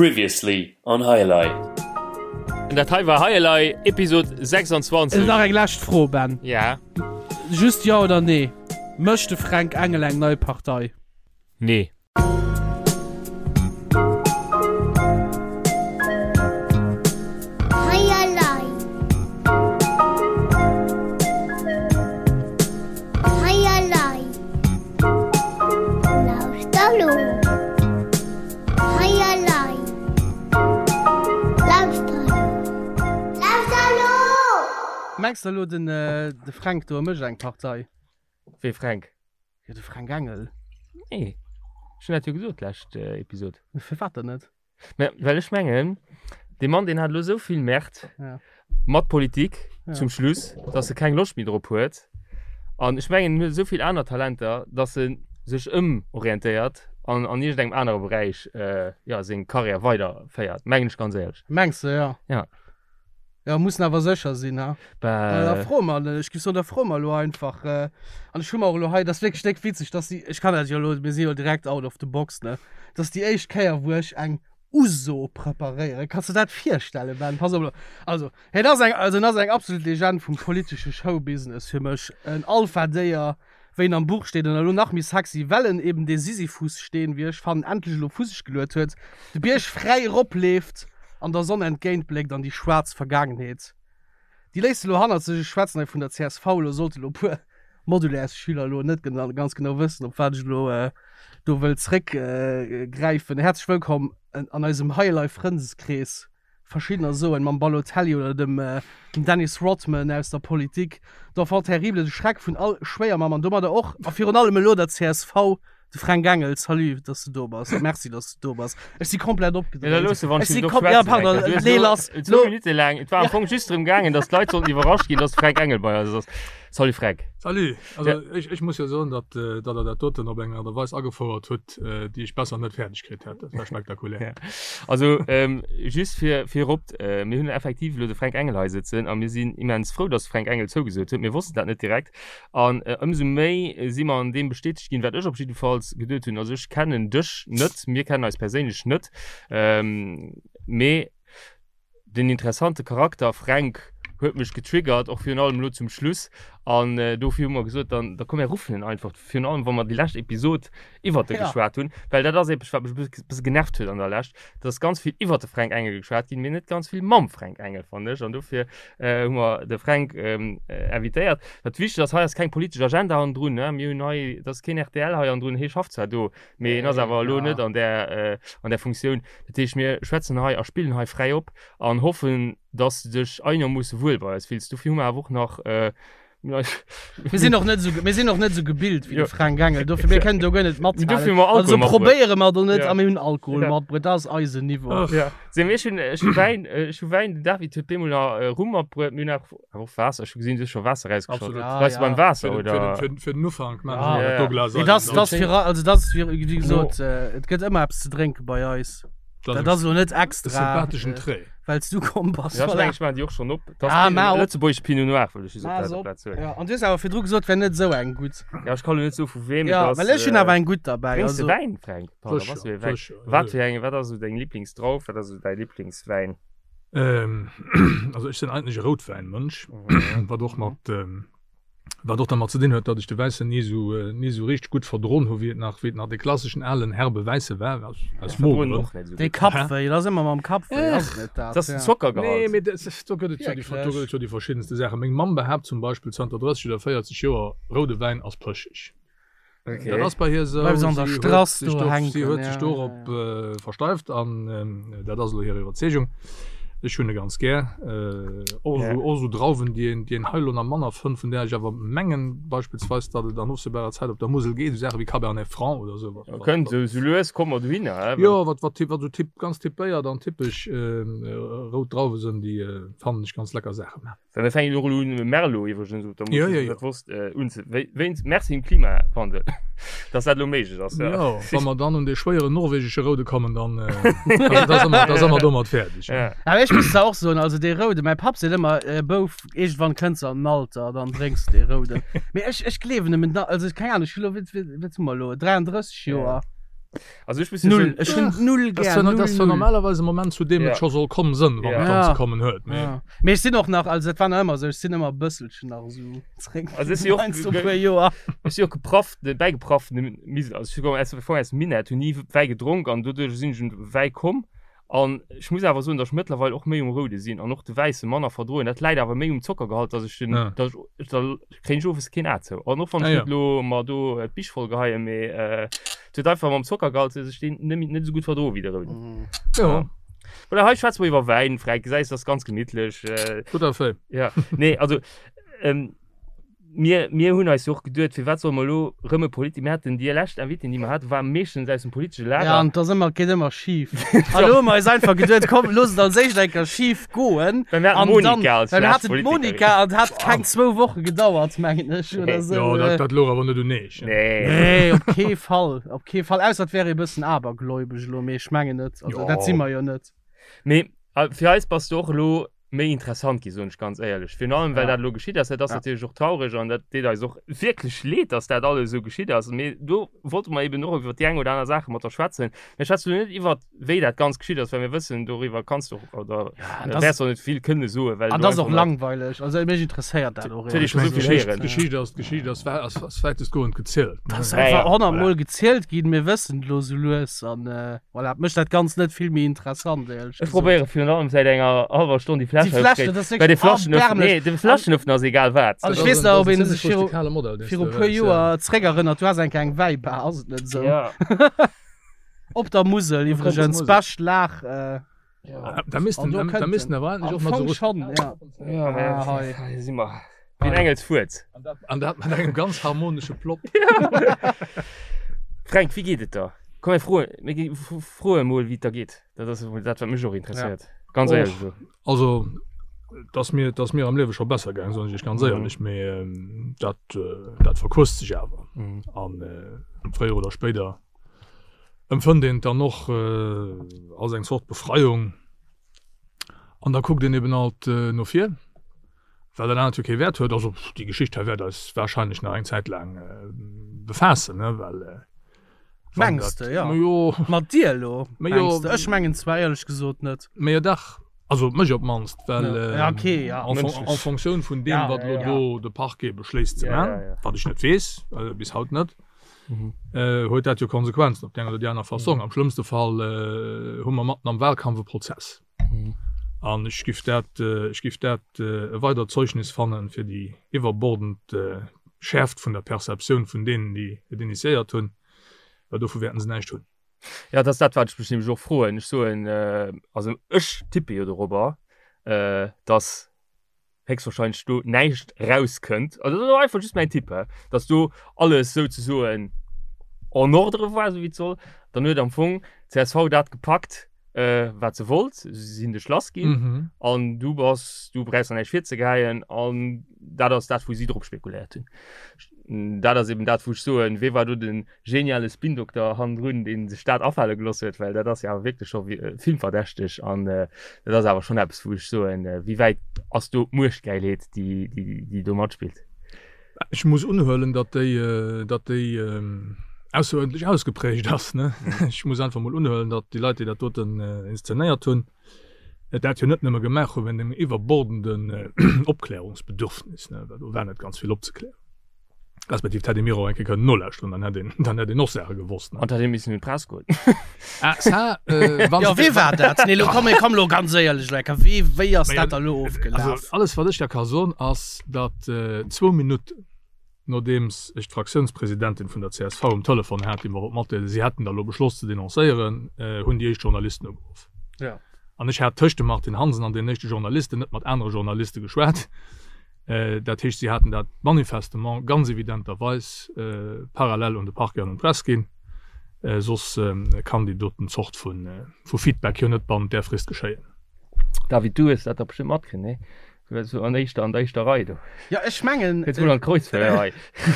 Previously on High Elei. Dat hei war High Elei, Episod 26. Nach eng lescht Fro, Ben. Ja. Just Jo oder Nee, Mécht de Fränk Engel eng nei Partei? Nee. Hei elei. Hei elei. Lauschter lo. Hei elei. Lauschter lo. Lauschter lo! Mengs de elo den de Fränk do e mécht eng Partei? Wee Fränk? Jo de Fränk Engel. Nee, ech hunn dat jo gesot d'lescht Episod. Firwat dann net? Mä well ech mengen, dee Mann deen hat elo esou vill Merd Ja. mat Politik Ja. zum Schluss, datt e keng Loscht méi drop huet. An ech mengen, en huet esou vill aner Talenter, datt e sech ëmorientéiert an an iergendengem anere Beräich jo seng Karriär weiderféiert, mengen ech ganz éierlech. Mengs de, jo? Ja. Ja, mussen awer sécher sinn, ha? Bah. Da froe mer, ech géif soen, da froe mer elo einfach. An ech hu mer och elo hei, dat ass wierklech déck witzeg, dass déi, ech kann dat jo elo, mir si jo direkt out of the box, ne? Dat ass déi éischt Kéier, wou ech eng Uso preparéieren. Kanns de dat virstellen, Ben? Pass op elo. Also, hien ass eng, also en ass eng absolut Legend vum politesche Showbusiness fir mech. En Alpha-Déier, wéi en am Buch steet, an elo nach méi sexy, well en eben dee Sisyphus-Steen, wéi ech fannen, endlech elo vu sech geluet huet, de Bierg fräi eropleeft an der Sonn entgéintbléckt an déi schwaarz Vergaangenheet, déi léisst e lo hannert sech. Ech schwätzen hei vun der csv, elo sollte lo e puer Modulaires-Schüler elo net ganz genau wëssen, op wat ech elo do wëll zréckgräifen. Häerzlech wëllkomm an eisem High-Life-Frëndeskrees. Verschiddener soen, mam Balotelli oder dem Dennis Rodman aus der Politik, d'Enfant terrible, de Schreck vun all Schwéiermamm an domadder och a virun allem elo der csv, de Fränk Engel. Salut, dass de do bass a merci, dass de do bass. Ech si komplett opgedréint. Ja, da looss de wann Ech si kom-, ja, pardon, nee, lass, Zwou Minutte laang, et war am Fong just drëm gaangen, dass d'Leit sollten iwwerrascht ginn, dass de Fränk Engel bei eis ass. Salut Fränk. Salut. Also ech, ech muss jo soen, datt, datt Der dat doten op eng Aart a Weis agefouert hutt, déi ech besser net fäerdeg kritt hätt. Dat war spektakulär. Ja. Also ähm, just fir virop, äh, mir hunn effektiv elo de Fränk Engel hei sëtzen a mir sinn immens frou, datt de Fränk Engel zougesot huet. Mir wossten dat net direkt an äh, ëmsou méi si mer an deem bestätegt ginn, wat ech op jiddefalls geduet hunn. Also ech kennen dech net, mir kennen eis perséinlech net, ähm, mee Den interessante Charakter Fränk huet mech getriggert, och virun allem elo zum Schluss. An dofir hu mer gesot, dann da komm mir ruffen en einfach, virun allem wa mer déi lescht Episod iwwert e geschwat hunn, well dat ass eppes wat mech e bësse genervt huet an der Lescht, et ass ganz vill iwwert de Fränk Engel geschwat ginn, mee net ganz vill mam Fränk Engel, fannen ech. An dofir hu mer de Fränk invitéiert. Wat wichteg ass, hei ass keng politesch Agenda hannendrun, ne, mir hunn hei, et ass keen rtl hei hannendrun, hie schafft zwar do, Mee en ass awer elo net an där, an där Funktioun. Dat heescht, mir schwätzen hei a spillen hei fräi op an hoffen, dass de dech einermoosse wuel bei eis fills. Dofir hu mer awer och nach, Mir sinn och net esou, mir sinn och net esou gebilt wéi de Fränk Engel, dofir mir kënnen do guer net mathalen. Dofir hu mer Alkohol Also matbruet. probéiere mer do net Ja. a mir hunn Alkohol Ja. matbruet, dat ass eisen Niveau. Ja. Seh, mee ech hunn, ech hu Wäin, ech hu Wäin, den David huet bemol nach Rum matbruet, mir hunn awer Awer och Waasser, ech hu gesinn, du hues scho Waasser rausgeschott. Absolut. Ja, Bleifs du ja. beim Waasser, Fir den, oder? fir den, fir den Ufank maachen Ja. wir Ja, dat do Glas Nee, ein. das, Dann- das fir, also das fir, wéi gesot, äh, et gëtt ëmmer eppes ze drénke bei eis. Das Dat ass elo net e extra, sympatheschen äh, Trait. well s du komm bass. Ja, ech Voilà. mengen, ech maachen déi och schonn op. Dat Ah, ass maach op. Lëtzebuergesch Pinot Noir, wëll ech just op Maach der se op. Plaz soen. Ja, an du hues awer virdru gesot, wär net esou eng gutt. Ja, ech kann elo net soe vu weem et Ja, ass. well ech hunn awer eng gutt derbäi. Drénks de Also, Wäin, Fränk? Pardon, Sécher, was fir ee Wäin? sécher, Wat ja. fir eng, wat ass esou deng Liblingsdrauf? Wat ass esou däi Liblingswäin? Ähm, also ech sinn eigentlech e Routwäinmënsch, Mhm. wat och mat ähm, wat och dermat ze dinn huet, datt ech de Wäissen ni esou äh, ni esou richteg gutt verdroen hu wéi et nach wéi et nach de klasseschen alen herbe Wäisse war aus, aus Verdroen Mogeren. och net esou dee gutt. Kappwéi, dat ass ëmmer mam Kappwéi, ass et net dat? Dat ass den Ja. Nee, Zockergehalt. mee dat, do gëtt et jo déi, do gëtt Wierklech? et jo déi verschiddenste Saachen. Meng Mamm behaapt zum Beispill zanter 30 oder 40 Joer, roude Wäin ass pëscheg. Okay. Dat ass bei hir esou. Bleift se an der Si huet Strass sech do do, hänken, si huet ja, sech ja, dorop ja. äh, versteift an ähm, dat ass elo hir Iwwerzeegung. Ech hunn e ganz gär. Äh, och Ja. esou, och esou Drauwen, déi een, déi een hei elo nach manner fënnt, vun där ech awer mengen beispillsweis, datt et an ofsehbarer Zäit op der Musel geet, esou Saache wéi Cabernet Franc oder esou. Wat, wat, Kënnt wat, esou sou lues komme mer dohinner, hä? jo, wat, wat, wat esou typ, ganz typéiert an typesch ähm, rout Drauwe sinn, déi äh, fannen ech ganz lecker Saachen. Well mir fänken och elo un Merlot iwwregens op der Ja, Musel, ja, ja. dat wosst äh, unze wéi wéinst Merci dem Klimawandel, dass dat elo méiglech ass. Ja. Ja, wa mer dann un dee schwéieren norwegesche Roude kommen, dann, äh, da, da si mer, da si mer domat fäerdeg. Ja. Awer ech muss zwar och soen, also dee Roude, mäi Papp seet ëmmer, äh, Bouf, iergendwann kënns de an den Alter, dann drénks de dee Rouden. Mee ech, ech gleewen em et na, also keng Ahnung, ech hu lo, wéi, wéi, wat hu mer elo, 33 Joer. Also ech muss jo Null. soen, Ech hunn null Das gär. war, Null, das war null. normalerweise e Moment, zu deem Ja. et scho soll komm sënn, wann Ja. et dann Ja. ze kommen huet. Mee Ja. Mee ech sinn och nach, also et war nach ëmmer esou, ech sinn ëmmer e bësselchen nach esou zréck. Also ech si och Heiansdo ge- puer Joer. ech si och geprafft, bäigeprafft, also ech komme aus, aus dem Minett, hunn ni Wäi gedronk an doduerch sinn ech un de Wäi komm. An ech muss awer soen, datt ech mëttlerweil och méi um Roude sinn an och de Wäisse manner verdroen. Dat läit awer méi um Zockergehalt, datt ech den, Ja. datt ech, da kréien ech owes keen A zou. An och wann Ah, ech ja. net elo mer do d'Bich voll geheien, mee et huet einfach mam Zockergehalt, datt ech deen net méi, net esou gutt verdroe wéi de Rouden. Jo, Voilà, hei schwätze mer iwwer Wäin, Fränk, gesäis, dat ass ganz gemittlech. tout à fait. Ja, nee, also Mir, mir hunn eis jo och geduet, firwat solle mer elo rëm e Politi-, mir haten déi lescht Invitéen, déi mer haten, war meeschtens aus dem politesche Lager. Ja, an et ass ëmmer, geet ëmmer schif. An elo hu mer eis einfach geduet, komm, looss et als éischt eng Kéier schif goen. Well mir haten An dann, d'Monica als well mir lescht haten Politikerin. d'Monica an et hat keng zwou Woche gedauert, mengen ech, oder esou. Jo, dat, dat louch awer net un eech. Nee. Nee, op kee Fall, op kee Fall. Ausser et wär ee bëssen abergläubesch elo, mee ech mengen net. Also Jo. dat si mer jo net. Mee fir eis bass du och elo méi interessant gi soen ech ganz éierlech. Virun allem well Ja. dat elo geschitt ass, dat ass Ja. natierlech och traureg an dat deet eis och wierklech leed, datt dat alles esou geschitt ass. Mee do wollte mer eben och iwwer déi eng oder aner Saache mat der schwätzen. Mir schwätzen elo net iwwer wéi dat Ganzt geschitt ass, well mir wëssen, doriwwer kanns du och oder Ja, an äh, das, wäers och net vill kënne soen, well an du das ass och einfach net langweileg. Also mech interesséiert dat och Huet ee éierlech scho Ech esou mengen, vill gesot. d'Geschicht, héieren. d'Geschicht ass, d'Geschicht ass, wä- ass, ass wäitestgoend gezielt. Dat ass Ne? Ja, einfach ja. 100 Voilà. Mol gezielt ginn, mir wëssen et elo sou lues an äh, Voilà, mécht dat Ganzt net vill méi interessant, éierlech Ech gesot. probéiere virun allem säit enger hallwer Stonn déi Fläsch Déi Fläsch, aufzekréien. dat ass Well de wierklech Flaschenöffner, erbärmlech. nee, de Flaschenöffner ass egal wat. An Dat ech ass weess en, nach, dat ob ass en een zimmlech sech viru, rustikale Modell, deen s viru du puer hues, ja. Joer zréckerënnert, du has eng Kéier eng Wäibar, ass et net esou? Ja. Op der Musel Op der iwwregens, Musel. bescht Lag. Äh, Da missten, An do da, da kënnt missten en. awer endlech Am och mat Fong so schon, ja. Ja, mä Ah, hei. hei si mer. Wéi en Engels Fuerz. An dat, an dat mat engem ganz harmonesche Plopp. Fränk, wéi geet et der? Komm, mir froen, mir gi froe mol, wéi et der geet. Dat ass emol dat, wat mech och interesséiert. Ganz Och. éierlech elo. Also, et ass mir, et ass mir am Liewe scho besser gaang, soen ech iech ganz Mhm. éierlech, mee dat, dat verquësst sech awer. Mhm. An fréier oder spéider empfënnt een et dann och als eng Zort Befreiung. An da kuckt een eben alt no vir. Well dat anert jo kee Wäert huet. Also déi Geschicht hei wäert eis wahrscheinlech nach eng Zäit laang befaassen, ne, well wann Mengs dat, de, ja. Ma jo. Mat dir elo, Ma jo. mengs de? Ech mengen zwar éierlech gesot net. Mä jo dach, also mech op d'mannst, well Ja, okay, ja. en fon-, Mënschlech. en Fonctioun vun deem, Ja, wat elo ja. do de Parquet beschléisst ze Ja, man, ja, ja. wat ech net weess, bis haut net, Mhm. huet dat jo Konsequenzen op déi eng oder déi aner Fassong. Am schlëmmste Fall hu mer matten am Wahlkampf e Prozess. An ech giff dat, ech giff dat e weidert Zeugnis fannen fir déi iwwerbordend Schäerft vun der Perceptioun vun deenen, déi et initiéiert hunn, well dovu wäerten se näischt hunn. Jo, dat ass dat, wat ech mech nämlech och froen. Ech soen, also ech tippe jo dorobber, datt héchstwahrscheinlech do näischt rauskënnt, also dat ass einfach just mäin Tipp, hä, dass do alles souzesoen en ordre war, esou wéi et soll, dann huet am Fong csv dat gepackt, äh, wat se wollt, si sinn dech lass ginn Mhm. an du bass, du brauchs der näischt virzegeheien an dat ass dat, wou si drop spekuléiert hunn. Dat ass eben dat, wou ech soen, wee war do den geniale Spindokter hannendrun, dee sech dat afale gelooss huet, well dat ass jo awer wierklech scho filmverdächteg an dat ass awer schonn eppes, wou ech soen, wéi wäit ass do d'Muechtgäilheet, déi, déi, déi do matspillt? Ech muss unhuelen, datt déi, datt déi ausseruerdentlech ausgeprägt ass, ne? Ech muss einfach mol unhuelen, datt déi Leit, déi dat doten inszenéiert hunn, dat jo net nëmme gemaach hu wéint engem iwwerbordenden Opklärungsbedürfnis, ne, well do war net ganz vill opzeklären. Respektiv hätt ee mir och eng Kéier kënnen nolauschteren, dann hätt een, dann hätt een och Saache gewosst, ne. An hätt ee missen un d'Press goen. Ah, ça, äh, wann Jo, se- wee war dat? Nee, lo komm, komm lo ganz éierlech, Lecker, wee, wéi ass Mä dat da lo Also, ofgelaf? alles wat ech der ka soen ass, datt äh, zwou Minutten nodeems ech d'Fraktiounspresidentin vun der csv um Telefon hat, déi mer wollt matdeelen, si hätten da lo beschloss ze denoncéieren, äh, hunn déi éischt Journalisten ugeruff. Ja. An ech hat tëscht dem Martine Hansen an deenen éischte Journalisten net mat anere Journaliste geschwat. Dat heescht, si haten dat manifestement ganz evidenterweis parallel un de Parquet an un d'Press ginn. Soss kann déi doten Zort vu Feedback jo net bannent där Frist geschéien. David, du hues dat da bestëmmt matkritt, nee? Du waars jo an éischter, an der éischter Rei do. Jo, ech mengen. Kënns mol an d'Kreuzfeuer hei.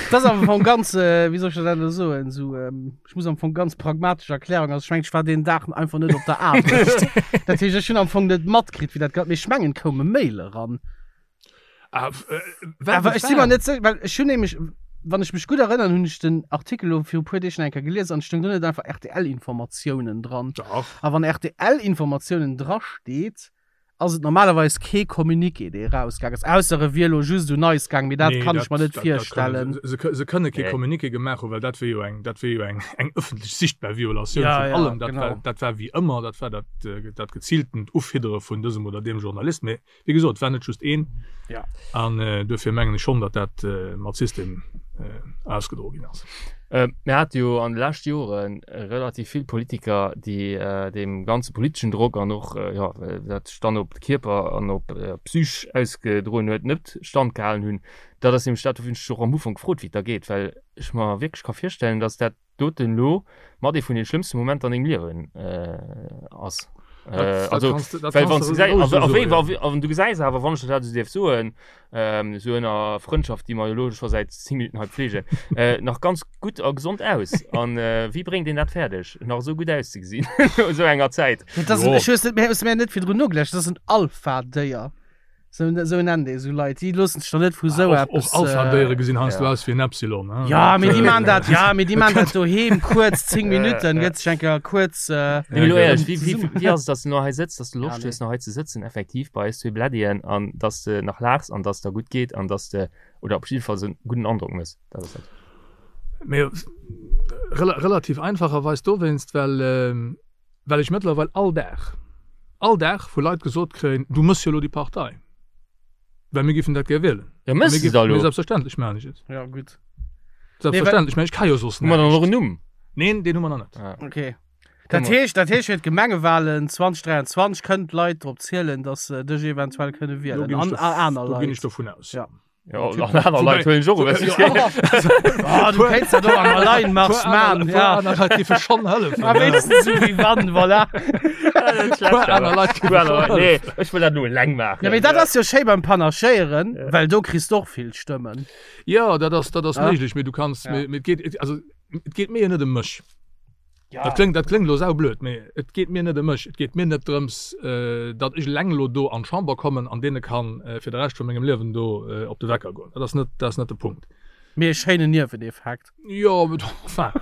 Dat ass am Fong ganz, wéi soll ech dat elo soen, esou, ech muss am Fong ganz pragmatesch Erklärung, also ech mengen, ech war deen Dag einfach net op der Aarbecht. Dat heescht, ech hunn am Fong net matkritt, wéi dat, mee ech mengen, et koum e Mail eran. Ah, Awer ech si mer net sécher, well ech hunn nämlech. Wann ech mech gutt erënnern, hunn ech den Artikel elo viru puer Deeg nach eng Kéier gelies an et stoung do net einfach RTL-Informatiounen dran. Dach. A wann RTL-Informatiounen drasteet, ass et normalerweis kee Communiqué, dee erausgaang ass, ausser e wier elo just un eis gaang, mee dat Nee, kann ech dat, mer net dat, dat kënne virstellen. se. Se, se kënne kee Nee. Communiqué gemaach hunn, well dat wier jo eng, dat wier jo eng, eng ëffentlech sichtbar Violatioun Ja, vun ja, allem. Dat war, genau. dat war wéi ëmmer, dat war dat, dat geziiltent Ufiddere vun dësem oder deem Journalist. Mee Wéi gesot, et war net just een. Ja. An duerfir mengen ech schonn, datt dat mat System ausgedroe ginn ass. Mir hate jo an de leschte Jore relativ vill Politiker, déi deem ganze politeschen Drock an och, jo, dat sech dann op de Kierper an op d'Psych ausgedroen huet, net standgehalen hunn. Dat ass nämlech dat, wou ech mech och am Ufank gefrot, wéi et da geet, well ech mer wierklech ka virstellen, datt dat doten elo mat ee vun den schlëmmste Momenter an dengem Liewen ass. Also, well wann du gesäis, a wéi, a wéi, an du gesäis awer, wann ech dat esou dierf soen, esou ënner Frëndschaft, déi mer jo elo scho säit 10 Minutten hei pflegen, nach ganz gutt a gesond aus. An wéi bréngt een dat fäerdeg, nach esou gutt auszegesinn no esou enger Zäit? Dat ass, ech hues net, mir hues mir net virdrun nogeläscht, dat ass en Alpha-Déier. Sou, sou nennt ee sou Leit. Déi loossen sech doch net vu sou Och, eppes. och Alpha-Déiere gesinn heiansdo aus wéi en Epsilon. Hein? Ja, mee déi maan dat, ja, mee déi maan dat doheem kuerz 10 Minutten, gëtt sech eng Kéier kuerz. Nee, mee elo éierlech, wéi, wéi, wéi ass et, dass du nach hei sëtz, dass du Loscht hues, nach hei ze sëtzen, effektiv bei eis zwee Bläddien, an dass de nach laachs an dass der gutt geet an dass de, oder op jiddefalls e gudden Androck méchs? Dat ass dat. Mee relativ einfacherweis dowéinst, well. Well ech mëttlerweil all Dag, all Dag vu Leit gesot kréien, du mëss jo elo déi Partei, well mir géifen dat gär wielen. Ja, mëss de da elo? Mee selbstverständlech maachen ech et. Ja, gutt. Selbstverständlech, mä ech ka jo soss Hu mer dann och näischt. en Numm? Neen, deen hu mer nach net. Ah. Okay. Dat heescht, dat heescht fir d'Gemengewahlen 2023 kënnen d'Leit drop zielen, datt se dech eventuell kënne Do wielen ginn ech an dov- aner do ginn ech Leit. dovun aus. Ja. Ja, an aner Leit huelen ech och ewech. Ah, du kéints dat och am Alleinmarsch man, ja. Aner Leit géife schonn hëllefen. A wéinstens esou wéi wann, voilà. Puer aner Leit géife schonn Nee, hëllefen. ech wëll dat elo eleng maachen. Ja, mee dat ass jo schéi beim Panachéieren, well do kriss de och vill Stëmmen. Jo, dat ass, dat ass Ja. méiglech, mee du kanns, Ja. mee, mee et geet, also et geet mir jo net ëm mech. Ja. Dat kléngt, dat kléngt elo saublöd, mee et geet mir net ëm mech. Et geet mir net drëms, datt ech eleng elo do an d'Chamber kommen an deene kann fir de Rescht vu mengem Liewen do op de Wecker goen. Dat ass net, dat ass net de Punkt. Mee e schéinen Nieweneffekt. Jo, mee enfin,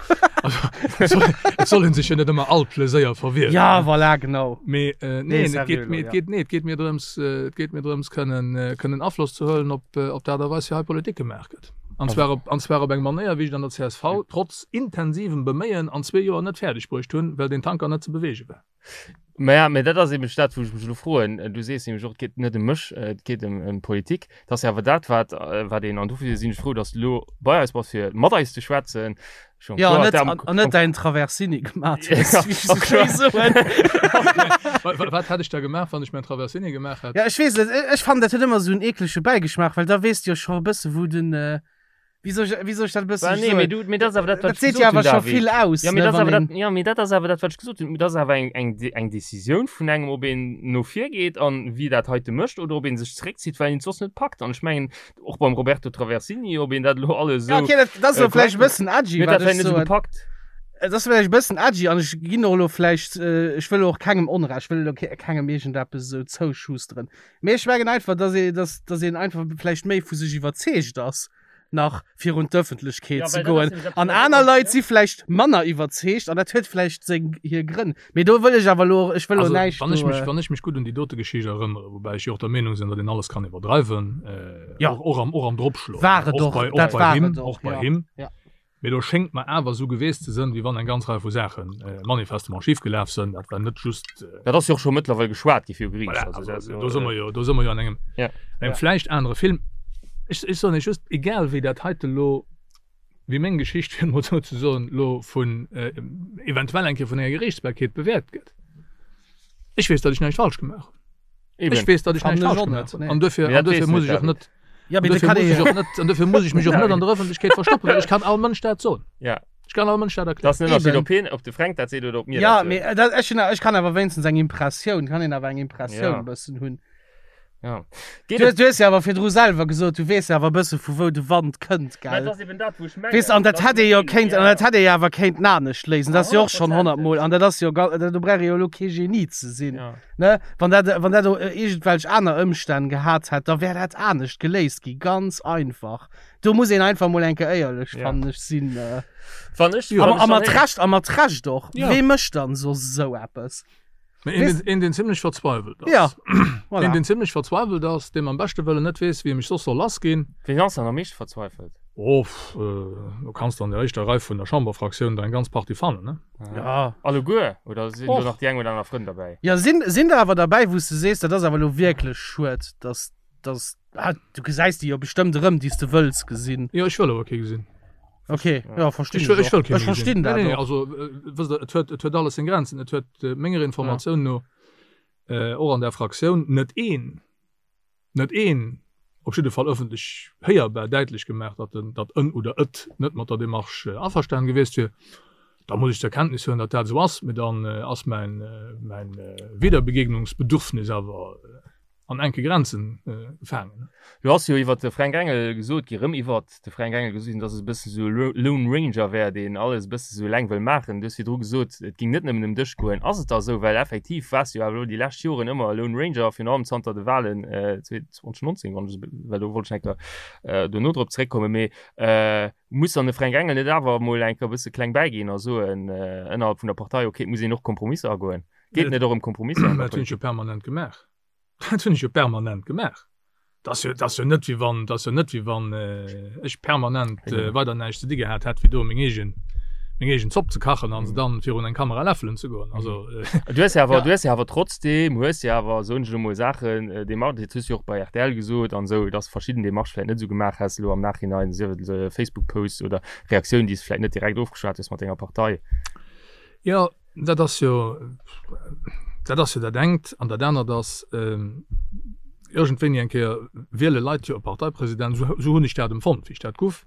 also et soll, et soll ee sech jo net ëmmer all Pleséier verwieren. Ja, voilà, genau. Mee Nee, neen, et sérieux geet, elo, mee et ja. geet, nee, et geet mir drëms, et geet mir drëms kënnen, kënnen Afloss ze huelen op, op d'Aart a Weis wéi hei Politik gemaach gëtt. An zwar op, an zwar op eng Manéier, wéi ech et an der csv trotz intensivem Beméien an zwee Joer net fäerdeg bruecht hunn, well deen Tanker net ze beweege war. Maja, mä dat ass eben dat, wou ech mech elo froen. Du sees nämlech och, et geet net ëm mech, et geet ëm, ëm d'Politik. Dat ass jo awer dat, wat, wat een, an dofir sinn ech frou, datt s de elo bei eis bass, fir mat eis ze schwätzen. Schon Ja, kloer, net, am, an, an net dein Traversini gemaat hues, Ja, wéi ech sou schéi soen. Wat, wat hätt ech da gemaach, wann ech mäin Traversini gemaach hätt? Ja, ech weess net, ech fannen dat huet ëmmer sou en eeklege Bäigeschmaach, well da weess de jo scho e bësse wou den, wéi soll ech, wéi soll ech dat e bësse Bah, nee, soen? mee du, mee dat ass awer dat, wat Dat ech seet gesot jo hunn, awer scho David. vill aus, Ja, mee ne, dat ass wann awer een. dat, ja, mee dat ass awer dat, wat ech gesot hunn. Dat ass awer eng, eng, eng Decisioun vun engem, ob een no vir geet an wie dat heite mécht oder ob een sech zeréckzitt, well een et soss net packt. An ech mengen, Och beim Roberto Traversini, ob een dat elo alles Ja, esou. okay, dat, dat ass äh, elo vläicht e korrekt bëssen edgy, Mir wat dat ech net esou soen. gepackt. Et ass vläicht e bëssen edgy an ech ginn och elo vläicht, äh, ech wëll och kengem Onrecht, ech wëll elo ke kengem iergendeppes esou zouschusteren. Mee ech mengen einfach, dass ee, dass, dass een einfach vläicht méi vu sech iwwerzeegt ass, nach virun d'Ëffentlechkeet Ja, ze well dat ass goen. nämlech eppes, An wat aner och- Leit si vläicht manner iwwerzeegt an dat huet vläicht seng, hir Grënn. Mee do wëll ech awer elo, ech wëll elo Also, näischt wann ech do, mech, äh, wann ech mech gutt un déi dote Geschicht erënnere, woubäi ech jo och der Meenung sinn, datt een alles kann iwwerdreiwen, äh, Ja. och, och am, och am Dropschloen, War et och och, bei, och dat bei war him, et och, och bei ja. him. Ja. Mee do schéngt mer awer esou geweest ze sënn, wéi wann eng ganz Rei vu Saachen äh, manifestement schifgelaf sënn. Dat war net just, äh, Dat ass jo och scho mëttlerweil geschwat gi viru Geriicht. Voilà, Also, also, dat ass jo, do si mer jo, do si mer jo an engem, Ja. engem Ja. vläicht anere Film. Ech, ech soen Iech just, egal wéi dat heite lo, wéi meng Geschicht, fir et mol esou ze soen, lo vun, eventuell eng Kéier vun enger Geriichtsbarkeet bewäert gëtt, ech weess, datt ech näischt falsch gemaach hunn. Eben. Ech weess, datt ech An näischt ech falsch och gemaach net, hunn. nee. An duerfir, Mee an dat duerfir weess muss net, ech och David. net, Ja, an mee da duerfir kann muss ee ech och net, an duerfir muss ech mech och net an der Ëffentlechkeet verstoppen, well ech kann all Mënsch dat soen. Ja. Ech kann all Mënsch dat Dat erklären. ass en Ënnerscheed, Eben. ob hien, ob de Fränk dat seet oder ob mir Ja, dat soen. mee dat, ech hunn, ech kann awer wéinstens eng Impressioun, kann een awer eng Impressioun Ja. e bëssen hunn. Ja. Du, du hues jo awer virdru selwer gesot, du weess jo awer e bësse vu wou de Wand kënnt, gell? Dat ass eben dat, wou ech mengen. Weess, an dat hätt ee jo kéint, an dat hätt ee jo awer kéinten anescht léisen. Dat ass jo och schonn honnertmol, an dat ass jo, do brauch ee jo elo kee Genie ze sinn, Ja. ne? Wann dat, wann dat iergendwelch aner Ëmstänn gehat hätt, da wär dat anescht geléist gi, ganz einfach. Do muss een einfach mol eng Kéier éierlech, Ja. fannen ech, sinn. Wann ech, A wann ech a mat dann Recht, a mat Recht och. Ja. Wee mécht dann soss esou eppes? Mä een, deen, een, deen zimlech verzweiwelt ass. Ja, voilà. Een, deen zimlech verzweiwelt ass, deem am beschte Wëllen net weess, wéi e mech soss soll lassginn. Ween ass dann am meeschte verzweifelt? Oh, do kanns de an der éischter Rei vun der Chamberfraktioun der eng ganz Partie fannen, ne? Ja. Alleguer? Oder sinn do Och. nach déi eng oder aner Frënn derbäi? Ja, sinn, sinn der awer derbäi, wou s de sees, dat ass awer elo wierklech schued, dass, dass, ah, du gesäis déi jo bestëmmt erëm, déi s de wëlls gesinn. Jo, ech wëll awer kee gesinn. Okay, ja, verstinn Ech wëll, ech wëll kee Ech méi verstinn gesinn. dat Nee, nee, och. also, wësst Der, et huet, et huet alles seng Grenzen. Et huet menger Informatioun no och an der Fraktioun net een, net een, op jidde Fall ëffentlech héierbar däitlech gemaach, datt en, datt en oder et net mat der Démarche averstanen gewiescht wier. Da muss ech zur Kenntnis huelen, datt dat esou ass, mee dann ass mäin, mäin Wiederbegegnungsbedürfnis awer an enke Grenzen gefaangen. Lo ass jo iwwert de Fränk Engel gesot gi, rëm iwwert de Fränk Engel gesot ginn, datt e bësse sou e Lone Ranger wär, deen alles e bësse sou eleng wëll maachen. Du hues virdru gesot, et géing net nëmmen ëm dech goen. Ass et da esou? Well effektiv waars du jo awer elo déi lescht Joren ëmmer e Lone Ranger, virun allem zanter de Wahlen 2019, wann ech esou, well do wollt ech eng Kéier dono drop zeréckkommen. Mee muss dann de Fränk Engel net awer emol eng Kéier e bësse kleng bäiginn a soen ënnerhalb vun der Partei, okay, et muss een och Kompromisser agoen? Geet et net och ëm Kompromisser an der Dat hunn ech jo Politik? permanent gemaach. Dat hunn ech jo permanent gemaach. Dat ass jo, dat ass jo net wéi wann, dat ass jo net wéi wann ech permanent weider näischt ze di gehat hätt, wéi do meng eegen, meng eegen Zopp ze kachen an se dann virun eng Kamera läffelen ze goen. Also. Du hues jo awer, du hues jo awer trotzdem, hues jo awer, soen ech elo mol, Saachen Démarchen, dat hues du jo och bei rtl gesot an esou, dass verschidden Démarchë vläicht net esou gemaach häss elo am Nachhinein, sief et Facebook-Posts oder Reaktiounen, déi s de vläicht net direkt ofgeschwat hues mat denger Partei. Jo, Dat ass jo, dat ass jo dat engt. An dat anert ass, iergendwéini eng Kéier wiele Leit jo e Parteipresident, esou hunn ech dat empfonnt, wéi ech dat guff,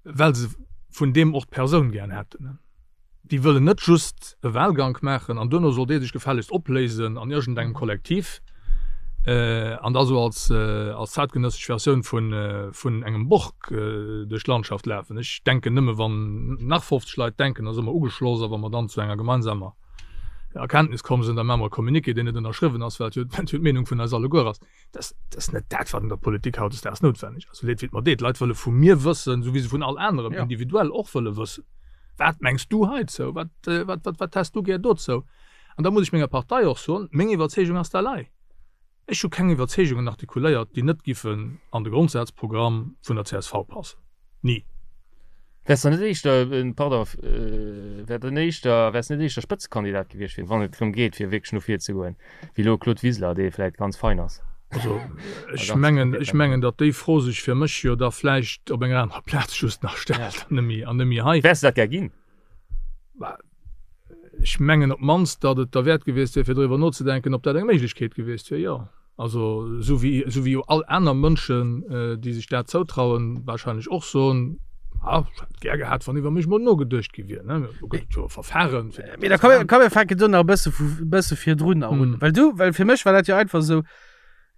well se vun deem och d'Persoun gären hätten. Déi wëllen net just e Wahlgank maachen an duerno soll dee sech gefällegst opléisen an iergendengem Kollektiv an da sou als zäitgenëssesch Versioun vun engem Borg duerch d'Landschaft lafen. Ech denken nëmme wann nach 50 Leit denken, da si mer ugeschloss a wa mer dann zu enger gemeinsamer Erkenntnis komm sinn, da maache mer e Communiqué, deen net ënnerschriwwen ass, well et jo d'Meenung vun eis alleguer ass. Dat ass net dat, wat an der Politik hautdesdaags noutwenneg ass. Sou leed wéi et mer deet, d'Leit wëlle vu mir wëssen, sou wéi se vun all anerem individuell och wëlle wëssen, Wat mengs du heizou? Wat, wat, wat, wat häss du gär dozou? An da muss ech menger Partei och soen, meng Iwwerzeegung ass dat hei. Ech hu keng Iwwerzeegungen artikuléiert, déi net giffen an de Grondsazprogramm vun der csv passen. Ni. Wäers de net éischter, pardon, wär den éischter, wäers net éischter Spëtzekandidat gewiescht fir, wann et drëm geet, fir wierklech no vir ze goen, wéi elo Claude Wiseler, dee vläit ganz fein ass? Also ech mengen, ech mengen, datt déi Fro sech fir mech jo da vläicht op enger anerer Plaz just nach stellt an net méi, an net méi hei. Wäers de dat gär ginn? Ech mengen op d'mannst, datt et derwäert gewiescht wier, fir driwwer nozedenken, ob dat eng Méiglechkeet gewiescht wier, jo. Also esou wéi, esou wéi jo all aner Mënschen, déi sech dat zoutrauen, wahrscheinlech och soen, Ah, ech hätt gär gehat, wann iwwer mech mol nogeduecht gi wier, ne. Do gëtt et jo e Verfahren, fir dat Mee da komm, komm mir fänken do nach e bësse vu, e bësse virdrun nach un. Well du, well fir mech war dat jo einfach esou,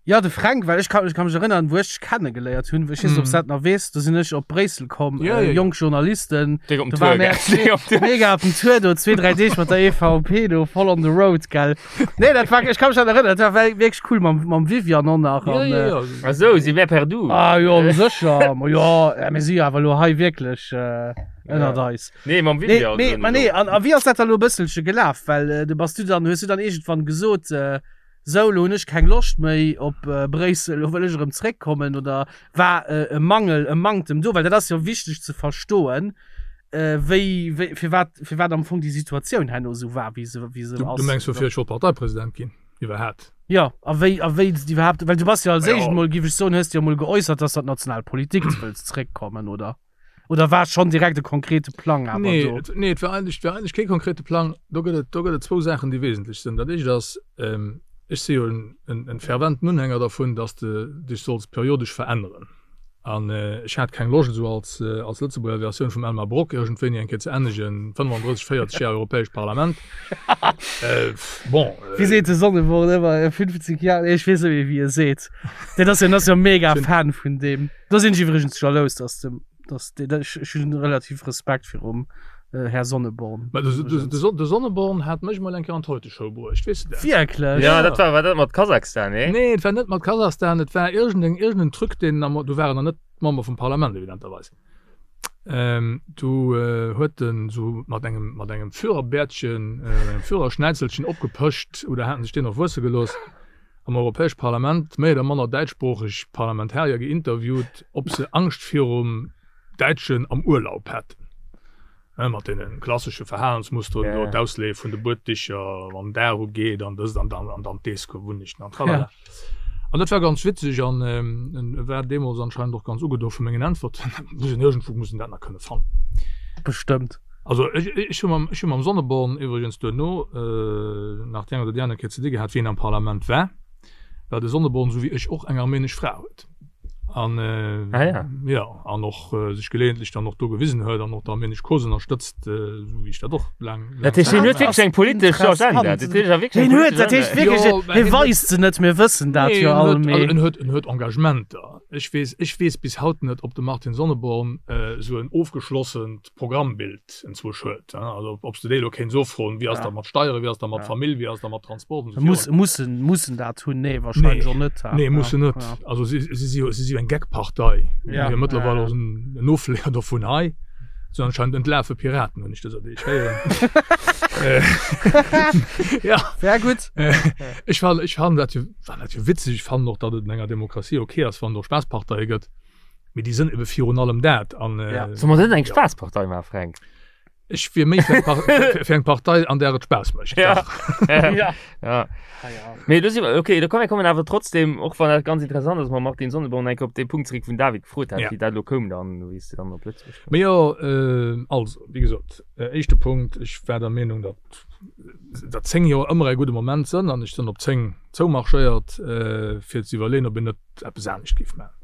Jo, de Fränk, well ech ka, ech ka mech erënnern, wou ech dech kennegeléiert hunn, ech weess net, ob s dat nach weess, do sinn ech op Bréissel komm, Ja, ja, ja. jonk Journalisten, Déck op den do war Tour, mär gell? Déck op den Tour. mega op den Tour do, zwee, dräi Deeg mat der EVP do, voll on the road, gell. Nee, dat war, ech ka mech dat erënnern, dat war wierklech cool mam, mam Viviane och nach Ja, an, ja, äh, ja. Ach sou, si wär per du. Ah jo, sécher, ma jo, ja, mir si jo awer elo hei wierklech äh, ënnert Ja. eis. Nee, mam Nee, Viviane. mee, soen ma ech nee, och. an, a wéi ass dat da elo e bësselche gelaf? Well äh, du bass du dann, hues du dann iergendwann gesot, äh, Sou, lo hunn ech keng Loscht méi op Bréissel, lo wëll ech erëm zréckkommen oder war e Mangel, e Manktem do? Well dat ass jo wichteg ze verstoen, wéi, wéi, firwat, firwat am Fong déi Situatioun herno esou war, wéi se, wéi se ass. Du mengs, woufir ech wollt Parteipresident ginn iwwerhaapt? Jo, a wéi, a wéi s de iwwerhaapt, well du bass jo als éischt emol, géif ech soen, hues de jo emol geäussert, dass de an d'national Politik wëlls zréckkommen, oder? Oder war schonn direkt e konkrete Plang awer Nee, do? et, nee, et war eigentlech, et war eigentlech kee konkrete Plang. Do gëtt et, do gëtt et zwou Saachen, déi wesentlech sinn. Dat éischt ass, ech si jo en, en, en ferventen Unhänger dervun, dass de dech solls periodesch veränneren. An ech hat keng Loscht, esou als, als Lëtzebuerger Versioun vum Elmar Brok iergendwéini eng Kéier ze ennegen, 35, 40 Jar Europäescht Parlament. Bon. Wéi seet de Sonneborn ëmmer, 50 Jar, nee, ech weess net méi, wéi e seet. Deen ass jo, ass jo mega Fan vun deem. Do sinn ech iwwregens jalous, dass de, dass de, ech, ech hunn relativ Respekt virum Här Sonneborn. Mä de, de, de, de Sonneborn hat mech mol eng Kéier an d'Heute-Show bruecht, weess de dat? Wierklech? Ja, dat war, war dat mat Kasachstan, nee? Nee, et war net mat Kasachstan, et war iergendeng, iergendeng Truc, deen am, du war en nach net Member vum Parlament, evidenterweis. Ähm, du huet en esou mat engem, mat engem Führerbäertchen, engem Führerschnäizelchen opgepëscht, oder haten sech deen och wuesse gelooss, am Europäesch Parlament méi oder manner däitschsproocheg Parlamentarier geinterviewt, ob se Angscht virum Däitschen am Urlaub hätten, mat deene klassesche Verhalensmusteren do, d'Ausleeë vun de Bueddicher, wann den Dag ugeet an dëst an dann an dann d'Deesgewunnechten an tralala. An dat war ganz witzeg an e war deemools anscheinend och ganz ugedo vu mengen Äntwerten. Muss een iergendwou muss een dat nach kënne fannen. Bestëmmt. Also ech ech hu mam ech hu mam Sonneborn iwwregens duerno nach déi eng oder déi aner Kéier ze di gehat, wéi en am Parlament war, well de Sonneborn, esou wéi ech och, eng armenesch Fra huet. An ah, ja. ja an och äh, sech geleeëntlech dann och do gewisen huet an och d'armenesch Cause ënnerstëtzt, äh, sou wéi ech dat och laang. Dat heescht, hien huet wierklech eng politesch Agenda. Dat heescht, er wierklech Hien huet, dat heescht wierklech, Jo, mä hie hien huet- weist se net, mir wëssen dat Nee, jo en all, huet, mee. also en huet, en huet Engagementer. Ech weess, ech weess bis haut net, ob de Martin Sonneborn äh, sou en ofgeschlossent Programmbild enzwousch huet. Also ob s de déi elo kéints offroen, wéi ass dat mat Steieren, wéi ass dat mat Famill, wéi ass dat mat Transport an esou virun. Mussen, mussen dat hunn? Nee, wahrscheinlech och net. Nee, mussen net. Also si si jo, si si jo eng Gag-Partei. Ja. Jo mëttlerweil och en Ofleeër dovun hei. Sinn anscheinend entlafe Piraten, hunn ech dëser Deeg héieren. Ja. Sehr gutt. Ech fannen, ech fannen dat jo, fannen dat jo witzeg. Ech fannen och, datt et an enger Demokratie ok ass, wann et och Spaassparteie gëtt. Mee déi sënn ebe virun allem dat. An, ja. Soll mer net eng Spaasspartei maachen, Fränk? Ech wier méi fir eng, fir eng Partei, an där et Spaass mécht. Ja. ja. ja. Mee do si mer, okay, da komm, mir kommen awer trotzdem, och wann dat ganz interessant ass, mam Martin Sonneborn enke op dee Punkt zeréck, wou den David gefrot hat, ja. wéi dat elo koum dann, wéi s de dann op Lëtzebuerg koum. Mee jo, äh, also, wéi gesot, äh, éischte Punkt, ech war der Meenung, datt, datt 10 Joer ëmmer e gudde Moment sënn an ech sënn op 10 zoumarschéiert, äh, fir ze iwwerleeën, ob een net eppes anescht géif maachen.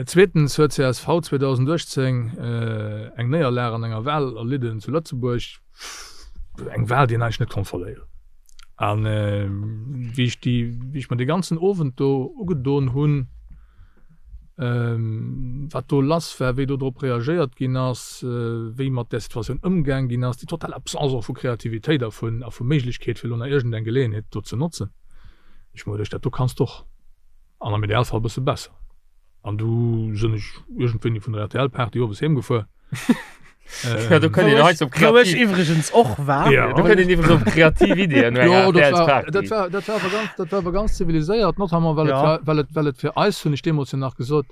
Zweetens huet csv 2018 eng Néierlag an enger Wal erlidden zu Lëtzebuerg, eng Wal, déi een eigentlech net konnt verléieren. An wéi ech déi, wéi ech mer dee ganzen Owend do ugedon hunn, wat do lass war, wéi do drop reagéiert ginn ass, wéi mat där Situatioun ëmgaang ginn ass, déi total Absence och vu Kreativitéit a vu, a vu Méiglechkeet, fir elo nach iergendeng Geleeënheet do ze notzen. Ech hu mer geduecht, dat do kanns de och, an am Idealfall e bësse besser. An du sënn ech iergendwéini vun der RTL-Party owes heem gefuer. Ja, do kënnt een Wou hei ech, op wou ech kreativ, iwwregens och war. Ja. do kënnt een iwwregens op kreativ Ideeën no enger Jo, dat war, RTL-Party. dat war, dat war awer ganz, dat war awer ganz ziviliséiert, notamment well et Ja. war, well et, well et fir eis, hunn ech deemools jo nach gesot,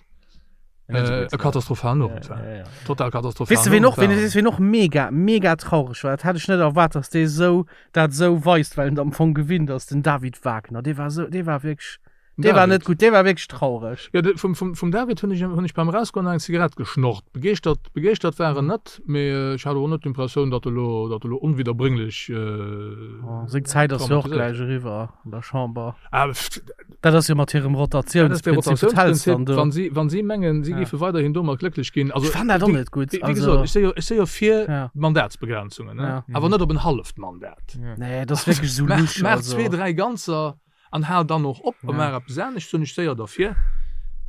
Net esou äh, gutt e war. katastrophalen Ja, Owend war. ja, ja. Total katastrophalen Weess de, ween Owend och, ween, war. weess ween och mega, mega traureg war? Dat hat ech net erwaart, dass dee sou, dat sou weist, well en et am Fong gewinnt ass, den David Wagner. Dee war sou, dee war wierklech, dee war net David. gutt, dee war wierklech traureg. Jo, de, vum, vum, vum David hunn ech, hunn ech beim Erausgoen nach eng Zigarett geschnorrt. Begeeschtert, begeeschtert war en net, mee ech hat och net d'Impressioun, datt e lo, datt e lo onwidderbrénglech Oh, seng Zäit ass jo och traumatiséiert. gläich eriwwer an der Chamber. Ah, pff, Dat ass jo mat hirem dat ass de Rotatiounsprinzip, wat häls Rotatiounsprinzip. dann do? Wann si, wann si mengen, si Ja. géife weiderhin domat glécklech ginn, also Ech fannen dat och wéi, net gutt. wéi, wéi Also, gesot, ech si jo, ech si jo fir ja. Mandatsbegrenzungen, ne? Ja. Awer net op en halleft Mandat. Ja. Nee, dat ass wierklech esou Maach, lusch, maach also. zwee, dräi ganzer an hal dann och op a Ja. maach eppes anescht, sinn ech séier derfir.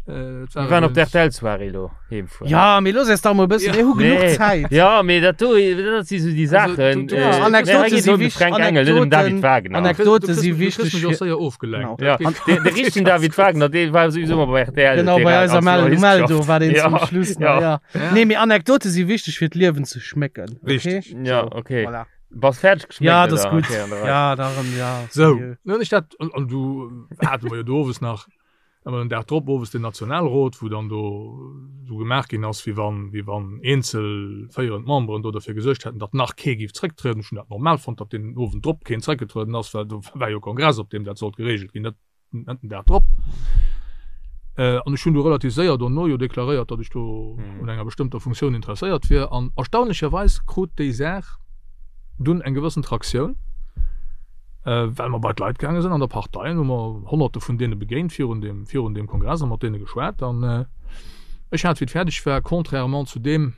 Äh, et war Mir waren op der übrigens- RTL-Soirée elo heemfueren. Ja, mee looss eis dach mol e bëssen, mir hu genuch Nee. Zäit. Ja, mee dat do, dat si sou déi Also, Saachen. du- du- äh, Ja, nee, Anekdote hei geet si et ëm de wichtig, Fränk Engel, net ëm David Anekdoten- Wagner. Anekdote Du kriss si mich- du kriss wichteg mech och fir- séier ofgelenkt. Genau. Ja, Dat de, de richtegen David Wagner, dee war souwisou mol bei RTL. Genau, dee bei war eiser als Mel Journalist Meldo geschafft. war deen Ja, zum Schluss nach, ja. ja. Ja. Nee, mee Anekdote si wichteg fir d'Liewen ze schmécken. Okay? Richtig. Ja, okay. Voilà. Bass fäerdeg geschméckt, Ja, dat ass oder? gutt. Okay, an der Rei. Ja, darum, ja. Sou, dann hunn ech dat, an, an du hate mer jo do owes nach, awer den Dag drop owes den Nationalrot, wou dann do esou gemaach ginn ass, wéi wann, wéi wann eenzel féierend Memberen do derfir gesuergt hätten, datt nach kee géif zrécktrieden. Ech hunn dat normal fonnt, datt deen Owend drop keen zréckgetrueden ass, well do war jo Kongress, op deem dat sollt geregelt ginn, net, net den Dag drop. An ech hunn du relativ séier dono jo deklaréiert, datt ech do un enger bestëmmter Funktioun interesséiert wier. An erstaunlecherweis krut déi Saach dunn eng gewëssen Traktioun. Well mer bei d'Leit gaange sinn an der Partei an hu mer Honnerte vun deene begéint virun deem, virun deem Kongress a mat deene geschwat. An ech hat, wéi et fäerdeg war, contrairement zu deem,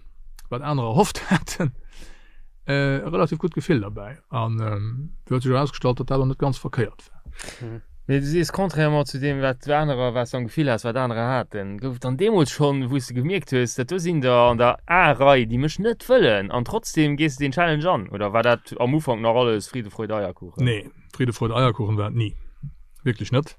wat anerer erhofft haten, e relativ gutt Gefill derbäi. An et huet sech erausgestallt, datt dat och net ganz verkéiert war. Mee du sees, contrairement zu deem, wat anerer, wat s du am Gefill has, wat anerer haten, gouf et dann deemools schonn, wou s de gemierkt hues, dat do sinn der an der A-Rei, déi mech net wëllen, an trotzdem gees de deen Challenge an? Oder war dat am Ufank nach alles Friede, Freude, Eierkuchen? Nee, Friede, Freude, Eierkuchen war et ni. Wierklech net.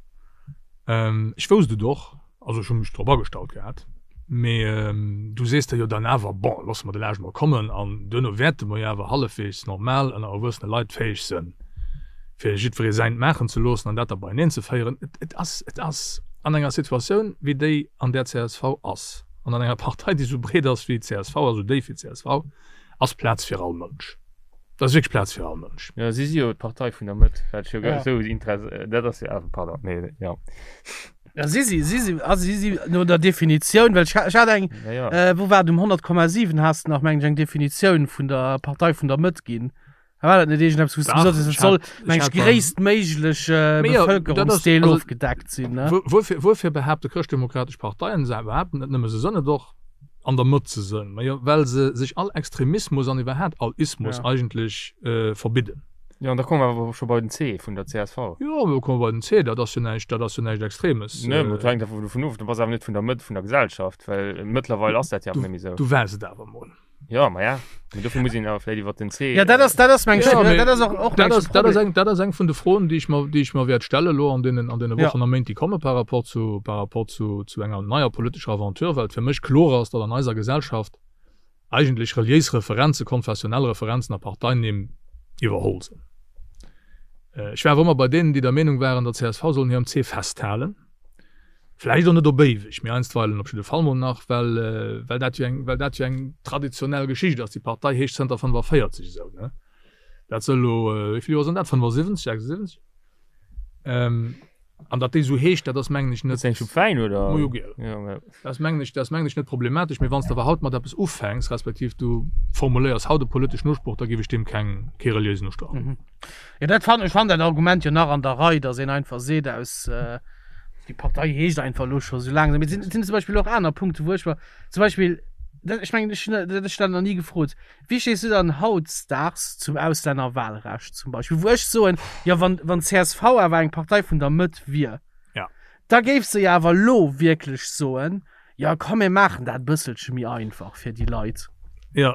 Ech wousst et och. Also ech hu mech drop agestallt gehat, mee du sees der jo dann awer, bon, loosse mer de Laascht mol kommen an duerno wäerte mer jo awer hallefweegs normal ënner erwuessene Leit fäeg sënn, fir jiddweree säint maachen ze loossen an dat da beieneen ze féieren. Et ass, et ass an enger Situatioun wéi déi, an där csv ass, an an enger Partei, déi esou breet ass wéi csv a sou déif wéi csv, ass Plaz fir all Mënsch. Dat ass wierklech Plaz fir all Mënsch. Jo, si si jo d'Partei vun der Mëtt, wat ech jo esou interess-, dat ass jo awer, pardon, mee jo. Ja, si si, si si, also si si no der Definitioun, well ech, ech hat eng, Ja, ja. äh, wou war et, um 100,7 has de nach, meng ech, eng Definitioun vun der Partei vun der Mëtt ginn. War dat net iergendeppes, wou s du Dach, gesot hues, et ech soll, hat, ech meng ech, hat beim, gréisstméiglech äh, Mee jo, dat ass, Bevëlkerungsdeel also, ofgedeckt sinn, ne? wuer, wuerfir, wuerfir behaapte chrëschtdemokratesch Parteien, se behaapten net nëmme, se sënn et och, an der Mëtt ze sënn? Majo, well se sech all Extremismus an iwwerhaat all Ismus Ja. eigentlech äh, verbidden. Jo, an da komme mer awer scho bei den C vun der csv. Jo, do komme mer bei den C, dat ass jo näischt, dat ass jo näischt Extremes. Nee, mä et hänkt einfach dovun of, du bass awer net vun der Mëtt vun der Gesellschaft, well mëttlerweil ass dat jo awer net méi esou. Du waars et awer emol. Jo, ma ja, mä dofir muss een awer vläicht iwwer den C. Ja, dat ass, dat ass meng, Ja, mä dat ass och, och dat meng ass, dat ass Problem. eng, dat ass eng vun de Froen, déi ech mer, déi ech mer wäert stelle elo an deenen, an deene Ja. Wochen a Méint, déi komme par rapport zu, par rapport zu, zu enger neier politescher Aventure, well et fir mech kloer ass, datt an eiser Gesellschaft eigentlech reliéis Referenzen, konfessionell Referenzen a Parteienimm iwwerholl sinn. Ech war awer ëmmer bei deenen, déi der Meenung waren, der csv soll un hirem C festhalen. Vläicht och net op éiweg, mee einstweilen op jidde Fall mol nach, well, well dat jo eng, well dat jo eng traditionell Geschicht ass. Déi Partei heescht zënter 45 esou, ne? Dat sënn elo, wéi vill Joer sënn dat? 75, 76? An datt déi esou heescht, dat ass mengen ech net. Ass eng Schupp Wäin oder? Mojo giel. Ja, mä. Dat ass mengen ech, dat ass mengen ech net problematesch. Mee wann s de awer haut mat eppes ufänks, respektiv du formuléiers haut e politeschen Usproch, da géif ech deem keng, kee reliéisen Ustrach ginn. Jo, dat fannen, ech fannen dat Argument jo nach an der Rei, datt een einfach seet aus, déi Partei heescht einfach elo scho sou laang esou. Mee et sinn, et sinn zum Beispill och aner Punkte wou ech mer zum Beispill, dat, ech mengen ech hunn dat, dat ech dat nach ni gefrot, Wéi stees du dann hautdesdaags zum Auslännerwahlrecht zum Beispill, wou ech soen, jo wann wann csv awer eng Partei vun der Mëtt wier, Ja. da géif se jo awer elo wierklech soen, jo komm mir maachen dat e bësselche méi einfach fir déi Leit. Jo,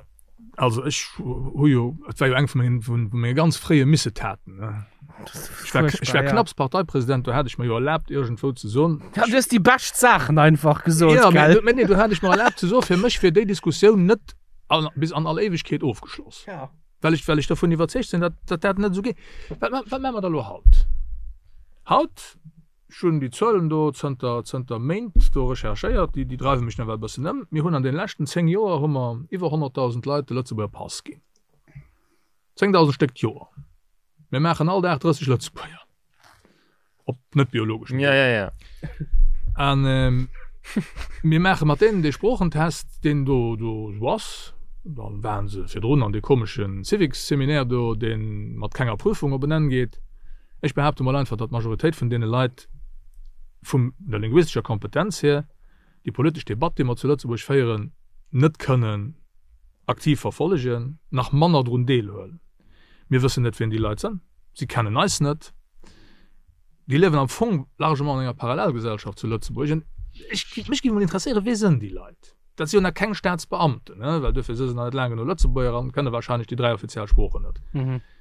also ech hu jo, et war jo eng vu mengen, vu menge ganz fréie Missetaten, ne. Ech war, ech war knapps Parteipresident, do hat ech mer jo erlaabt iergendwou ze soen, Ja, du hues déi bescht Saachen einfach gesot, Ja, gell? mee nee, do hat ech mer erlaabt ze soen, fir mech wier déi Diskussioun net an, bis an all Éiwegkeet ofgeschloss. Ja. Well ech, well ech dervun iwwerzeegt sinn, datt, datt dat net esou geet. Wat, wat maache mer da elo haut? Haut, ech hunn déi Zuelen do zënter, zënter Méint do recherchéiert, déi, déi dreiwe mech nawell e bëssen ëm. Mir hunn an deene leschten 10 Joer hu mer iwwer 100.000 Leit de Lëtzebuerger Pass ginn. 10.000 Stéck d'Joer. Mir maachen all Dag 30 Lëtzebuerger. Op net biologeschem Ja, ja, ja. An ähm, mir maache mat deenen dee Sproochentest, deen do, do esou ass. Dann waren se virdrun an dee komeschen Civics-Seminaire do, dee mat kenger Prüfung op en Enn geet. Ech behaapte mol einfach, datt d'Majoritéit vun deene Leit vum der linguistescher Kompetenz hier déi politesch Debatt, déi mer zu Lëtzebuerg féieren, net kënnen aktiv verfollegen, nach manner drun deelhuelen. Mir wëssen net, wien déi Leit sënn. Si kennen eis net. Déi liewen am Fong largement an enger Parallelgesellschaft zu Lëtzebuerg. An ech, mech géif emol interesséieren, Wie sënn déi Leit? Dat si jo nach keng Staatsbeamten, ne, well duerfir si se nach net laang genuch Lëtzebuerger an kënne wahrscheinlech déi 3 offiziell Sproochen net.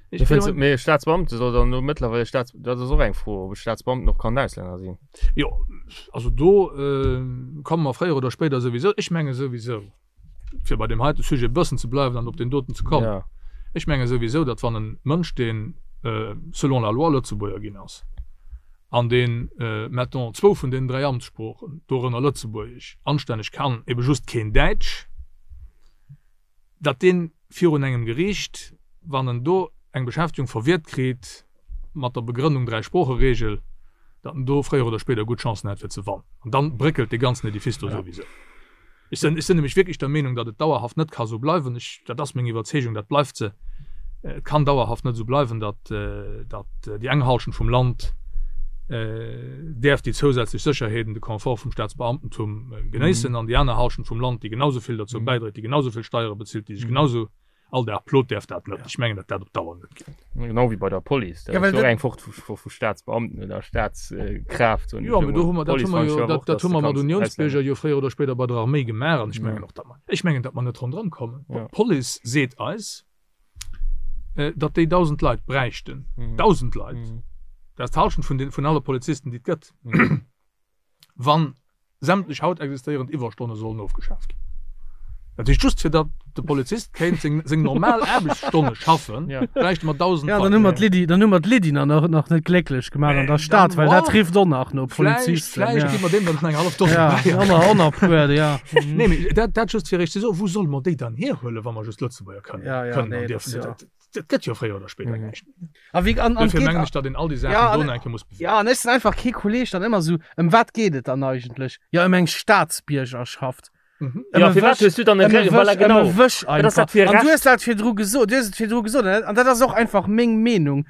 Ech fënns, mee Staatsbeamte soll dann elo mëttlerweil Staats, dat ass och eng Fro, ob e Staatsbeamten och kann Auslänner sinn. Jo, also do komme mer fréier oder spéider souwisou, ech menge souwisou, fir bei deem heite Sujet e bëssen ze bleiwen an op deen doten ze kommen, Ja. ech menge souwisou, datt wann e Mënsch, deen selon la loi Lëtzebuerger ginn ass an deen, mettons, zwou vun deenen 3 Amtssproochen, dorënner Lëtzebuergesch, anstänneg kann, ebe just keen Däitsch, datt dee virun engem Geriicht, wann en do eng Beschäftegung verwiert kritt mat der Begrënnung Dräisproocheregel, datt en do fréier oder spéider gutt Chancen hätt fir ze wannen. An dann bréckelt dee ganzen Edifice do souwisou. Ech sinn, ech sinn nämlech wierklech der Meenung, datt et dauerhaft net ka sou bleiwen. Ech, dat ass meng Iwwerzeegung, dat bleift se. Et kann dauerhaft net esou bleiwen, datt, datt déi eng Halschent vum Land däerf déi zousätzlech Sécherheeten, de Confort vum Staatsbeamtentum genéissen an déi aner Halschent vum Land, déi genau esou vill derzou bäidréit, déi genau esou vill Steiere bezilt, déi sech genau esou all Dag plot, däerf dat net. Ech mengen, datt dat op Dauer net geet. Genau wéi bei der Police, dat ass jo och eng Fort vu Staatsbeamten oder Staatskraaft. Jo, mee do hu mer, dat hu mer jo, dat hu mer mat Unionsbierger jo fréier oder spéider bei der Arméi gemaach an ech mengen och, datt mer, ech mengen, datt mer net ronderëm kommen. D'Police seet eis, datt déi 1.000 Leit bräichten, 1.000 Leit, dat ass d'Hallschent vun den, vun alle Polizisten, déi et gëtt, wann sämtlech haut existéierend Iwwerstonne sollen ofgeschaaft ginn. Dat heescht, just fir datt de Polizist kéint seng, seng normal Aarbechtsstonne schaffen, bräichte mer 1.000 Ja, dann hu mer d'Lydie, dann hu mer d'Lydie nach, nach net glécklech gemaach an der Stad, well dat rifft och nach no Polizisten. Vläicht, vläicht gi mer deem dann nach eng hallef Dose Ja, bäi. och nach e puer, ja. Nee, mee dat, dat just fir Iech ze soen, wou solle mer déi dann hierhuelen, wa mer just Lëtzebuerger kënnen, ja, ja, kënnen nee, an dierfen. Ja. Dat, dat gëtt jo fréier oder spéider näischt méi. A wéi, an, an Dofir geht, mengen ech, datt een all déi Saachen ja, do an, nach eng Kéier muss bewegen. Ja, an ech sinn einfach kee Kolleg dann ëmmer sou, ëm wat geet et dann eigentlech? Ja, ëm eng Staatsbiergerschaft. Mhm. Ëm Ja, e firwat Wësch, hues du dann e ëm e Re- voilà, Wësch, ëm genau. e Wësch Wat ass einfach. dat fir e An du Recht? hues dat virdru gesot, du hues et virdru gesot, an dat, an dat ass och einfach meng Meenung.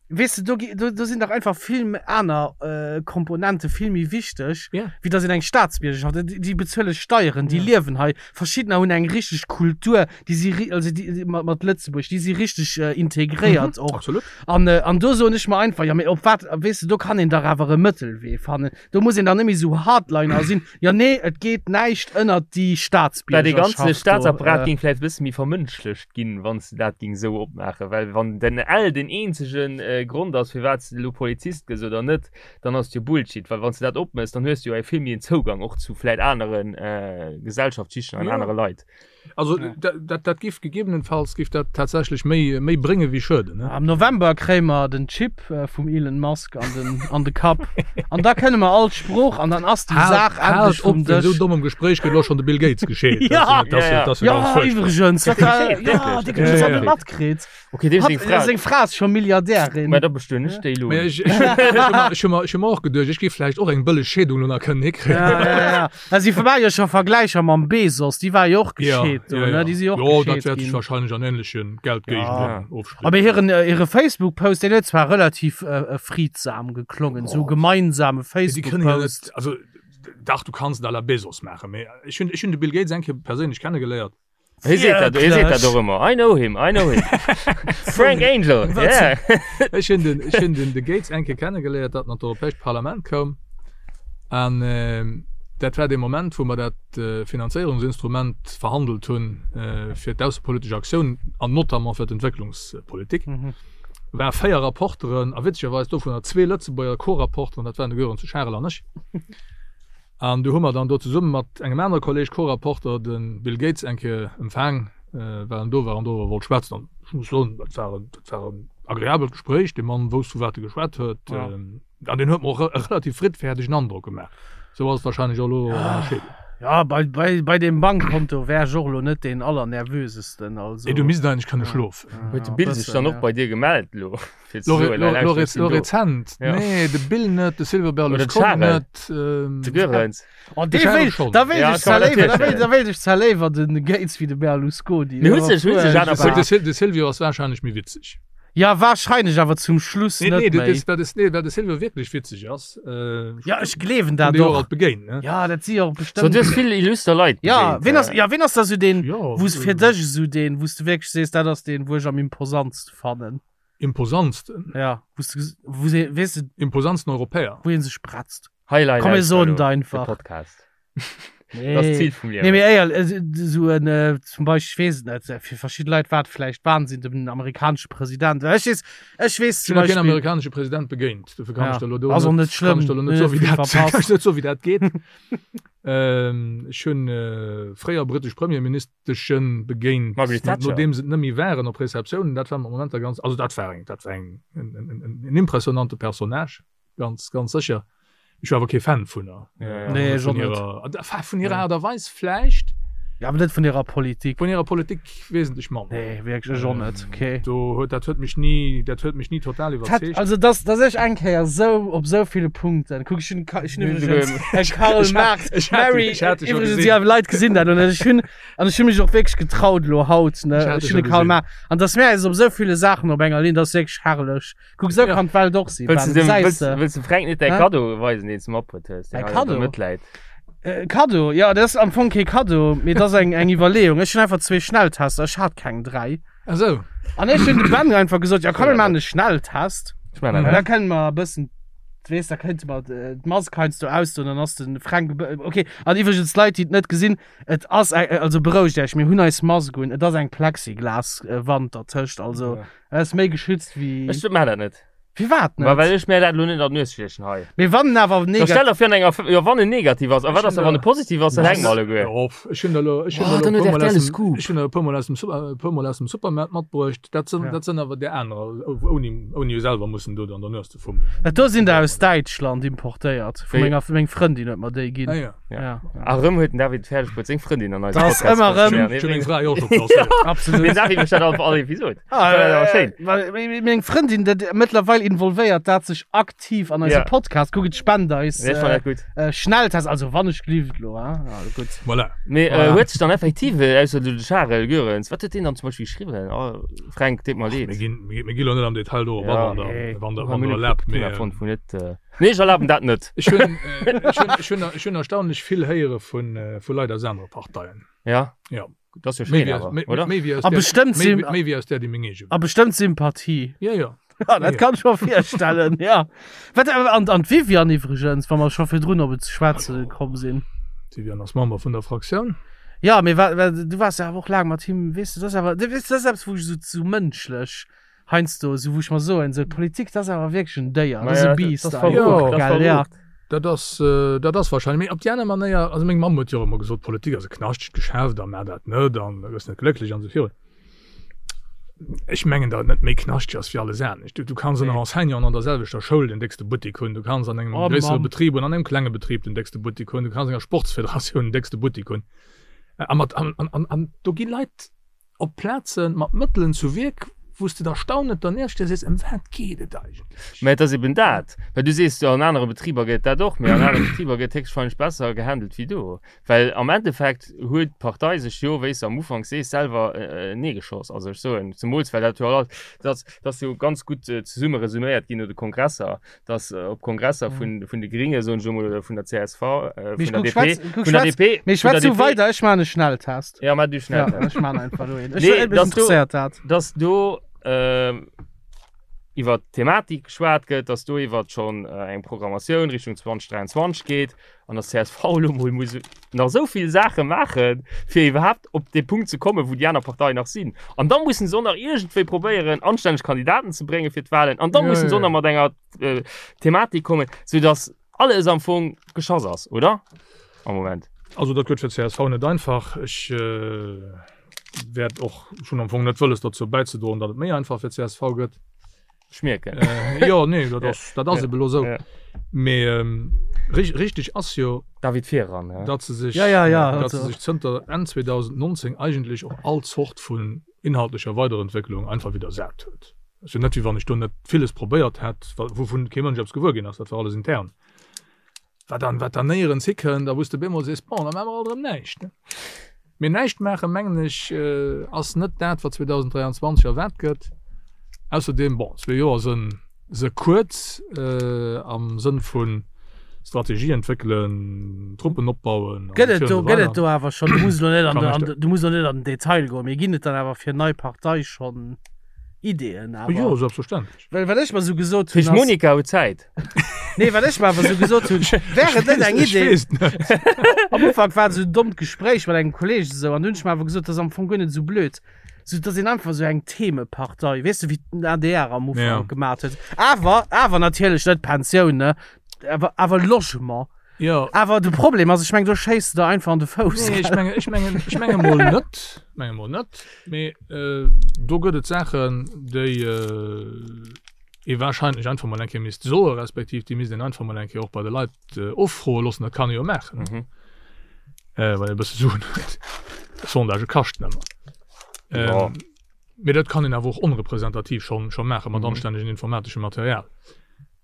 Weess de, do gi, do, do sinn dach einfach vill méi aner äh, Komponente vill méi wichteg, Ja. wéi datt een eng Staatsbiergerschaft, déi, déi bezuele Steieren, déi Ja. liewen hei, verschiddener hunn eng richteg Kultur, déi si ri-, also déi, déi mat, mat Lëtzebuerg, déi si richteg äh, integréiert och. Absolut. An, äh, an do soen ech mer einfach, ja mee op wat, weess de, do kann een dach awer e Mëttelwee fannen. Do muss een dann net méi esou Hardliner sinn, ja nee, et geet näischt ënnert déi Well dee Staatsbiergerschaft ganze do. Staatsapparat Äh, géing vläicht e bësse méi vermënschlecht ginn, wann s de dat géing esou opmaachen. Well wann den L den eenzege Grond ass, firwat s de elo Polizist gëss oder net, dann ass et jo Bullshit. Well wann s de dat opméchs, dann hues de jo e vill méi en Zougang och zu vläicht anere Gesellschaftsschichten an Ja. anere Leit. Also dat, dat giff gegebenenfalls giff dat tatsächlech méi, méi brénge wéi schueden, ne? Am November kréie mer den Chip vum Elon Musk an den, an de Kapp an da kënne mer all d'Sprooch an dann ass déi Saach Haalt endlech vum op, wéinst esou Dësch. dommem Gespréich gëtt elo schonn de Bill Gates gescheet. Ja! Dat ass jo, dat ass jo Ja, ganz fuerchtbar. iwwregens, wat war, Gescheet, ja, wierklech? déi huet Ja, dat ja. net matkritt. Okay, deem Hat, seng Fra. seng Fra ass scho Milliardärin. Mä da bestueden ech déi elo. Mä ech, ech, ech hu mer, ech hu mer, ech hu mer och geduecht, ech géif vläicht och eng bëlleg Scheedung elo nach kënnen hikréien. Ja, ja, ja. Also, si war jo scho Vergläicher mam Bezos, déi war jo och gescheet do, ne? Déi si jo och Jo, dat gescheet wäert sech ginn. wahrscheinlech an ähnleche Geldgéigenden ofspillen. Aber hiren, äh, hire Facebook-Post, deen huet zwar relativ äh, äh, friedsam geklongen, sou gemeinsame Déi kënnen jo Facebook-Post. net, also dach, du kanns et à la Bezos maachen, mee ech hunn, ech hunn de Bill Gates eng Kéier perséinlech kennegeléiert. Hie seet dat, hie seet dat och ëmmer. I know him, I know him. Frank Angel, yeah. Ech hunn den, ech hunn den de Gates eng Kéier kennegeléiert, datt en an d'Europäescht Parlament koum. An dat war dee Moment, wou mer dat Finanzéierungsinstrument verhandelt hunn fir d'aussepolitesch Aktioun an notamment fir d'Entwécklungspolitik. War 4 Rapporteren a witzegerweis dovunner zwee Lëtzebuerger Co-Rapporteren, dat waren de Gören zu Scharel an ech. An du hu mer dann do zesumme mat engem anere Kolleg, Co-Rapporter, de Bill Gates eng Kéier empfaang, well en do war an doriwwer wollt schwätzen. An ech muss soen, dat war en, dat war en agreabelt Gespréich. Dee Mann wousst, vu wat e geschwat huet. An deen huet mer och e relativ friddfäerdegen Androck gemaach. Esou ass et wahrscheinlech och elo an der Scheedung. Ja, bei, bei, bei deem Bankkonto wär ech och elo net deen allernervösesten, also. Nee, du misst eigentlech kënne schlofen. Huet de Bill sech dann och bei dir gemellt elo? Fir ze Lo, soen, lo, hei, lo, lauschter, ech sinn lo do. rezent. Ja. Nee, de Bill net, de Silvio Oder de Berlusconi Charel. net. Ähm, De Goerens. Oh, De dee Charel wéilt, schon. da wéilt Ja, ech kann zwar man léiwer, da natierlech wéilt, da wéilt ech zwar léiwer den Gates wéi de Berlusconi. Mee huet sech- huet sech aner De, de, Sil- de Silvio ass wahrscheinlech méi witzeg. Ja, wahrscheinlech, awer zum Schluss Nee, net nee, méi. das, das, nee, well de Silvio wierklech witzeg ass. Äh, Ja, ech gleewen dat déi och och. alt begéint, ne? Ja, dat si och So, bestëmmt. du hues vill illuster Leit Ja, begéint, ween ass, äh. ja, ween ass da sou deen, Ja, wou's fir äh, dech esou deen, wou's du wierklech sees, dat ass deen, wou ech am imposantste fannen? Imposantsten? Ja, wou's du, wou se, weess de. Imposantsten Europäer? Wou een sech bretzt. Highlight Komm, mir soen et de einfach. Podcast. Nee. Dat ass d'Zil vum Liewen. Nee, mee éier, esou en, zum Beispill, ech weess et net, fir verschidde Leit war et vläicht Wahnsinn, den amerikanesche President. Well ech weess, ech weess Ech zum hunn nach keen Beispill. amerikanesche President begéint, dofir kann Ja, ech der elo do ass och net, net kann schlëmm, ech der elo net mir soen, hu wéi vill dat, kann verpasst. ech net soen, wéi dat geet. Ech hunn fréier brittesch Premierministeschen begéint, Margaret Thatcher. nodeem se et net méi waren, op Receptiounen. Dat war mat Momenter ganz, also dat war eng, dat war eng, en, en, en, en impressionante Personnage. Ganz, ganz sécher. Ech war awer kee Fan vun der. Ja, ja. Nee, ech och Vun net. hirer, enfin, vun hirer Aart a Weis vläicht. Ja, awer net vun hirer Politik. Vun hirer Politik wesentlech manner. Nee, wierklech, ech och net. Okay. Do huet, dat huet mech ni, dat huet mech ni total iwwerzeegt. Also dass, dass ech eng Kéier esou op esou ville Punkten, kuck, ech hunn, ech hunn iwwregens e Karl Marx, Ech hat Mary, ech hat dech scho iwwregens, gesinn. ja, Leit gesinn dat und ech hunn, an ech hunn mech och wierklech getraut elo haut, ne, Ech hat ech dech hunn scho de Karl gesinn. Marx, an dass mir eis op esou ville Saachen op enger Linn, dat ass wierklech herrlech. Kuck, esou Ja. kann d'Welt och sinn, Wëlls Ben, du dem, gesäis wëlls, de. wëlls dem Fränk net däi Hä? Kaddo weisen, deen s du matbruet hues, deen Mäi hei an der Kaddo? Mëtt läit? Äh, Kaddo, ja, dat ass am Fong kee Kaddo, mee dat ass eng, eng Iwwerleeung. Ech hunn einfach zwee Schnelltester, ech hat keng dräi. Ach sou. An ech hunn dem Ben einfach gesot, ja komm, mir maachen e Schnelltest. Ech maachen Well dat da net. kënne mer e bëssen, weess, da kéinte mer d'Mask heiansdo ausdoen, dann ass de Fränk e bë-, okay. An iwwregens, Leit, déi et net gesinn, et ass eng, also berouegt Iech, mir hunn eis Mask un, et ass eng Plexiglas-Wand dertëscht, also et ass méi geschützt wéi. Ech maachen dat net. Firwat Ma well net? ech mär dat elo net an d'Nues stiechen hei. Mee wann en awer Da negativ. stell der vir an enger, jo wann en negativ ass, a wat ass da wann e positiv ass, dann hänke mer alleguer. Jo, ech hunn der elo, ech hunn Oh, der dann elo e huet puer mol RTL aus e dem, Scoop. ech hunn der e puer mol aus dem Super, e puer mol aus dem Supermaart matbruecht. Dat sinn, Ja. dat sinn awer där anerer, ouni, ouni selwer mussen do an der Nues ze fummelen. Dat do sinn der aus Däitschland importéiert, vu Wéi? menger, meng Frëndin huet mer déi ginn. Ah ja. Ja. Ja. A rëm huet den David fäerdeg bruet seng Frëndin an eise Das Podcast ëmmer rëm. ze Ech hunn meng zéien. Fra jo och scho klasséiert. Absolut. Den David mécht dat all all Episod. Ah, Dat ass awer schéin. Well meng Frëndin, dat mëttlerweil involvéiert dat sech aktiv an eise Ja. Podcast. Kuck, et spent eis Nee, ech fannen dat gutt. äh, Schnelltest, also wann ech glift lo, hein? Ja, gutt. Voilà. Mee äh, Voilà. huet sech dann effektiv, äh, ausser de Charel Goerens, wat huet deen dann zum Beispill geschriwwen? Oh, Fränk, deet mer Mir leed. ginn, mir mir gi lo net am Detail do op Ja. wann der, Nee. wann der, Mir wann hunn der e erlaabt, Thema mee fonnt, wou net, äh, Nee, ech erlaben dat net. ech hunn, äh, ech hunn, ech hunn, ech hunn erstaunlech vill héiere vun, äh, vu Leit aus anere Parteien. Ja. Ja. Dat ass jo Méi schéin wéi awer, aus, méi, oder? méi wéi aus A där, bestëmmt méi, Sym méi wéi aus där, déi meng eege a war. bestëmmt Sympathie. Ja, ja. Ja, dat Ja. kann ech mer virstellen, ja. Wat, äh, an, an d'Viviane iwwregens, wa mer scho virdrun op et ze schwätze komm sinn. D'Viviane ass Member vun der Fraktioun. Ja, mee wa, wa, du waars jo awer och laang mat him, weess de, dat ass awer, weess de, dat ass eppes, wou ech esou, esou mënschlech heiansdo, esou wou ech mer soen, esou d'Politik, dat ass awer wierklech en Déier, dat ass Maja, e Biest dat ass einfach, verrucht, dat ass gell, ja. verrucht. Dat ass, dat ass wahrscheinlech, mee op déi aner Manéier, also meng Mamm huet jo och ëmmer gesot, Politik ass e knaschtegt Geschäft a maach dat net an da gëss net glécklech an esou virun. Ech mengen, datt et net méi knaschteg ass wéi alles anescht. Du, du kanns ënner Enseignanten an der selwechter Schoul den déckste Buttek hunn, du kanns an engem Oh gréissere Mamm. Betrib oder an engem klenge Betrib den déckste Buttek hunn, du kanns an enger Sportsfederatioun den déckste Buttek hunn. A mat, an, an, an, an do gi Leit op Plaze mat Mëttelen zu Wierk, wou s de der staunend dernieft stees a sees, Ëm wat geet et eigentlech? Mä et ass eben dat, well du sees jo, an anere Betriber gëtt dat och, mä an anere Betriber gëtt héchstwahrscheinlech besser gehandelt wéi do. Well am Endeffekt huet d'Partei sech jo, wéi s de am Ufank sees, selwer neegeschoss. Also ech soen, zemools well dat jo all, dat ass jo ganz gutt zesumme resuméiert ginn no de Kongresser, dass op Kongresser vun vun de Gringe soen ech emol oder vun der CSV äh, Mee vun der guck, DP schwätz, guck, vun der schwätz, DP mee vun der schwätz du DP weider, ech maan e Schnelltest. Ja, maa du Ja, Schnelltest. ech maan einfach lo een. Ech, Nee, mech dass du interesséiert dat. dass do ähm, iwwer d'Thematik geschwat gëtt, dass do iwwer schonn äh, eng Programmatioun Richtung 2023 geet an dass csv elo mol muss nach esou vill Saache maachen, fir iwwerhaapt op dee Punkt ze kommen, wou déi aner Parteien nach sinn. An da mussen se och nach iergendwéi probéieren, anstänneg Kandidaten ze bréngen fir d'Wahlen. An da Ja, mussen se ja, och nach ja. mat enger äh, Thematik kommen, soudass alles am Fong geschoss ass, oder? Am Moment. Also dat gëtt fir d'CSV net einfach. Ech äh, wäert och schon am Fong net wëlles dozou bäizedroen, datt et méi einfach fir d'CSV gëtt. Schmierken. Äh, jo, nee, dat ass, dat ass Ja. eben elo sou. Ja. Mee ähm, rich, richtig ass jo, David Viran, ja. datt se sech, Ja, ja, ja, datt se also. sech zënter Enn 2019 eigentlech och all Zort vun inhaltlecher Weiderentwécklung einfach widdersat huet. Ass jo net, wéi wann ech do net villes probéiert hätt, wa wouvun kee Mënsch eppes gewuer ginn ass, dat war alles intern. Wat dann, wat dann néierens hikënnt a wou s de bemol sees, bon, da maache mer alt erëm näischt, ne? Mee näischt maachen, mengen ech, ass net dat, wat 2023 erwaart gëtt. Ausserdeem, bon, zwee Joer sënn se kuerz am Sënn vu Strategie entwéckelen, Truppen opbauen Gëtt et an do, esou gëtt et weider. do awer schonn, du muss elo net an Kann de, ech an da. de, du muss elo net an den Detail goen, mee ginn et dann awer fir nei Partei schonn Ideeën awer? Jo, selbstverständlech. Well wat ech mer sou gesot hunn Fich ass. Monika huet Zäit. Nee, wat ech mer awer sou gesot hunn, wär et net eng Ech Idee. weess net. Am Ufank war et sou en dommt Gespréich mat engem Kolleeg esou an du hunn ech mer awer gesot, dat ass am Fong guer net esou blöd, sou dass een einfach sou eng Themepartei, weess de, wéi den ADR am Ja. Ufank gemat huet. Awer, awer natierlech net Pensioun, ne, awer, awer Logement. Jo. Awer de Problem ass, ech meng, do schéiss de der einfach an de Fouss. Nee, ech menge, ech mengen, ech menge mol net, menge mol net, mee äh, do gëtt et Saachen, déi äh, ee wahrscheinlech einfach mol eng Kéier misst soe respektiv déi misst een einfach mol eng Kéier och bei de Leit äh, offroe loossen. Dat kann ee jo maachen, Mhm. äh, wann ee e bësse Suen huet. Sondagë kaschten ëmmer. Ja. Ähm, mee dat kann een awer och onrepresentativ schonn scho maache mat anstännegen informateschem Material.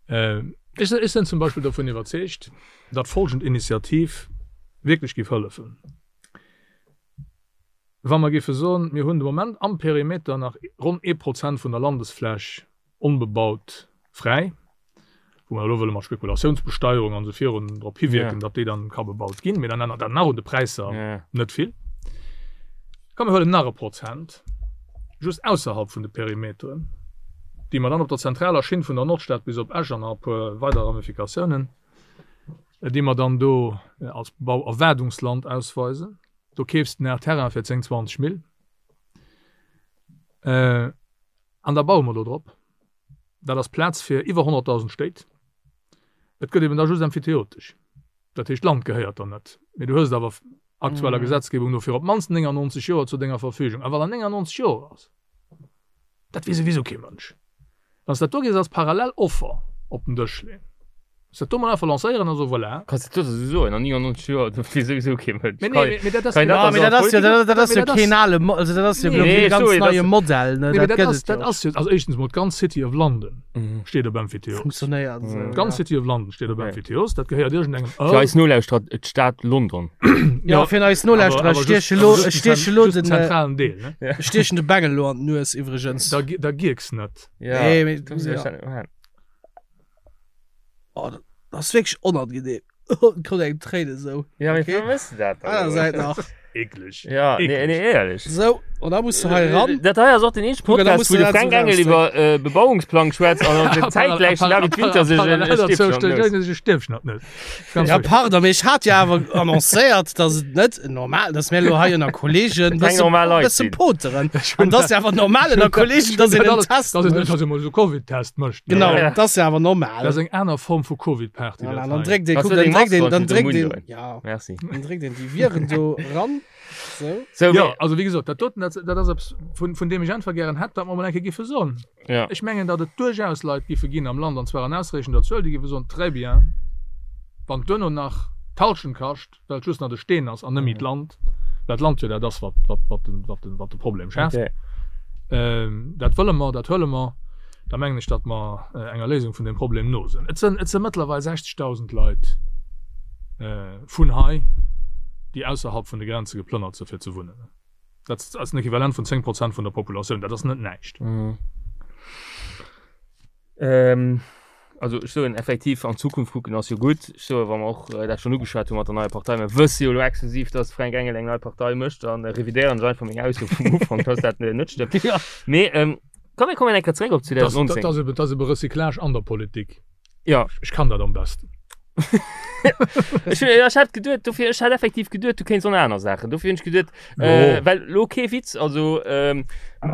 Ähm, ech, ech sinn zum Beispill dovun iwwerzeegt, datt folgend Initiativ wierklech géif hëllefen. Wa mer géife soen, mir hunn de Moment am Perimeter nach ronn ee Prozent vun der Landesfläch onbebaut fräi, wou mer elo wëlle mat Spekulatiounsbesteierung an esou virun drop hiwierken, datt déi dann ka bebaut ginn, mee dann ännert dat nach un de Präisser net vill. Komm mir huelen nach e Prozent just ausserhalb vun de Perimeteren, déi mer dann op der zentraler Schinn vun der Nordstad bis op Esch an nach e puer weider Ramifikatiounen, déi mer dann do als Bauerwaardungsland ausweisen. Do keefs de nach Terrain fir 10, 20 Mill. An da baue mer do drop. Dat ass Plaz fir iwwer 100.000 Stéit. Et gëtt eben da just emphyteotesch. Dat heescht, d'Land gehéiert der net, mee du hues et awer aktueller Gesetzgebung no fir op d'mannst 99 Joer zu denger Verfügung. A wat an 99 Joer ass, Dat weess souwisou kee Mënsch. Wann s dat do géifs als parallel Offer op den Dësch leeën, s dat do mol einfach lancéieren a soen, voilà. Kanns de dat esou soen, an 99 Joer, dat weess souwisou kee Mënsch. Mee nee, mee dat ass. Kann een dat da dat ass jo, dat ass jo keen ale, also dat ass jo elo kee ganz neie Modell, ne, Nee, mee dat dat gëtt ass, et jo. dat ass jo, also éischtens mol d'ganz City of London steet op Emphyteos. Funktionéiert esou, ja. D'ganz City of London steet op Emphyteos, dat gehéiert iergendengem Fir Earl. eis Nolauschterer, d'Stad London. Ja, fir eis Nolauschterer, ech stieche elo, ech stieche elo den. Zentralen Deel, ne? Ech stiechen de Bengel elo an d'Nues iwwregens. Da, da gierks net. Ja. Nee, mee, Du ja. ja. Oh, dat ass wierklech onangenehm. Kommt engem Tréinen esou. Ja, mee Okay. wéi wëss de dat dann Aner elo? Säit nach. Eekleg. Ja, nee, Eekleg. nee, éierlech. Sou, an da muss du hei ran. Dat hei ass och den eenzege Kuck, da Podcast, muss wou du de dat Fränk esou Engel iwwer äh, Bebauungsplang schwätzt an an zäitgläich den David Winter sech en Parallel Stäbchen an d'Nues. e Stäbchen an d'Nues. Ganz Ja, ruhig. pardon, mee ech hat jo awer annoncéiert, dass et net normal, dass mir elo hei ënner Kollegen Keng bësse normal Leit bësse sinn. poteren. An dass jo awer normal ënner Kollegen, dass een en Test Dass een mécht. dass een mol esou Covid-Test mécht. ne? Genau, Ja. dat ass jo awer normal. Dat ass eng aner Form vu Covid-Party. Voilà, dat dann hei. dréckt een, Hast kuck, du dann deng dréckt een, Mask dann dran, dréckt den een, Mund ja, Merci. dann dréckt een déi Viren do ran. Sou. So, Jo, mee, also wéi gesot, dat doten, dat, dat ass eppes, vun, vun deem ech einfach gären hätt, datt mer mol eng Kéier géife soen. ja. Ech mengen, datt et duerchaus Leit géife ginn am Land, an zwar an ausreechender Zuel, déi géife soen, Très bien, wann et duerno nach d'Hallschent kascht, well et just nach de Steen ass an net méi d'Land, well d'Land jo dat ass, wat, wat, wat den, wat den, wat de Problem schaaft. Okay. Dat wëlle mer, dat huele mer. Da mengen ech, datt mer enger Léisung vun deem Problem no sinn. Et sinn, et si mëttlerweil 60.000 Leit vun hei, déi ausserhalb vun de Grenze geplënnert sinn, fir ze wunnen. Dat ass en Equivalent vun 10 Prozent vun der Populatioun. Dat ass net näischt. Also ech soen effektiv, an d'Zukunft kucken ass jo gutt. Ech soe wa mer och dat schonn ugeschwat hu mat der neier Partei, mer wësse jo elo exklusiv, datt Fränk Engel eng nei Partei mécht, dann revidéieren ech einfach meng Ausso vum Ufank, datt dat net stëmmt. Mee komm mir kommen eng Kéier zeréck op 2019. Dat ass ebe, dat ass ebe Recyclage an der Politik. Ja. Ech kann dat am besten. Ech hunn, ech hat geduet, dofir, ech hat effektiv geduet, du kéints och nach aner Saachen. Dofir hunn ech geduet, äh, well lo kee Witz, also ähm,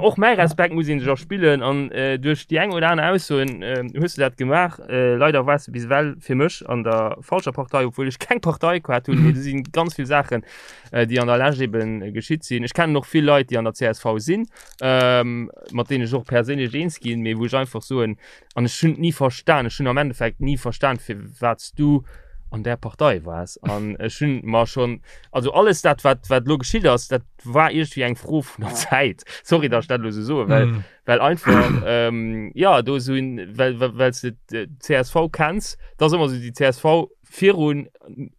och mäi Respekt muss een sech erspillen an äh, duerch déi eng oder aner Aussoen äh, hues du dat gemaach. Äh, leider waars du bis ewell fir mech an der falscher Partei, obwuel ech keng Partei gehat hunn, mee do si ganz vill Saachen, äh, déi an der Lescht eben geschitt sinn. Ech kennen och vill Leit, déi an der csv sinn, ähm, mat deenen ech och perséinlech eens ginn, mee wou ech einfach soen, An ech hunn et ni verstan, ech hunn am Endeffekt ni verstan, firwat s du an där Partei waars. An ech hunn mer schonn, also alles dat, wat, wat elo geschitt ass, dat war iergendwéi eng Fro vun der Zäit. Sorry, datt ech dat elo esou soen, well, mm. well einfach, ähm, ja, do esou, well, well, well s de d'CSV kenns, dat ass ëmmer esou déi csv virun,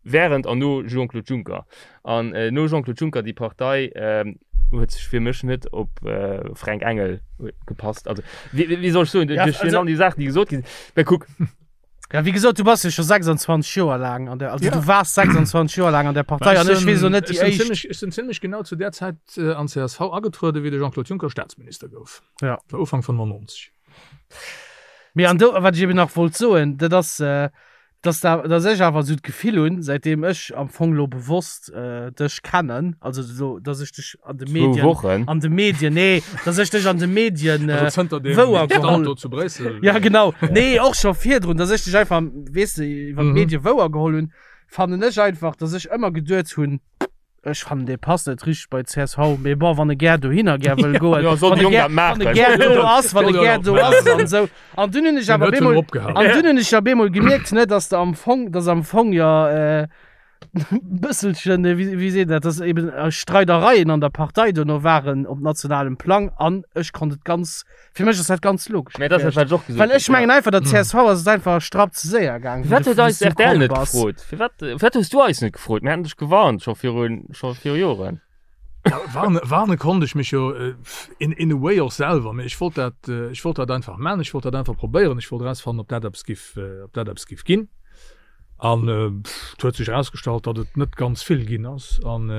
während an no Jean-Claude Juncker. An äh, no Jean-Claude Juncker, déi Partei ähm, huet sech fir mech net op äh, Fränk Engel gepasst. Also, wéi, wéi soll ech soen, Ja, duerch also- all déi Saachen, déi gesot ginn. Well kuck, Ja, wéi gesot, du bass jo scho 26 Joer laang an der, also Ja. du waars 26 Joer laang an der Partei an ech weess och net Ech déi sinn éischt. zimmlech, ech sinn zimmlech genau zu där Zäit äh, an csv agetrueden, wéi de Jean-Claude Juncker Staatsminister gouf. Ja. War Ufank 95. Mee an do, wat ech eben nach wollt soen, dat ass, äh, dass da, dass ech awer esou d'Gefill hunn, säitdeem ech am Fong lo bewosst äh, dech kennen, also so, dass ech dech an de zwou Medien, Wochen. an de Medien, nee, dass ech dech an de Medien äh, Also zënter dem wouer Stand geholl. do zu Bréissel. Ja, genau. Nee, och scho virdrun, dass ech dech einfach, weess de, iwwer Mhm. d'Medie wouer geholl hunn, fannen ech einfach, dass ech ëmmer geduet hunn, Ech fannen dee passt net richteg bei csv, mee bon wann e gär dohinner gär wëll goen, Ja, soll wann de e Jong gär, dat maachen. wann e gär do ass, wann e Soll gär jo do maachen. ass an esou. An dunn hunn ech Deen awer huet schon bemol, opgehalen. an dunn hunn ech ja bemol gemierkt, ne, dass de am Fong, dass am Fong jo, äh, Bësselchen, wéi wéi seet een dat, dass eben Streidereien an der Partei dono waren op nationalem Plang an ech konnt et ganz, fir mech ass dat ganz logesch Mä dat ass dat, wat ech och gesot Well ech hunn, mengen einfach, der csv ass et einfach e Strapp ze séier gaang, wéi Firwat de huet eis wéi s du rtl komm net bass. gefrot? Firwat, firwat hues du eis net gefrot? Mir hätten dech gewarnt, scho virun, scho viru Joren. Ja, warne, warne konnt ech mech jo in, in a way och selwer, mee ech wollt dat, ech wollt dat einfach man, ech wollt dat einfach probéieren, ech wollt erausfannen, ob dat eppes giff, ob dat eppes giff ginn. An et huet sech erausgestallt, datt et net ganz vill ginn ass, an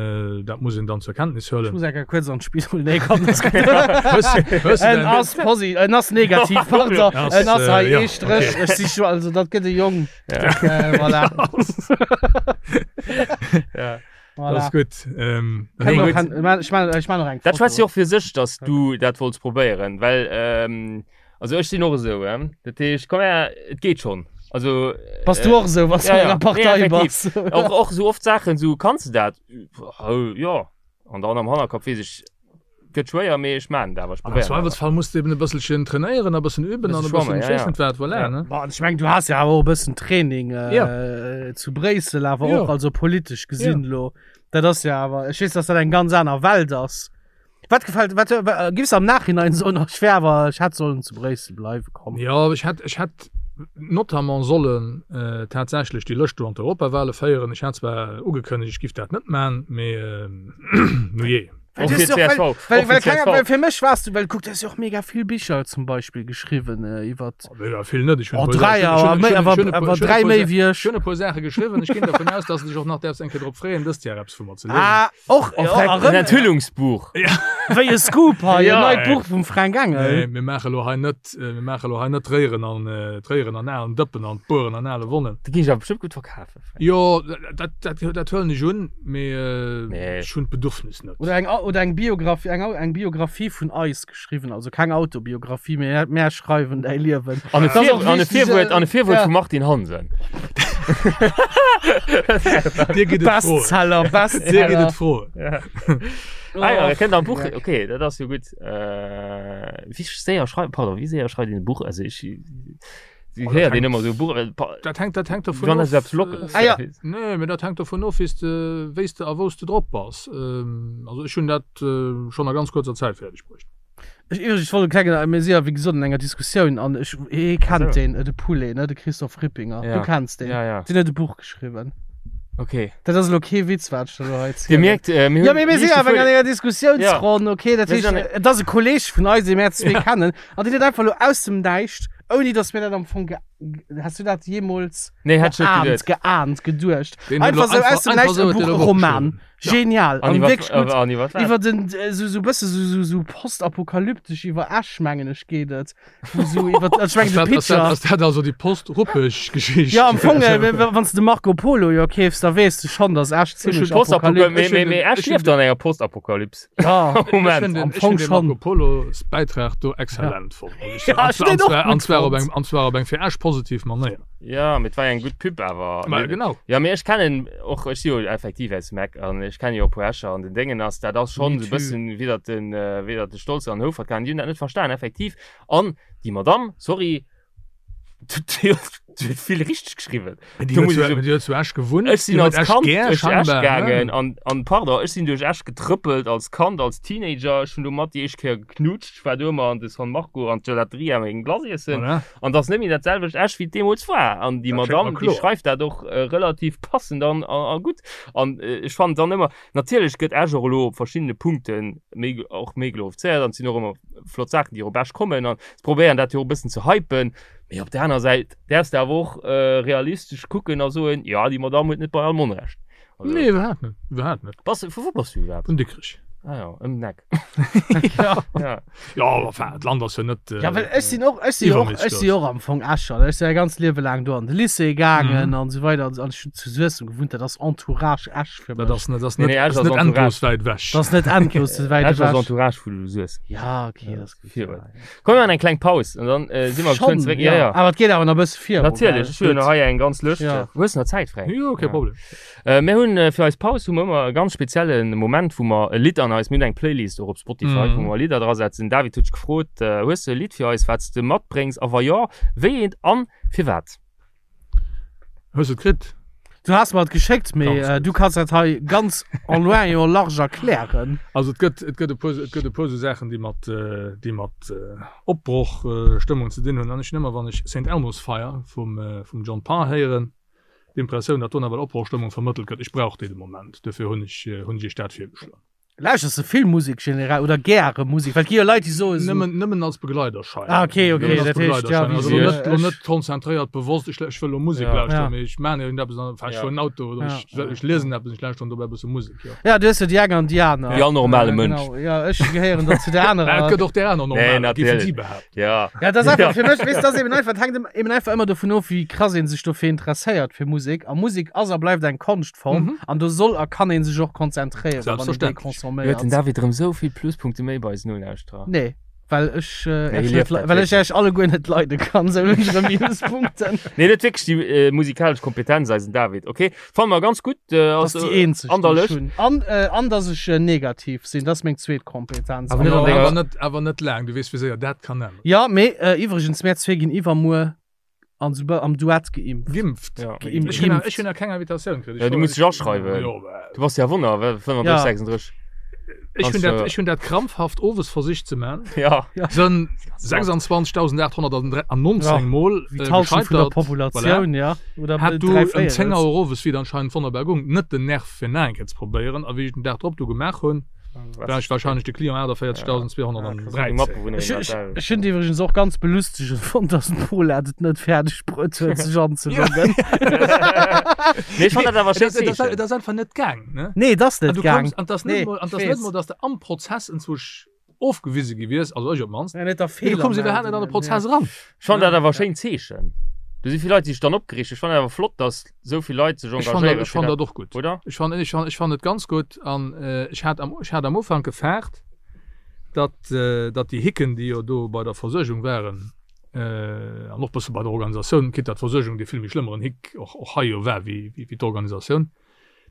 dat muss een dann zur Kenntnis Ech huelen. muss eng Kéier kuerz an d'Spidol, nee komm, dat ass gutt. En ass posi, en ass negativ, pardon, en ass hei ee Stréch, ech si scho, also dat gëtt e Jong, voilà. Ja. Voilà. Dat ass gutt. Ähm, Kann Nee, och- gutt. kann- ech man- ech man och eng Dat schwätzt Foto. jo och fir sech, dass du dat wollts probéieren, well ähm, also ech sinn och esou, ähm, dat heescht, komm her, et geet schonn. Also Bass du och esou, wann s du ja, an ja. enger Partei Nee, effektiv. bass? och, och sou oft Saachen, sou kanns du dat? Oh, jo. An dann am Hannerkapp weess ech, gëtt schwéier, mee ech maan et awer, ech Am probéieren awer. Zweifelsfall muss de eben e bësselchen trainéieren, e bëssen üben an e Bësse bëssen schwammen, ja, ech weess ja. net wat, voilà, Ja. ne? Bon, ech mengen, du has jo awer och e bëssen Training Ja. zu Bréissel, awer Jo. och, also politesch gesinn Ja. elo. Dat ass jo awer, ech weess, dass dat eng ganz aner Welt ass. Wat gefält, wat, wa, giffs am Nachhinein soen, ach, ech wär awer, ech hätt sollen zu Bréissel bleiwe komm? Jo, ech hätt, ech hätt notamment sollen tatsächlech déi Lëscht do an d'Europawale féieren. Ech hat zwar ugekënnegt, ech giff dat net man, mee nujee. Well Och du fir hast jo och- csv. well, Och well, fir well, kenger, csv. well fir mech warst du, well kuck, du hast jo och mega vill Bicher zum Beispill geschriwwen äh, iwwer Mega vill net. Ech hunn Oh, e puer dräi, Ech hunn- awer ech méi, hunn- awer, ech hunn e puer- awer ech hunn e dräi puer méi Sa- wéi ech. Ech hunn e puer Saache geschriwwen. Ech ginn dervun aus, dass de dech och nach däerfs eng Kéier drop freeën, dëst Joer eppes vu mer ze liesen. Ah, och, Oh, ja, Frank, en erëm, Enthüllungsbuch. wéi e Scoop hei, en Ja, neit ey. Buch vum Fränk Engel. Nee, mir maache lo hei net, mir maache lo hei net d'Réieren an, d'Réieren an alen Dëppen an d'Bueren an ale Wonnen. Dat géing ech awer bestëmmt gutt verkafen, Frank. Jo, dat, dat, dat huelen ech un, mee Nee. ech hunn d'Bedürfnis net. Oder eng, oder eng Biografie, eng, eng Biografie vun eis geschriwwen, also keng Autobiografie, mee mär schreiwen däi Liewen. An e Dat ass Vir, och an e wichteg, Virwuert, an e Virwuert ja. vum Martin Hansen. Dir gitt et froen. Bestseller, Dir gitt Bestseller. et froen. Ja. Ah ja, Och, kënnt am Buch, Dreck. okay, dat ass jo gutt. Äh, wéi séier schreift, pardon, wéi séier schreift een e Buch? Also ech, Oh, dat héiert een hänkt- ëmmer esou Buch, äh, pa- Dat hänkt, dat hänkt dovun Wann of. ass eppes Lockeres. Ah, ja. Nee, mee dat hänkt dovun of, wéi s de, wéi s de a wou s de drop bass. Ähm, also ech hunn dat äh, schonn a ganz kuerzer Zäit fäerdeg bruecht. Ech iwwregens, ech wollt e klengen, mir si ja wéi gesot an enger Diskussioun an ech, hie kennt Ach so. deen, de Poulet, ne, de Christophe Rippinger. Ja. Du kenns deen. Ja, ja. Deen huet e Buch geschriwwen. Okay. Dat ass elo kee Witz, wat ech der elo hei Dir zielen. mierkt, äh, mir Ja, hunn mee mir sinn liicht awer gefuer- an enger Diskussiounsronn, okay? Dat Mir heescht, sinn an- et ass e Kolleg vun eis, dee mär zwee kennen, an deen huet einfach elo aus dem Näischt, ouni datt mir dat am Fong ge-, Has du dat jeemools Nee, hätt ech net geahnt, geduet. geahnt, geduecht? Deen huet Einfach elo sou aus dem einfach Näischt sou e huet Buch, deen e e Buch Roman. geschriwwen. Ja. Genial. An An iwwer, wierklech gutt. an iwwer wat? Iwwer den, äh, sou, sou bësse sou, sou, sou postapokalyptesch iwwer Esch, mengen ech, geet et. Wou sou iwwer, ech mengen, Ass de dat, ass dat, Pitcher. ass dat also déi Post-Ruppeg-Geschicht? Ja, am Fong, äh, wann s de Marco Polo jo keefs, da weess de schonn, dass Esch zimmlech Postapokalypse. apokalyptesch Mee, Ech mee, hunn mee den- Esch ech hunn lieft an enger Postapokalypse. Ja. Ech Moment. hunn den, Am ech Fong hunn den schon. Marco Polos Bäitrag do exzellent fonnt, muss ech soen. Ja, An ech zwar, hunn an den och zwar, gutt an zwar op fonnt. eng, an zwar op eng fir Esch positiv Manéier. Ja, mee et war jo eng gutt Pub awer. Ma genau. Ja, mee ech kennen och, ech si jo effektiv aus dem Eck an ech kenne jo och e puer Escher an den Déngen ass, dat ass schonn Me esou e too. bëssen wéi datt den, wéi datt de Stolze an Houfert kamen, déi hunn dat net verstan effektiv. An déi Madamm, sorry, déi huet vill richteg geschriwwen. Déi Do huet muss zu, ech soen, déi huet zu Esch gewunnt, Ech sinn déi huet als Esch Kand gär duerch Esch scheinbar, gaangen ne? an, an pardon, ech sinn duerch Esch getrëppelt als Kand, als Teenager. Ech hunn do mat déi éischt Kéier geknutscht. Ech war do ëmmer an de San Marco an d'Gelateria meng Glace iessen. Voilà. An 't ass net méi dat selwecht Esch, wéi et deemools war. An déi Dat schéngt Madamm, mer déi kloer. schreift dat och relativ passend an, an, a gutt. An ech fannen dann ëmmer, natierlech gëtt Esch och elo op verschiddene Punkte méi, och méi glorifizéiert an et sinn och ëmmer flott Saachen, déi och op Esch kommen an se probéieren dat jo och e bëssen ze hypen. Mee op där aner Säit däerfs de awer och realistesch kucken a soen, jo, déi Madamm huet net bei allem Onrecht. Also, Nee, iwwerhaapt net, iwwerhaapt net. Bass, vu wou bass du iwwerhaapt? Vun Dikrech. Ah jo, ëm den Eck. Ja. Ja. Ja, enfin, d'Land ass jo net. Ja, well ech sinn och, ech sinn och, iwwerméisseg ech si grouss. och am Fong Escher. Ech sinn mäi ganzt Liewe laang do an de Lycée gaangen Mhm. an esou weider. An ech hunn zu Suessem gewunnt. Dat ass Entourage Esch fir Dat mech. ass net, dat ass Nee, net, nee, Esch ass ass net Entourage. endlos wäit ewech. Dat ass net endlos wäit Esch ass ewech. Entourage vu Suessem. Ja, okay, dat ass gutt. Virun. Komm, mir maachen eng kleng Paus an dann äh, si mer Schon, geschwënn zeréck. Ja, ja. Awer et geet awer nach e bësse viru. Natierlech, ech hunn Gutt. hei eng ganz Lëscht. Ja. Hues nach Zäit, Fränk? Jo, kee Ja. Problem. Äh, mir hunn äh, fir eis Paus hu mer ëmmer e ganz spezielle Moment, wou mer e Lidd an eis, mir hunn eng Playlist och op Spotify, Mhm. wou mer Lidder drasetzen. David huet dech gefrot, äh, hues de e Lidd fir eis, wat s de matbréngs a wa jo, wéi eent an firwat? Hues de et kritt? Du has mer et geschéckt, mee Ganz gutt. du kanns dat hei ganz en loin et en large erklären. Also et gëtt, et gëtt e puer, et gëtt e puer esou Saachen, déi mat, déi mat Opbrochstëmmung ze dinn hunn. An ech hunn ëmmer, wann ech Saint Elmo's Fire vum, vum John Parr héieren, d'Impressioun, datt do nawell Opbrochstëmmung vermëttelt gëtt. Ech brauch déi de Moment, duerfir hunn ech, hunn ech Iech dat virgeschloen. Lauschters de vill Musek generell oder gäre Musek? Well et gi jo Leit, déi soen esou. Nëmmen, nëmmen als Begleiderschein. Ah, okay, okay, Nëmmen als dat heescht, ja, Begleiderschein. wéi Also se, lo net, lo ech- net konzentréiert, bewosst, ech, ech wëll lo Musek Ja. lauschteren, Ja. mee ech maan iergendeppes an, ech Ja. fueren Auto oder Ja. ech, ech liesen eppes, ech lauschteren dobäi e bësse Musek, jo. Ja, du hues jo déi eng an déi aner. Wéi all normale Ja, Mënsch. Genau, ja, ech gehéieren dann zu der Mä anerer. et gëtt och där aner Nee, Normaler, géifen natierlech. si behaapten. Ja. Ja, dat ass einfach fir mech, weess, dat ass eben einfach, dat hänkt eben einfach ëmmer dovun of, wéi krass een sech dofir interesséiert fir Musek. A Musek ass a bleift eng Konschtform Mhm. an do soll a kann een sech och konzentréieren, wann een déi Selbstverständlech. Huet den consomméiert. David erëm sou vill Pluspunkte méi bei eisen Nolauschterer? Nee, well ech, äh, Nee, Iech hie net, lieft le dat well ech wierklech. Iech alleguer net leide kann, sou hunn ech erëm Minuspunkten. Nee, net wierklech déi äh, musikalesch Kompetenz, eisen David. Okay, fanne mer ganz gutt. Äh, Dat ass also, déi eenzeg, an der déi ech Lëscht. hunn. An, äh, an dass ech äh, negativ sinn, dat ass meng zweet Kompetenz. Awer net Jo, an denger- awer net, awer net laang, du weess, wéi séier dat kann änneren. Ja, mee äh, iwwregens, mär zwee ginn iwwermuer an sou am Duett geimpft. Geimpft? Ja. Geimpft. Ech hunn nach, ech hunn nach keng Invitatioun kritt. Ja, du muss dech aschreiwen. Jo, bah. Du bass ja Wonner, well 35, Ja. 36. Ech hunn dat, Kannst, ech hunn dat krampfhaft owes versicht ze man. Ja. Sënn 26.819 Ja, Mol Wéi äh, d'Halschent vun der gescheitert. Populatioun, ja. Oder Hat du dräi ëm 10 Véierels. Auer owes, wéi et anscheinend wonnerbar gung, net den Nerv fir nach eng Kéier ze probéieren. A wéi ech den Dag drop du gemaach hunn, war ech wahrscheinlech de Client 48.213. Ech, ech, ech hunn iwwregens och ganz belustegend fonnt, dass den Paulette et net fäerdeg bruet huet, sech anzeloggen. Nee, ech fand dat awer schéin Et ass- Zeechen. et ass einfach net gaang, ne? Nee, et ass An net du gaang. koums, an 't ass net Nee, mol, an 't ass ich net weess. mol, dass de am Prozess enzwousch ofgewise gi wiers, also ech op d'mannst. Ja, net der Mee du koums iwwerhaapt net an de Prozess eran. Ech fand dat awer schéin Zeechen. Do si vill Leit, déi sech dann opgereegt hunn. Ech fand awer flott, dass esou vill Leit sech Ech fand dat, engagéieren ech fand fir dat och gutt. Oder? Ech fand, ech fand, ech fand et ganz gutt an ech hat am, ech hat am Ufank gefaart, datt, datt déi Hicken, déi jo do bei der Versuergung waren, an och bësse bei der Organisatioun, quitte datt d'Versuergung dee vill méi schlëmmeren Hick och, och hei jo war wéi, wéi d'Organisatioun,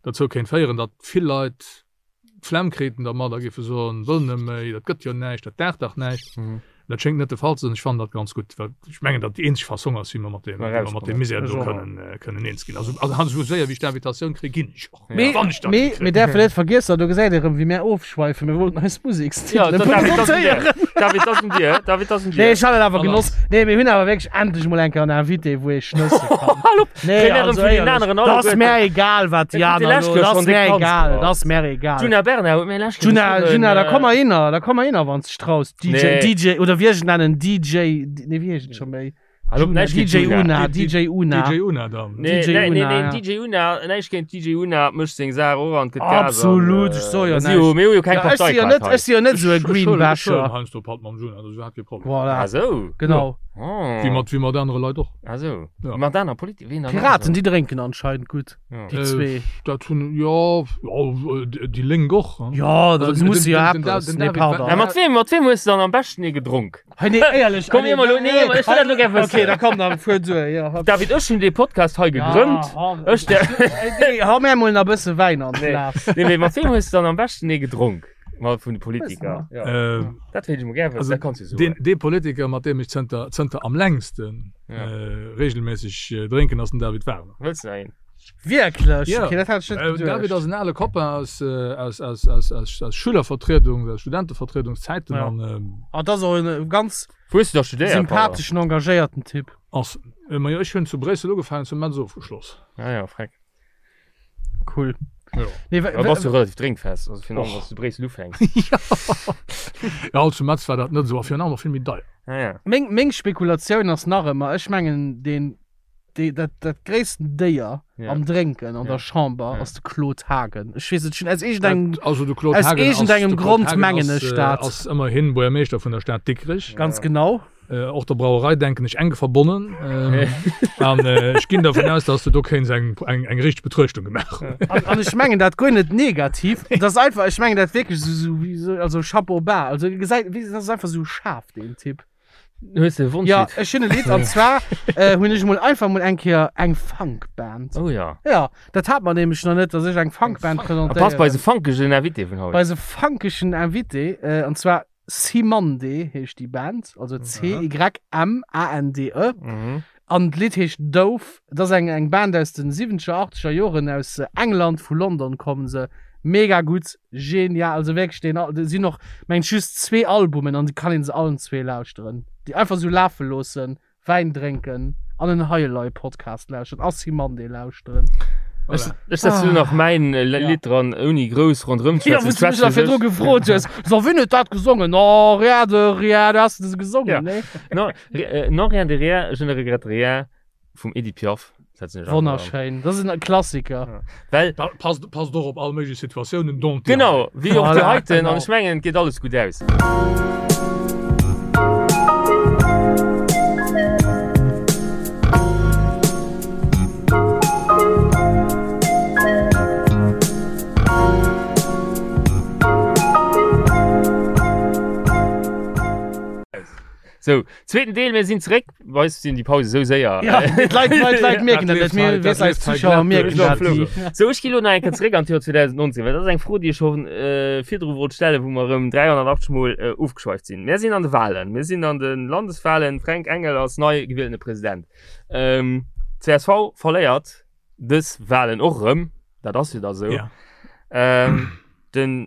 dozou kéint féieren, datt vill Leit d'Flemm kriten dermat a géife soen, wëll net méi, dat gëtt jo näischt, dat daacht dach näischt. Dat schéngt net de Fall ze sinn. Ech fannen dat ganz gutt, well ech mengen, datt déi eenzeg Fassong ass, wéi mer mat deem, wéi mer mat deem Misär do kënnen, kënnen eens ginn. Also, also esou séier wéi ech d'Invitatioun kréien, ginn ech och. Mee, Wann ech dann mee, kréien. mir däerfen net vergiessen, do gesäit ee rëm, wéi mär ofschweifen, mir wollten eis Ja, Musekstitele David, dat ass un dir. presentéieren. David, dat ass un dir. David, dat ass un Nee, dir. ech hat et awer Voilà. genoss. Nee, mir hunn awer wierklech endlech mol eng Kéier en Invité, wou ee schnësse kann. Hal op! Nee, Kréie mir erëm also vun deenen éierlech, aneren dat ass alleguerten. mär egal, wat déi Dat huet aner déi lescht elo, Kéier dat schonn ass déck mär Panz egal, gebracht. dat ass mär egal. Djuna Bernard huet mir lescht Kéier Djuna, geschriwwen, Djuna, da äh, komm mer hinner, da komm mer hinner, wann s dech traus. DJ, Nee. DJ, oder wéi ech et nennen, DJ, nee, wéi heescht et scho méi? Hal op, Djuna, näischt géint DJ Djuna. Una, DJ Una. DJ Una dann. Nee, DJ nee, nee, Una, nee, ja. DJ Una, näischt géint DJ Una, mécht seng Saach och an gëtt Gas. an, Absolut, äh, ech soe jo mir si jo- näischt. Mir hu jo keng Ja, ech si jo Parteikaart net, hei. ech si jo net esou e Ech huelen- ech huelen Greenbasher. heiansdo Patt mam Djuna, dat ass iwwerhaapt kee Problem. Voilà, Ah sou. genau. Oh. Wéi mat, wéi mat anere Leit och. Ah sou. Ja. Mat aner Politiker, wien dann nach Piraten, esou? déi drénken anscheinend gutt, Ja. déi Äh, zwee. Dat hunn, jo, jo, déi Lénk och. Ja, da Also, muss den- jo den- den eppes. Den Nee, David pardon. Ja, mat wem, mat wem hues du dann am beschten ee gedronk? Hey, nee, éierlech. Komm, mir mol lo- nee, ech wëll dat lo gär wëssen. Okay, da komm, da fuer duer. Ja, hopp. David, ech hunn dee Podcast hei gegrënnt. Ja, Ech der. Nee, hau mir emol nach e bësse Wäin an Nee. d'Glas. Nee, mee mat wem hues du dann am beschten ee gedronk? Mal vun de Politiker. Ja. Äh, Dat wéilt ech mol gär wëssen, also dat kanns du soen. deen, dee Politiker, mat deem ech zënter, zënter am längsten Ja. äh, regelméisseg äh, drénken, ass den David Wagner. Wëlls du nach een? Wierklech? Ja. Okay, dat hat ech net Äh, David geduecht. ass en ale Copain aus, äh, aus, aus, aus, aus, aus Schülervertriedung, aus Studentevertriedungszäiten Ja. an ähm, Ah, dat ass och en ganz Wou hues du da studéiert? sympatheschen, engagéierten Typ. ass, äh, ma jo, ech hunn zu Bréissel ugefaangen, zu Metz ofgeschloss. Ah ja, freck. Cool. Ja. Nee, Da bass du relativ drénkfest, also virun allem, wann s du zu Bréissel ufänks. Ja, also zu Metz war dat net esou a virun allem och vill méi deier. Ah ja. Meng, meng Spekulatioun ass nach ëmmer, ech mengen, deen, dee, dat, dat gréissten Déier Ja. am Drénken an Ja. der Chamber Ja. ass de Claude Haagen. Ech weess et schon, aus iergendengem, Dat, also de Claude aus Haagen ass, iergendengem de Claude Grond Haagen mengen ass, ech äh, dat. ass ëmmerhin Buergermeeschter vun der Stad Dikrech. Ganz genau. Äh, och der Brauerei denken ech enk verbonnen. Ähm, an äh, ech ginn davon aus, dass du do kéints eng, eng, eng richteg Betruechtung gemaach hunn. An, an ech mengen dat guer net negativ. Dat ass einfach, ech mengen dat wierklech esou, esou, wéi esou, also Chapeau bas. Also gesäit, wéi, dat ass einfach esou schaarf, deen Typ. Hues de e Wonschlidd? Ja, ech hunn e Lidd an zwar äh, hunn ech mol einfach mol eng Kéier eng Funkband. Oh ja. Ja, dat hat mer nämlech nach net, dass ech eng Funkband A passt bei presentéieren. eise funkegen Invité vun haut. Bei eise funkegen Invité, äh, an zwar Cymande heescht déi Band, also C-Y-M-A-N-D-E. Mhm. An d'Lidd heescht Dove. Et ass eng eng Band aus den siwwenzeger, achteger Joren aus England, vu London kommen se. Mega gutt, genial, also wierklech deen Al, et sinn och mengen ech just zwee Albumen an déi kann een se allen zwee lauschteren. Déi einfach sou lafe loossen, Wäin drénken an en Hei Elei Podcast lauschteren a Cymande lauschteren. Ech, ech setze lo nach mäin Lidd dran, ouni grouss ronderëm ze Ja, wou s du mech nach virdru gefrot hues, so wien huet dat gesongen? Oh, rien de rien, du has se gesongen, Ja. nee? Non, non rien de rien, je ne regrette rien vum Edith Piaf. Setzen ech einfach dran. Wonnerschéin, dat ass en Klassiker. Ja. Well, Da passt, passt och op all méiglech Situatiounen, dont déi hei. genau, wéi och déi Voilà, heiten, an genau. ech mengen, et geet alles gutt aus. Sou, zweeten Deel, mir sinn zeréck. Bei eis sinn déi Pause sou séier. Ja, d'Leit, d'Leit, d'Leit mierken dat net. Mir, weess, eis Zuschauer mierken dat ni. Sou, ech gi lo nach eng Kéier zeréck an d'Joer 2019, well dat ass eng Fro, déi ech scho virdru wollt stellen, wou mer erëm 380 Mol ofgeschweift sinn. Mir sinn an de Wahlen, mir sinn an de Landeswahlen. Fränk Engel ass nei gewieltene President. Csv verléiert dës Wahlen och erëm, dat ass jo da sou. Den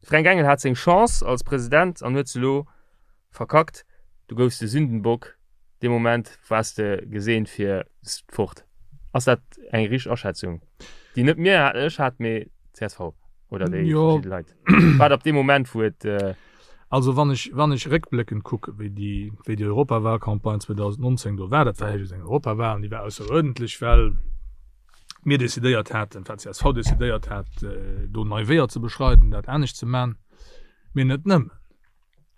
Fränk Engel hat seng Chance als President an huet se elo verkackt. Du goufs de Sündenbock, dee Moment waars de geseent fir fort. Ass dat eng richteg Aschätzung, déi net mir, ech hat, mee csv oder déi verschidde Leit? Wat ab deem Moment wou et. Also wann ech, wann ech réckbléckend kucke wéi déi, wéi déi Europawahlcampagne 2019 do war, dat war jo just eng Europawahl an déi war ausseruerdentlech, well mir decidéiert haten, enfin csv decidéiert hat, do nei Weeër ze beschreiden, dat anescht ze man. Mee net nëmmen.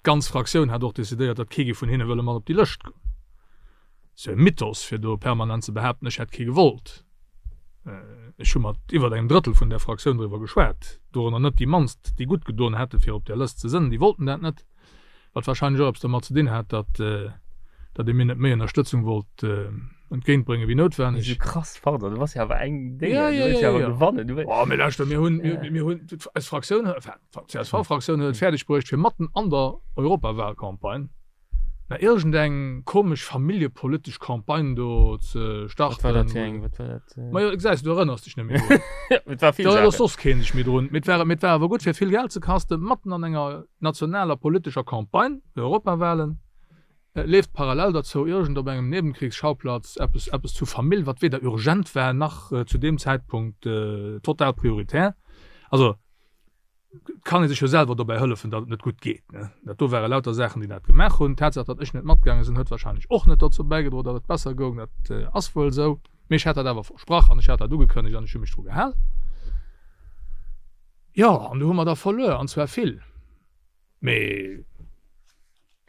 D'ganz Fraktioun hat och decidéiert, datt kee géif vun hinne wëlle mat op déi Lëscht goen. Ass jo e Mythos, fir do permanent ze behaapten, ech hätt kee gewollt. Ech hu mat iwwert engem Drëttel vun där Fraktioun driwwer geschwat, dorënner net déi mannst, déi gutt gedoen hätte fir op där Lëscht ze sënn, déi wollten dat net. Wat wahrscheinlech och eppes domat ze dinn hat, datt datt ee mir net méi Ënnerstëtzung wollt entgéintbréngen wéi noutwenneg. Esou krass, pardon, du bass jo awer eng Dénger, Ja, du ja, wëlls jo ja, awer ja. gewannen, du wëlls. Oh, mee lauschter, mir hunn, mir, mir hunn, eis Fraktioun, enfin, d'CSV-Fraktioun huet et fäerdeg bruecht, fir matten an der Europawahlcampagne na iergendeng komesch familljepolitesch Campagne do ze Wat war dat starten. fir eng, wat war dat? Majo, gesäis du, du erënners dech net méi drun. Et war vill Da erënnert Saachen. soss keen sech méi drun. Mee et war, mee et war awer gutt fir vill Geld ze kasten, matten an enger nationaler politescher Campagne, de Europawahlen, leeft parallel derzou iergend op engem Nebenkriegsschauplatz eppes, eppes zu Famill, wat weder urgent war nach zu deem Zäitpunkt total prioritär. Also, et kann ee sech jo selwer dobäi hëllefen, datt et net gutt geet. Dat do ware lauter Saachen, déi dat gemaach hunn. D'Tatsaach, datt ech net matgaange sinn, huet wahrscheinlech och net dozou bäigedroen, datt et besser goung. Dat ass wuel esou. Mee ech hat dat awer versprach an ech hat dat ugekënnegt an ech hu mech dru gehal. Jo, an do hu mer da verluer, an zwar vill. Mee.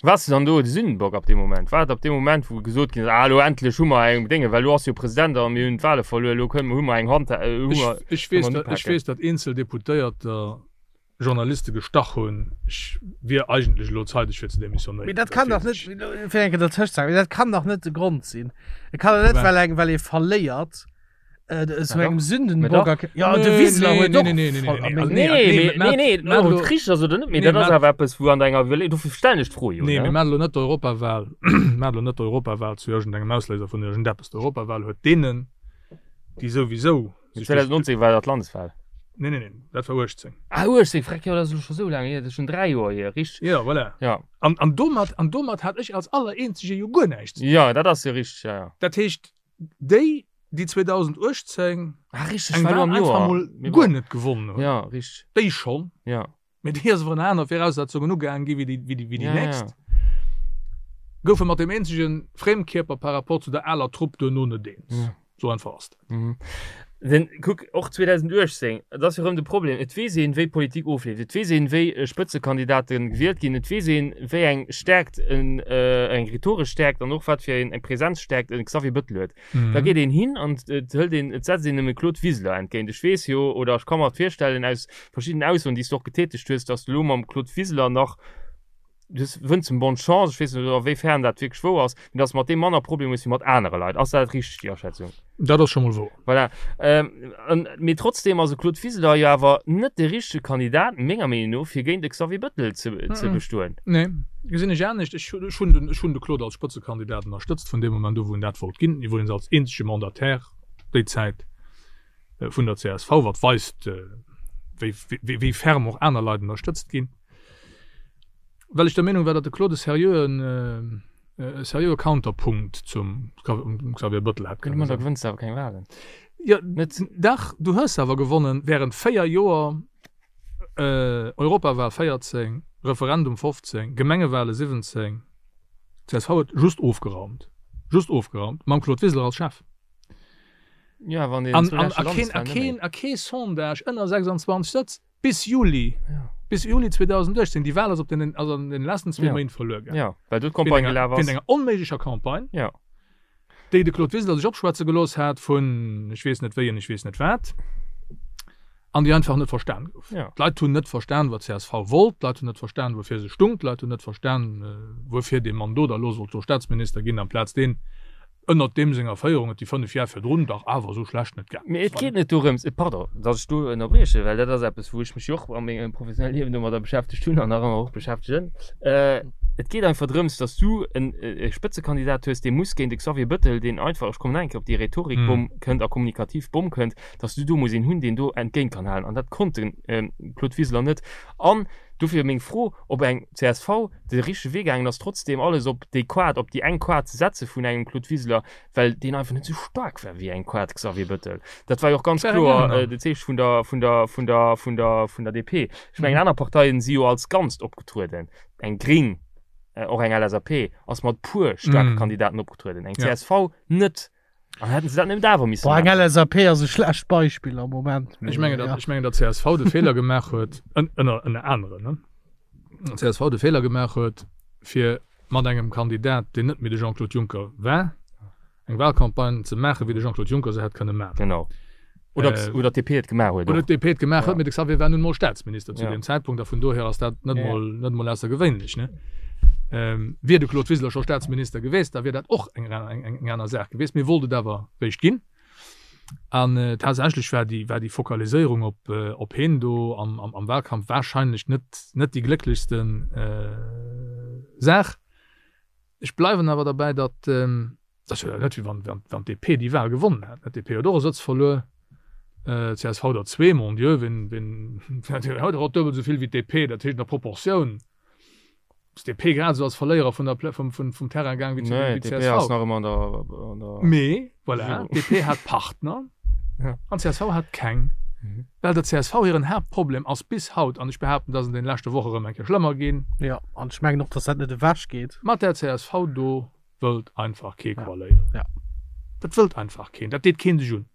Waars de dann do de Sündenbock ab deem Moment? War et ab deem Moment, wou gesot ginn ass, ah elo endlech hu mer eng Dénge, well elo ass jo President a mir hunn d'Wahle verluer, elo kënnen, hu mer eng Hand, hu mer, Ech, ech kënne weess, mer datt, ech upaken? weess, datt eenzel Deputéierter Journaliste gestach hunn, ech wier eigentlech elo zeideg fir ze Mee demissionéieren. dat Dat kann dach weess net, ech. fir eng Kéier dertëscht ze haken, mee dat kann dach net de Grond sinn. Et kann dach net, Firwat? well eng, well ee verléiert, zu engem Mee Sündenbock dach. erk Ja, de Nee, Wiseler nee, huet nee, och nee, nee, nee, voll nee, a also meng nee, Nee, nee, mee, nee, nee, mä ob elo- et richteg ass oder net, mee Nee, dat ass mä- awer eppes, wou an denger Iwwerleeung, dofir stellen ech d'Fro jo, Nee, ne? mir maachen elo net d'Europawahl, maachen elo net d'Europawahl zu iergendengem Ausléiser vun iergendeppes. D'Europawahl huet deenen, déi souwisou Mee sech duerch 2019 war dat d'Landeswahl. Nee, nee, nee, dat war 18. Ah, 18, freck, jo, dat ass elo scho sou laang hier, dat ass schon 3 Joer hier, richteg? Jo, voilà. Ja. An, an domat, an domat hat ech als Allereenzege jo guer näischt ze dinn. Ja, dat ass jo richteg, ja, ja. Dat heescht, déi, déi 2018 Ah, richteg, eng war Wahl am einfach Joer. mol Mee guer bon. net gewonnen hunn, Ja, richteg. déi schonn, Ja. mee déi ass awer ënner aner Viraussetzungen ugaangen gi wéi déi, wéi déi, wéi déi Ja, nächst, ja. goufe mat deem eenzege Frémkierper par rapport zu der aler Trupp duerno net eens. Ja. Sou einfach ass dat. Mhm. Denn kuck, och 2018, et ass jo erëm de Problem, et weess een, wéi Politik ofleeft, et weess een, wéi Spëtzekandidate gewielt ginn, et weess een, wéi eng Stärkt en, eng rhetoresch Stärkt an och wat fir eng Präsenzstärkt e Xavier Bettel huet. Da geet een hin an et hëlt een, et setzt een em e Claude Wiseler entgéint. Ech weess jo, oder ech ka mer et virstellen aus verschiddenen Aussoen, déi s de och getätegt hues, datt s de elo mam Claude Wiseler nach. Du wënns em bonne Chance, ech weess net a wéi fern dat wierklech wouer ass, mee dass de mat deem manner Problemer hues wéi mat anere Leit. Ass dat richteg, déi Aschätzung? Dat ass scho mol wouer. Voilà. Ähm, mee trotzdem ass e Claude Wiseler jo awer net de richtege Kandidat, menger Meenung no, fir géint e Xavier Bettel ze, ze bestoen. Nee, gesinn ech anescht. Ech, ech hunn den, ech hunn de Claude als Spëtzekandidat ënnerstëtzt vun deem Moment u wou en dat wollt ginn, iwwregens als eenzege Mandataire déi Zäit vun der csv, wat weist, wéi, wéi, wéi ferm och aner Leit ënnerstëtzt ginn. Well ech der Meenung war, datt de Claude e seriöen, e seriöe Counterpunkt zum Xavier Bettel hätt kënne sinn. Da gewënns de awer keng Wahlen. Jo, net, dach, du hues awer gewonnen während 4 Joer, Europawal 14, Referendum 15, Gemengewale 17. D'CSV huet just ofgeraumt, just ofgeraumt, mam Claude Wiseler als Chef. Ja, wann deen an, a keen, a keen, a kee Sondage ënner 26 Sëtz. Bis Juli, bis Juli 2018, déi Wahl ass op den, ass an den letzten zwee Méint verluer gaangen. Ja, well do d'Campagne gelaf ass. Wéint enger onméiglecher Campagne, ja. déi de Claude Wiseler sech opschwätze gelooss hat vun ech weess net wéi an ech weess net wat, an déi einfach net verstan gouf. Ja. D'Leit hunn net verstan, wat csv wollt, d'Leit hunn net verstan, woufir se stung, d'Leit hunn net verstan, wuerfir dee Mann do da lo sollt do Staatsminister ginn amplaz deen, ënnert deem senger Féierung et déi 5 Jar virdrun dach awer esou schlecht net gaangen Mee et geet net dorëms, pardon, datt ech do ënnerbriechen, well dat ass eppes, wou ech mech jo och a mengem professionelle Liewen domadder beschäftegt hunn an nach ëmmer och beschäftegen. Et geet einfach drëms, datt s du en e Spëtzekandidat hues, dee muss géint e Xavier Bettel, deen einfach, ech kommen nach eng Kéier op déi Rhetorikbomm, kënnt a kommunikativ Bomm kënnt, datt s du do muss een hunn, deen do entgéint kann halen. An dat konnt de Claude Wiseler net. An dofir meng Fro, ob eng csv de richtege Wee gaangen ass, trotzdem alles op déi Quad, op déi eng Quad ze setze vun engem Claude Wiseler, well deen einfach net esou staark war wéi eng Quad Xavier Bettel. Dat war jo och ganz kloer de Zeeche vun der, vun der, vun der, vun der, vun der DP. Ech mengen, aner Parteien si jo als Ganzt opgetrueden. Eng Gring, och eng LSAP ass mat puer staarke Kandidaten opgetrueden, eng csv net. An hätten se dat net awer missen Boah, eng LSAP ass e schlecht Beispill am Moment. Ech mengen, datt, ech mengen, datt csv de Feeler gemaach huet, ënner, ënner aneren, ne, csv de Feeler gemaach huet, fir mat engem Kandidat, deen net méi de Jean-Claude Juncker war, eng Wahlcampagne ze maachen, wéi de Jean-Claude Juncker se hätt kënne maachen. Genau. Oder, äh, oder d'DP et gemaach huet. Oder d'DP et gemaach huet, mee de Xavier war nun mol Staatsminister zu ja. deem Zäitpunkt a vun dohier ass dat net ja. mol net mol aussergewéinlech ne. Ähm, wier de Claude Wiseler scho Staatsminister geweest, da wier dat och eng, eng, eng, eng aner Saach geweest. Mee wollt et awer réischt ginn. An äh, tatsächlech war déi, war déi Fokaliséierung op, äh, op heen do am, am, am Wahlkampf wahrscheinlech net, net déi glécklechsten äh, Saach. Ech bleiwen awer derbäi, datt ähm, Dat ass jo net, wéi wann, wann d'DP déi Wahl gewonnen hätt. D'DP huet och e Sëtz verluer, d'CSV der zwee, mon Dieu, wien, wien, huet och duebel esou vill wéi d'DP. Dat heescht, an der Proportioun ass d'DP grad esou als Verléierer vun der, vum, vum, vum Terrain gaang wéi d'CSV. Nee, d'DP ass nach ëmmer an der, an der. Mee voilà, d'DP hat Partner an d'CSV hat keng. Well der csv hiren Haaptproblem ass bis haut, an ech behaapten, dat ass an deene leschte Woche erëm eng Kéier schlëmmer ginn. Jo, an ech mengen och, datt dat net ewechgeet. Mat der csv do wëllt einfach kee koaléieren. Ja. Dat wëllt einfach keen. Dat deet keen sech un.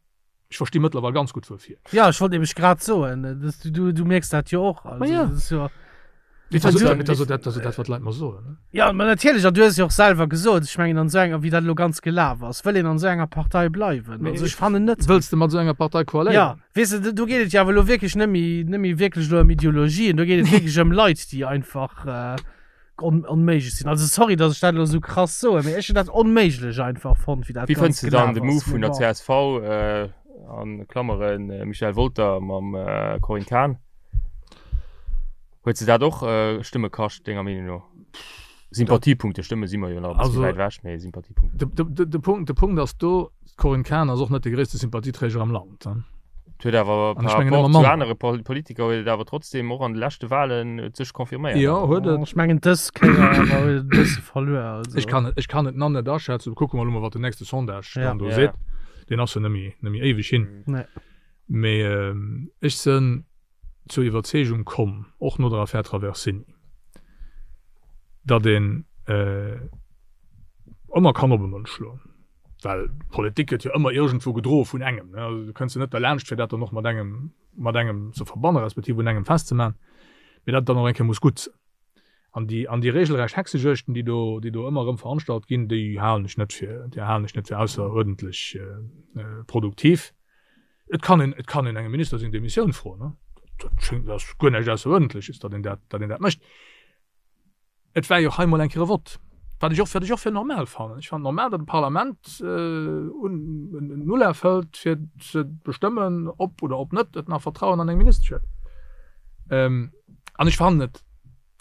Ech versti mëttlerweil ganz gutt wuerfir. Ja, ech wollt nämlech grad soen, dass du, du, du mierks dat jo och. Also, ja. das ist jo, Et ass jo dat, dat, dat, dat, wat d'Leit mer soen. Ne? Ja, ma natierlech, an du hues jo och selwer gesot, ech mengen an esou enger, wéi dat elo ganz gelaf ass, wëll een an esou enger Partei bleiwen? Mee Also ech fannen net. Wëlls de mat esou enger Partei koaléieren? Ja, weess de, do geet et jo awer elo wierklech net méi, net méi wierklech elo ëm Ideologien, do geet et wierklech ëm Leit, déi einfach, äh, on, onméiglech sinn. Also sorry, dass ech dat elo sou krass soen, mee ech hunn dat onméiglech einfach fonnt, wéi dat Wéi fënns Ganzt de dann gelaf de ass. Move Mee vun der bon. csv, äh, an Klammeren äh, Michel Wolter mam äh, Corinne Cahen? Huet se dat och äh, Stëmme kascht, denger Meenung no? Sympathiepunkte, Stëmme si mer jo nach e bëssi Also, wäit ewech, mee Sympathiepunkte. De, de, de, de Punkt, de Punkt ass do, D'Corinne Cahen ass och net de gréisste Sympathieträger am Land. Et huet awer An ech par mengen rapport ëmmer zu manner. anere Pol Politiker huet et awer trotzdem och an de leschte Wahlen et sech confirméiert. Jo, huet et. Ech mengen dës Kéier awer huet et e bësse verluer. Also. Ech kann et, ech kann et nach net aschätzen. Kucke mer elo mol, wat den nächste Sondage Ja. dann do Ja. seet. Deen ass jo net méi, net méi éiweg hin. Nee. Mee ech sënn zur Iwwerzeegung komm, och no der Affär Traversini, datt een ëmmer kann op e Mënsch schloen. Well Politik gëtt jo ëmmer iergendwou gedroe vun engem. Also du kënns jo net derlaanscht, fir dat dann och mat engem, mat engem ze verbannen, respektiv un engem festzemaachen, mee dat et dann och eng Kéier muss gutt sinn. An déi, an déi regelrecht Hexejuegten, déi do, déi do ëmmer erëm veranstalt ginn, déi halen ech net fir, déi halen ech net fir ausseruerdentlech produktiv. Et kann een, et kann een engem Minister seng Demissioun froen, ne? Dat schéngt, dat ass guer näischt Ausseruerdentleches, datt een dat, datt een dat mécht. Et war jo och hei mol eng Kéier e Vott, wat ech och, wat ech och fir normal fannen. Ech fannen normal, datt e Parlament en Ulaf hëlt, fir ze bestëmmen, ob oder ob net et nach Vertrauen an eng Ministesch huet. An ech fannen et,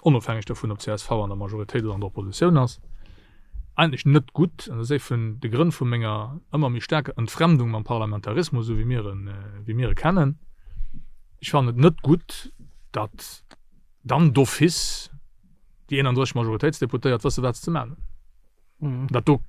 onofhängeg dovun, ob csv an der Majoritéit oder an der Oppositioun ass, eigentlech net gutt, an dat ass ee vun de Grënn vu menger ëmmer méi staarker Entfremdung mam Parlamentarismus, esou wéi mir en, wéi mir e kennen, ech fannen et net gutt, datt dann d'office déi 31 Majoritéitsdeputéiert wësse wat se ze man hunn. Dat do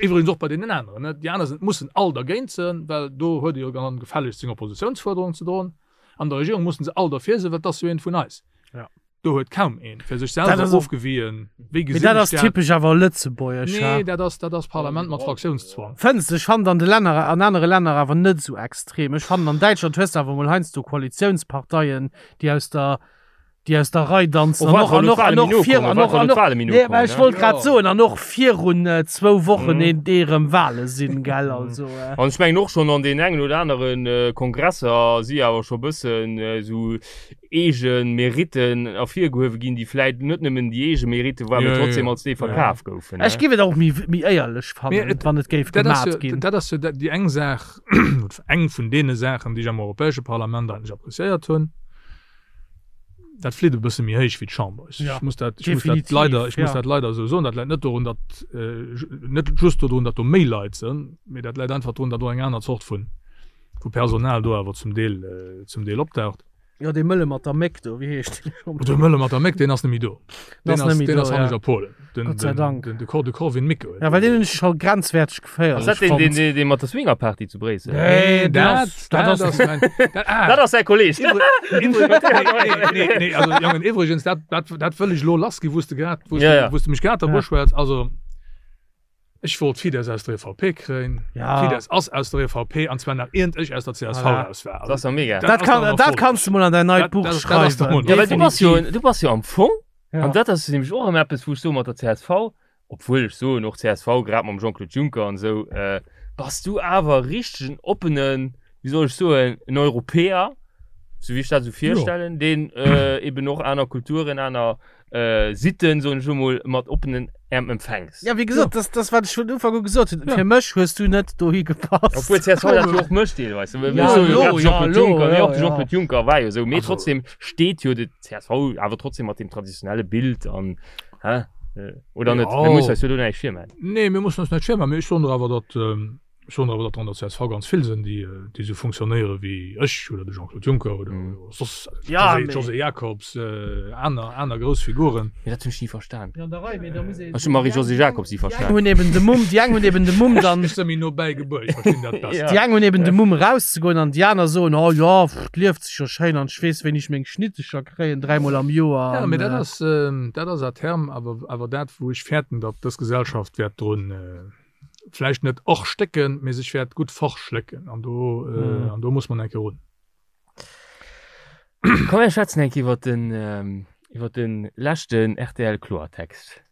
iwwregens och bei deenen aneren, ne? Déi aner sinn, mussen all dergéint sinn, well do huet e jo dann gefällegst seng Oppositiounsfuerderung ze droen. An der Regierung mussen se all derfir sinn, well 't ass jo een vun eis. Ja. Do huet kaum een fir sech Dat selwer ass och- ofgewien, wéi Mee gesinn dat ech ass dat. typesch awer lëtzebuergesch, ha? Nee, dat ass, dat ass Parlament mat Fraktiounszwang. Fënns de? Ech fannen an de Länner, an anere Länner awer net esou extrem. Ech fannen an Däitschland hues de awer mol heiansdo Koalitiounsparteien, déi aus der déi aus der Rei danzen Oh, an och wat an och an wa och lo vir d'Wale an méi och nokommen, an wat och wa lo d'Wale méi nee, mä nokommen, ech ne? wollt grad Jo. soen an och virun äh, zwou Wochen mm. een dee rëm Wale sinn gell also äh. An ech mengen och schonn an den engen oder aneren äh, Kongresser si awer scho bëssen äh, sou eege Meritten ervirgehuewe ginn, déi vläit net nëmmen déi eege Meritte waren, Ja, mee ja, trotzdem ja. als déi verkaf goufen. Ech Ne? géif et och méi méi éierlech Mee fannen, et, wann et géif dat ass gemat jo, ginn. dat ass jo déi eng Saach, eng vun deene Saachen, déi ech am Europäesche Parlament eigentlech appréciéiert hunn. Dat flitt e bësse méi héich wéi d'Chamber. Ech Ja, muss dat, ech muss dat definitiv, leider, ech muss ja. dat leider esou soen. Dat läit net dorun, datt, net just dodrun, datt do méi Leit sinn, mee dat läit einfach drun, datt och eng aner Zort vun, vu Personal do awer zum Deel, zum Deel opdaucht. Jo, dee Mëlle mat der Méck do, wéi heescht deen scho? De Mëlle mat der Méck, deen ass net méi do. Deen Deen ass ass, net méi deen do, ass hannescht ja. a Polen. Den, Gott sei den, Dank. den, de Cor, de Corwin Mikke huet Ja, well deen. deen hunn ech scho grenzwäerteg Ass geféierlech dat deen, deen, fonnt. deen, deen mat der Swingerparty zu Bréissel? Nee, Nee, deen dat, ass, dat dat ass. ass mein, dat, ah. Dat ass säi Kolleg. Iwwre, iwwre, nee, nee, nee, nee, also Jongen, iwwregens, dat, dat, dat wëll ech elo lass gi, wou s de grad, wou s Ja, de, ja. wou s de mech grad Ja. derbuschwätz. Also, Ech wollt Fidesz aus der EVP kréien. Ja. Fidesz ass aus der EVP, an zwar nach iernd ech aus der CSV Voilà. raus war. Dat ass doch mega. Dat ass kann, doch dat kanns du mol an dein neit Dat- Buch dat- dat ass doch schreiwen. mol Ja, well du bass jo, Definitiv. du bass jo am Fong, Ja. an dat ass nämlech och ëmmer eppes, wou ech soe mat der csv, obwuel ech soen och csv, grad mam Jean-Claude Juncker an esou, äh, bass du awer richtegen oppenen, wéi soll ech soen, en Europäer, sou wéi ech dat esou virstellen, deen äh, eben och aner Kulturen, aner äh, Sitten, soen ech emol, mat oppenen Äerm empfänks. Ja, wéi gesot, das, das wat ech vun Ufank u gesot hunn. Fir mech hues du net dohi gepasst. Obwuel csv dat jo och mécht deelweis. Ja, Ja, so, lo, grad ja, Jean-Claude lo, Juncker, mee ja, och de ja. Jean-Claude Juncker war jo esou. Mee Also- trotzdem steet jo de csv awer trotzdem mat dem traditionelle Bild an, hä? Äh, Oder net? Ja. Mir mussen eis jo do näischt virmaachen. Nee, mir mussen eis näischt virmaachen, mee ech soen der awer, datt, Ech soen awer, datt der an der csv ganz vill sinn, déi esou funktionéiere wéi ech oder de Jean-Claude Juncker oder soss d'Josée Jacobs, aner, aner grouss Figuren. Mee dat hunn ech ni verstan. Jo, an der Rei, mee da muss een. Ech hu Marie-Josée Jacobs ni Déi eng verstan. hunn eben de Mumm, déi eng hunn eben de Mumm dann. Ech si méi no bäi gebuer, ech verstinn dat besser. Déi eng hunn eben de Mumm erauszegoen an déi aner soen, oh jo, pff, 't lieft sech jo schéin an ech weess, wéini ech meng Schnittecher kréien, dräimol am Joer. Jo, mee dat An. ass, dat ass à terme awer, awer dat, wou ech fäerten, datt dës Gesellschaft wäert drun, vläicht net erstécken, mee sech wäert gutt verschlécken an do mm. an do muss man enke run. Komm mir schwätzen enke iwwer den ähm, iwwer den leschten RTL Kloertext.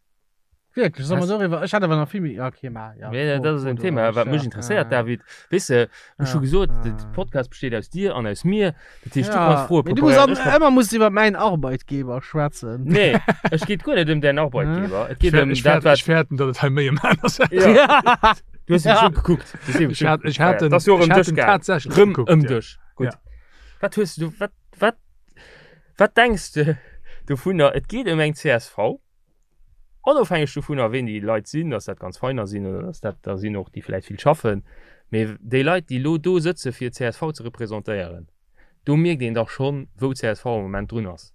Wierklech, soll mer doriwwer? Ech hat awer nach vill méi. Okay, ma ja. Nee, dat ass en Thema, wat mech interesséiert, David. Weess de, ech hu gesot, de Podcast besteet aus dir an aus mir. Dat heescht, du kanns Froe Mee du muss an, ëmmer muss du iwwer mäin Arbeitgeber schwätzen. Nee, ech geet guer net ëm däin Arbeitgeber. Et geet ëm Ech dat, wat. Ech fäerten, datt et hei méi ëm aner Saachen Ja. Du hues mech ugekuckt. Du hues Ech hat, ech hat Dat ass jo och ech ëm hat dech en gaang. tatsächlech Rëm gekuckt, ëm ja. dech. Gutt. Ja. Wat hues du, wat, wat, wat denks de dovunner? Et geet ëm eng csv. Onofhängeg dovunner, ween déi Leit sinn, dass dat ganz feiner sinn oder dass dat der sinn och, déi vläicht vill schaffen, mee déi Leit, déi elo do sëtze fir csv ze representéieren, do mierkt een dach schonn, wou csv am Moment drun ass,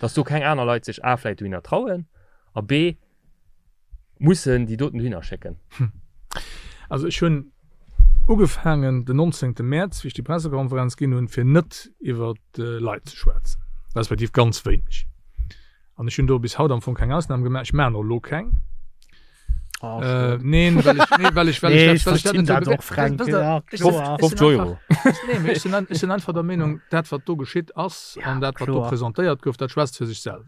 dass do keng aner Leit sech a vläicht dohinner trauen a b mussen déi doten dohinner schécken. Also ech hunn ugefaangen den 19. Mäerz, wéi ech déi Pressekonferenz ginn hunn, fir net iwwer Leit ze schwätzen, respektiv ganz wéineg. An ech hunn do bis haut am Fong keng Ausnam gemaach. Ech maachen och elo keng. Oh, Äh, neen, well ech, nee, well ech, well Nee, ech ech dat, well ech dat verstinn net dat och, Fränk. Wësst der, Ja, ech kloer. sinn- ech 50 sinn Euro. einfach, nee, mee ech sinn, ech sinn einfach der Meenung, dat wat do geschitt ass Ja, an dat wat do kloer. presentéiert gouf, dat schwätzt fir sech selwer.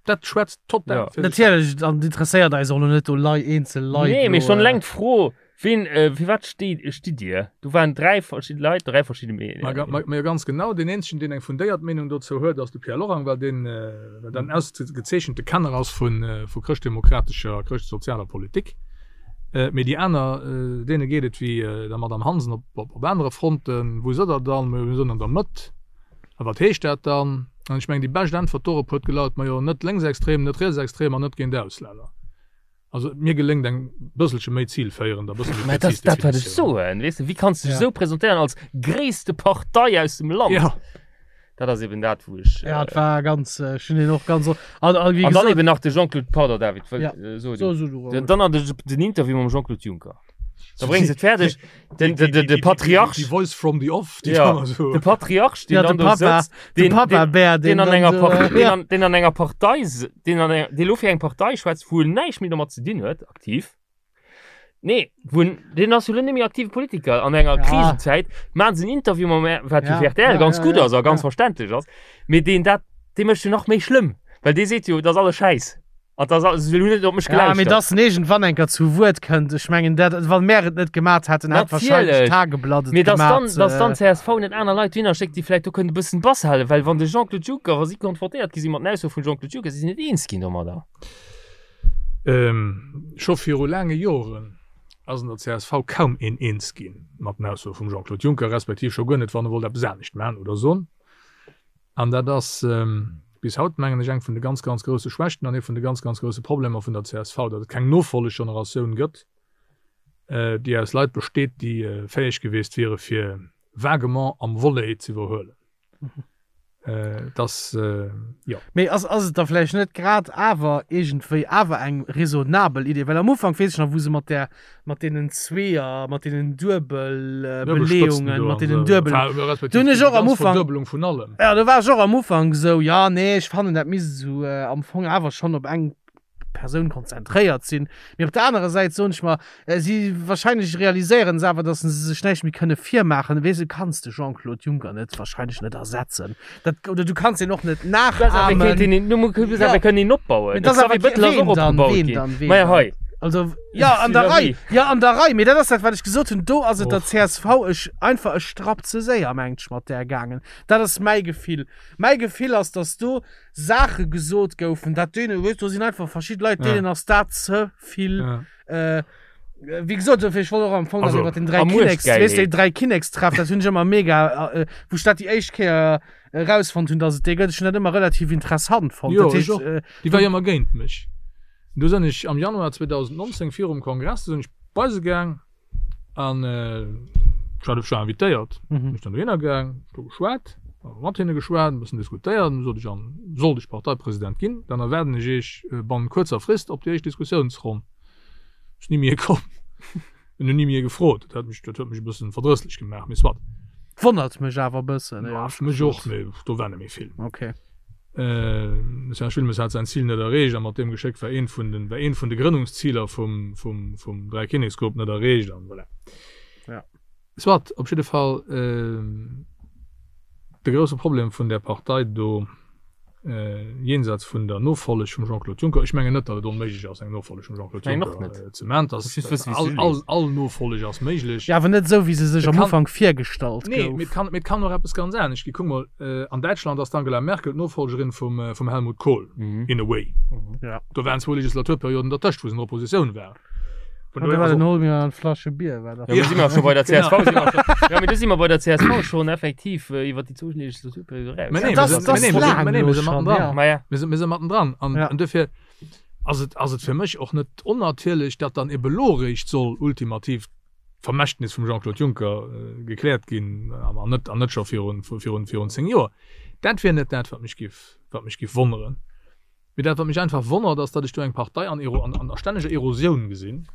Dat schwätzt total Ja. fir sech selwer. Natierlech, an interesséiert eis och elo net do Lei, eenzel Leit Nee, mee elo, schonn äh, eleng d'Fro. Ween, fir wat steet, stitt Dir? Do waren 3 verschidde Leit, 3 verschidde Meenungen. Ma, ma jo ganz genau. Deen eenzegen, deen eng fundéiert Meenung dozou huet, ass de Pierre Lorang, well deen, well dat en ausgezeechente Kenner ass vu, vu chrëschtdemokratescher a chrëschtsozialer Politik. Mee déi aner, deene geet et wéi der Madame Hansen op, op, op anere Fronten. Wou sidd Der dann? Majo, mir sinn an der Mëtt. A wat heescht dat dann? An ech mengen, déi bescht Äntwert dorop huet gelaut, Majo, net lénksextrem, net rietsextrem an net géint Auslänner. Also mir geléngt eng bësselche méi zilféierend a bësse méi Mä dat präzis ass dat, wat ech Definitioun. soen. Weess de, wéi kanns de dech Ja. esou presentéieren als gréisste Partei aus dem Land? Ja. Dat ass eben dat, wou ech. Ja, et war ganz, äh, ech hunn deen och ganz o- an, an wéi An dann gesot, eben nach de Jean-Claude, pardon David, wëll, Ja. äh, so, so, du. so, du, Den, dann nach de, den Interview mam Jean-Claude Juncker. Da bréngs et fäerdeg, den, den, den, de Patriarch, Die Voice from the Off, déi Ja. da so. de Patriarch, deen Ja, de dann do Papa, sëtzt, de deen, Papa deen, Bär, deen an dann enger so, Par äh, deen ja. an, deen an enger Partei, s- deen an enger, dee lo fir eng Partei schwätzt, wou en näischt méi domat ze dinn huet, aktiv. Nee, wou en, deen ass jo lo net méi aktive Politiker. An enger Ja. Krisenzäit maachen se en Interview mam, wat jo Ja, fir RTL ja, ganz ja, gutt ja, ass a ganz ja. verständlech ass, mee deen dat, dee mécht jo nach méi schlëmm, well dee seet jo, dat ass alles Schäiss. An das, se hunn net op mech Ja, mee gelauschtert. dass en iergendwann enker zu Wuert kënnt, ech mengen dat, wann mär et net gemat hätten, hätt wahrscheinlech Natierlech. d'Tageblatt et Mee dass dann, gemat. dass dann d'CSV net aner Leit dohinner schéckt, déi vläicht do kënnen e bëssen Bass halen, well wann de Jean-Claude Juncker, wa si konfrontéiert gi si mat den Aussoe vum Jean-Claude Juncker, si sinn net eens ginn domadder. Scho viru laange Joren ass an der csv kaum een eens gi mat den Aussoe vum Jean-Claude Juncker, respektiv scho guer net, wann e wollt eppes anescht maachen oder soen. An dat ass bis haut, mengen ech, eng vun de ganz, ganz grousse Schwächten an ee vun de ganz, ganz grousse Problemer vun der csv, datt et keng Nofolleggeneratioun gëtt, déi aus Leit besteet, déi fäeg gewiescht wiere fir vaguement am Volley ze iwwerhuelen. Et ass, jo. Mee ass, ass et da vläicht net grad awer iergendwéi awer eng raisonnabel Idee? Well am Ufank, weess ech nach, wou se mat där mat deenen Zweeër, mat deenen Duebelbeleeungen, mat deenen Duebel. Do hunn ech och am Ufank. Verduebelung vun allem. Ja, do war ech och am Ufank esou, ja, nee, ech fannen, dat misst esou am Fong awer schonn op eng Persoun konzentréiert sinn. Mee op der anerer Säit soen ech mer, si wahrscheinlech realiséieren se awer, datt se sech näischt méi kënne virmaachen. Weess de, du kanns de Jean-Claude Juncker net, wahrscheinlech net ersetzen. Dat, oder du kanns en och net nachahmen. Ja. Kënnen een opbauen. Mee das awer Xavier Bettel ass ween och dann, opgebaut ween ginn. dann, ween Maja dann? hei. Also, ja, an der Rei, ja, an der Rei, mee dat ass dat, wat ech gesot hunn, do ass et der Och. csv ech einfach e Strapp ze séier, mengt ech, mat där gaangen. Dat ass mäi Gefill. Mäi Gefill ass, datt do Saache gesot goufen, dat deene, weess, do sinn einfach verschidde Leit, Ja. deenen ass dat ze vill. Ja. Äh, wéi gesot, dofir, ech wollt och am Fong nach Also, iwwer den Dräi a Kinneks, weess de, Muechtgeilheet. Dräi Kinnekstreff, dat hunn ech ëmmer mega, äh, wou ech dat déi éischt Kéier erausfonnt hunn, dass et dee gëtt. Ech hunn dat ëmmer relativ interessant fonnt. Jo, Dat ech heescht, och. äh, Déi war jo ëmmer géint mech. Du sinn ech am Januar 2019 virum Kongress, du sinn ech bei se gaang an ech war ech war invitéiert. Mhm. Bin ech dann dohinner gaang, do geschwat, mat hinne geschwat, e bëssen diskutéiert. An du sot ech, an sollt ech Parteipresident ginn, dann erwaarden ech Iech bannent kuerzer Frist op déi éischt Diskussiounsronn. Ass ni méi komm. En hunn ni méi gefrot. Dat huet mech, dat huet mech e bëssen verdrësslech gemaach, mee soit. Wonnert mech awer e bëssen, Ja, éierlech mech och, gesot. mee do war net méi vill. Okay. De Serge Wilmes hat säin Zil net erreecht a mat deem Geschéck war eent vun den, war eent vun de Grënnungsziler vum, vum, vum Dräikinneksgrupp net erreecht an voilà. Ja. Soit, op jidde Fall, de grousse Problem vun där Partei do, jenseits vun der Nofolleg vum Jean-Claude Juncker, ech mengen net, datt et onméiglech ass, eng Nofolleg vum Jean-Claude Juncker ze maachen, all, all Nofolleg ass méiglech. Jo, awer net esou, wéi se sech am Ufank virgestallt gouf. Nee, mee et kann, mee et kann och eppes ganz anescht ginn. Kuck mol, an Däitschland ass d'Angela Merkel d'Nofolgerin vum, vum Helmut Kohl, in a way. Do waren zwou Legislaturperioden dertëscht, wou se an der Oppositioun war. Vun dohier, also. Hol mir eng Flasche Bier, war dat. Ja, si mer scho bei der CSV. Si mer scho, ja, mee do si mer bei der CSV schon effektiv äh, iwwer déi zwou Legislaturperiode eraus. Mä nee, Das- mir sinn- das mä nee, mir sinn- laang mä nee, mir lo si schon, mattendran. ja. Ma ja. Mir si, mir si mattendran. An, Ja. an dofir ass et, ass et fir mech och net onnatierlech, datt dann ebe lo eréischt soll ultimativ d'Vermächtnis vum Jean-Claude Juncker äh, gekläert ginn, an an net, an net scho virun, virun, virun 10 Joer. Dat wier net dat, wat mech giff, wat mech giff wonneren. Mee dat, wat mech einfach wonnert, ass, datt ech do eng Partei an, an, a stänneger Erosioun gesinn,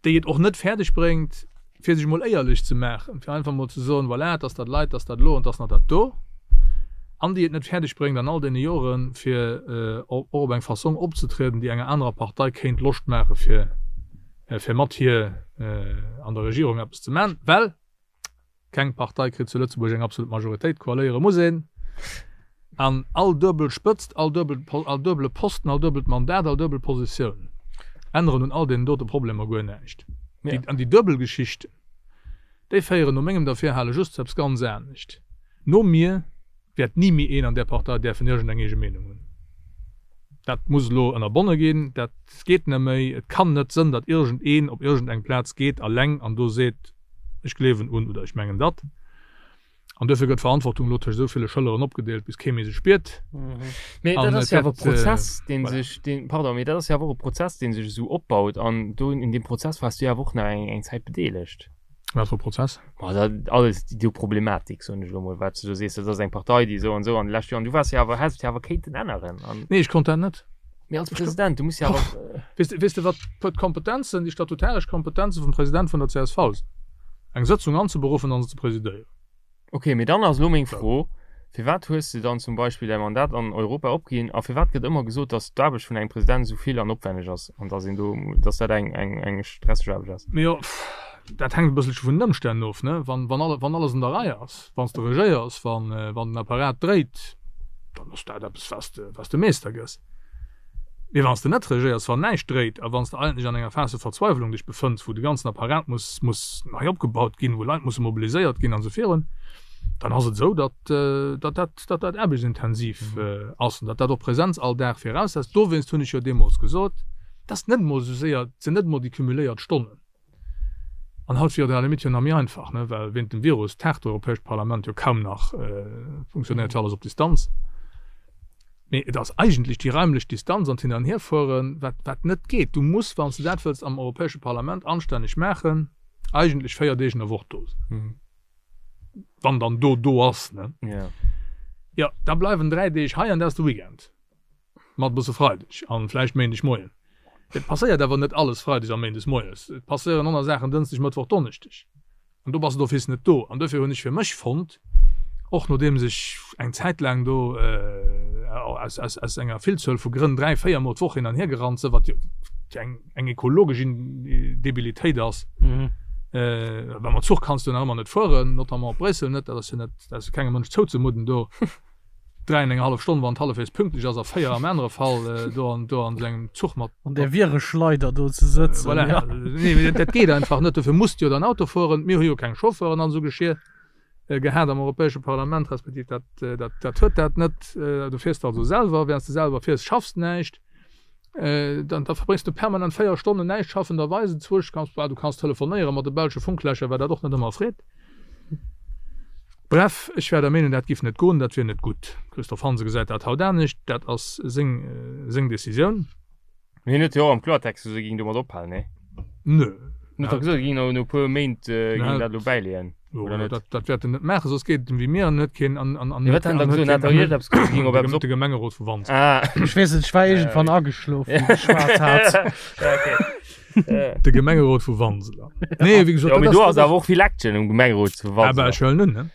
déi et och net fäerdeg bréngt, fir sech emol éierlech ze maachen, fir einfach emol ze soen, voilà, et ass dat leit, et ass dat elo an et ass nach dat do, an déi et net fäerdeg bréngt an all deene Joren, fir och op eng Fassong opzetrieden, déi enger anerer Partei kéint Loscht maache fir, fir mat hir an der Regierung eppes ze maachen, well Keng Partei kritt zu Lëtzebuerg eng absolut Majoritéit, koaléiere muss een. An all duebel Spëtzt, all duebel, all duebele Posten, all duebelt Mandat, all duebel Positioun änneren un all deenen dote Problemer guer näischt. Déi, an déi duebel Geschichten, déi féieren no mengem Derfirhale just zu eppes ganz anescht. No mir wäert ni méi een an där Partei däerfen iergendeng eege Meenung hunn. Dat muss elo ënnerbonne ginn. Dat geet net méi. Et kann net sënn, datt iergendeen op iergendeng Plaz geet alleng an do seet, ech gleewen un oder ech mengen datt. An duerfir gëtt d'Verantwortung elo tëscht esou ville Schëlleren opgedeelt, bis kee méi se spiert. Mee dat ass jo awer e Prozess, dee sech, deen, pardon, mee dat ass jo awer och e Prozess, dee sech esou opbaut. An do un deem Prozess waars du jo awer och nach eng, eng Zäit bedeelegt. Wat fir e Prozess? Ma dat alles, déi do Problematik, soen ech elo mol, wat s du do sees, dat ass eng Partei, déi esou an esou an de leschte Joren, du waars jo awer, häss et jo awer kéinten änneren. An. Nee, ech konnt dat net. Mee als President, du muss jo awer. Weess de, weess de wat d'Kompetenzen, déi statutaresch Kompetenze vum President vun der csv sinn? Eng Sëtzung anzeberuffen an se ze presidéieren. Ok, mee dann ass elo meng Fro, Firwat hues de dann zum Beispill däi Mandat an Europa opginn a firwat gëtt ëmmer gesot, datt d'Aarbecht vun engem President esou vill an opwenneg ass an datt een do, datt dat eng, eng, eng stresseg Aarbecht ass? Mee jo, dat hänkt e bësselche vun den Ëmstänn of, ne? Wann, wann alle, wann alles an der Rei ass, wann s de regéiers, wann, wann den Apparat dréit, dann ass dat eppes, wat s de, wat s de Meester gëss. Mee wann s de net regéiers, wann näischt dréit a wann s de eigentlech an enger Phas de Verzweiwlung dech befënns, wou de ganzen Apparat muss, muss nei opgebaut ginn, wou Leit musse mobiliséiert ginn an esou virun, dann ass et esou, datt, datt dat, datt dat aarbechtsintensiv ass an datt dat och Präsenz all Dag viraussetzt. Dowéinst hunn ech jo deemools gesot, et ass net emol esou séier, et sinn net emol déi cumuléiert Stonnen. An haut wier et à la limite jo nach méi einfach, ne, well wéint dem Virus taagt d'Europäescht Parlament jo kaum nach, funktionéiert jo alles op Distanz. Mee et ass eigentlech déi raimlech Distanz an d'Hin an Hierfueren, wat, wat net geet. Du muss, wann s de dat wëlls am Europäesche Parlament anstänneg maachen, eigentlech 4 Deeg an der Woch do sinn. Wann dann do do ass, ne. Jo, da bleiwen 3 Deeg hei an dat ass de Weekend. Mat e bësse Freideg an vläicht Méindeg Moien. Et passéiert awer net alles Freides a Méindes moies. Et passéieren aner Saachen Dënschdeg, Mëttwoch, Donneschdeg. An do bass de d'office net do. An duerfir hunn ech fir mech fonnt, och nodeems ech eng Zäit laang do aus, aus, aus enger Villzuel vu Grënn 3, 4 Mol d'Woch hin an hier gerannt sinn, wat jo eng, eng ekologesch Debilitéit ass, well mam Zuch kanns du nach ëmmer net fueren, notamment op Bréissel net, dat ass jo net, dat ass jo kengem Mënsch zouzemudden do. 3 an eng hallef Stonn, wann et hallefwegs pünktlech ass, a 4 am anere Fall, do an do an esou engem Zuch mat. An där Vireschleider do ze sëtzen. Voilà. Ja. Nee, mee dat geet einfach net. Dofir muss de jo dann Auto fueren. Mir hu jo keng Chauffeuren an esou Geschir gehat am Europäesche Parlament, respektiv dat, dat, dat huet dat net. Du fiers also selwer. Während s de selwer fiers, schaffs de näischt. Dann da verbréngs du permanent 4 Stonnen näischt schaffenderweis. Enzwousch kanns, du kanns telefonéiere mat de belsche Funklächer, wat dat och net ëmmer freet. Bref, ech war der Meenung, dat giff net goen, dat wier net gutt. Christophe Hansen gesäit dat haut anescht, dat ass seng, seng Decisioun. Mee hien huet jo och am Kloertext gesot, e géing domat ophalen, nee? Nö. Hien huet dach gesot, e géing no e puer Méint géing dat elo bäileeën, oder net? Dat, dat wäert en net maachen, soss geet et em wéi mir an huet keen, an, an, an Mee wat hat en da gesot? En hat dach iergendeppes gesot, e géing op eppes op. De Gemengerot vu Wanseler. Ah. Ech weess net, ech war iergendwann ageschlof, wéi geschwat hat. Ja, okay. De Gemengerot vu Wanseler. Nee, wéi gesot, Ja, mee do ass awer och vill Action um Gemengerot zu Wanseler. Aber ech huelen un, ne?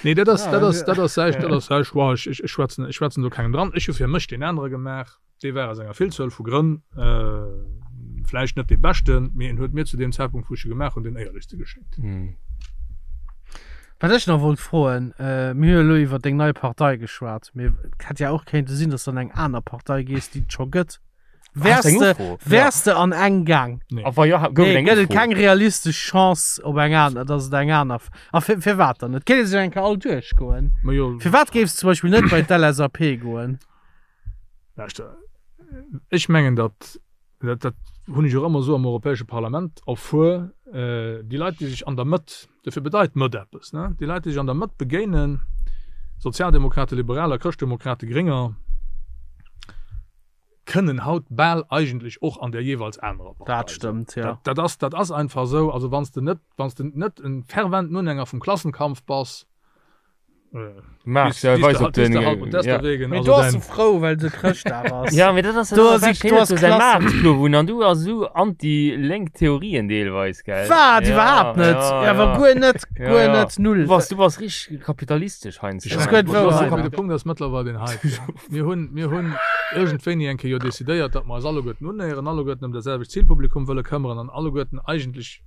Nee, dat ass, dat ass, dat ass säi, dat ass säi Choix. Ech, ech, ech schwätzen, ech schwätzen do kengem dran. Ech hu fir mech deen anere gemaach. Dee war aus enger Villzuel vu Grënn vläicht net dee beschten, mee en huet mir zu deem Zäitpunkt, wou ech e gemaach hunn, deen éierlechste geschéngt. Wat ech nach wollt froen, mir hu jo elo iwwer deng nei Partei geschwat, mee et hätt ja och kéinte sinn, datt s de an eng aner Partei gees, déi et scho gëtt. Wärs de, wärs de an eng gaang? Nee. A wa jo, gouf et Nee, eng gëtt et Ufro? keng realistesch Chance op eng aner, dass et eng aner. A fir, firwat dann net? Kéint ee sech eng Kéier all duerchgoen. Ma jo. Firwat géifs de zum Beispill net bei d'LSAP goen? Lauschter, ech mengen, datt, dat, dat hunn ech och ëmmer esou am Europäesche Parlament erfuer, déi Leit, déi sech an der Mëtt, dofir bedeit Mëtt eppes, ne, déi Leit, déi sech an der Mëtt begéinen, Sozialdemokrate, Liberaler, Chrëschtdemokrate, Grénger, kënnen haut bal eigentlech och an der jeeweils anerer Partei Dat stëmmt, jo. Dat, dat ass, dat ass einfach esou. Also wann s de net, wann s de net e ferventen Unhänger vum Klassenkampf bass, Max, ja, weis op den, ja. Mee do ass e frou, well se Chrëschtdag ass. Ja, mee dat ass Do ass ik, do ass säi Klassen. Maartplo an du ass esou anti-lénk Theorien deelweis, gell? Wat? Ja, Iwwerhaapt net. ja, Awer ja. guer net, Ja, guer ja. net, null. Du bass, du bass richteg kapitalistesch heiansdo. Das gëtt wouer. Mee de Punkt ass mëttlerweil deen heiten. Mir hunn, mir hunn iergendwéini eng Kéier jo decidéiert, datt mer eis alleguerten unnéieren, alleguerten ëm dat selwecht Zilpublikum wëlle këmmeren an alleguerten eigentlech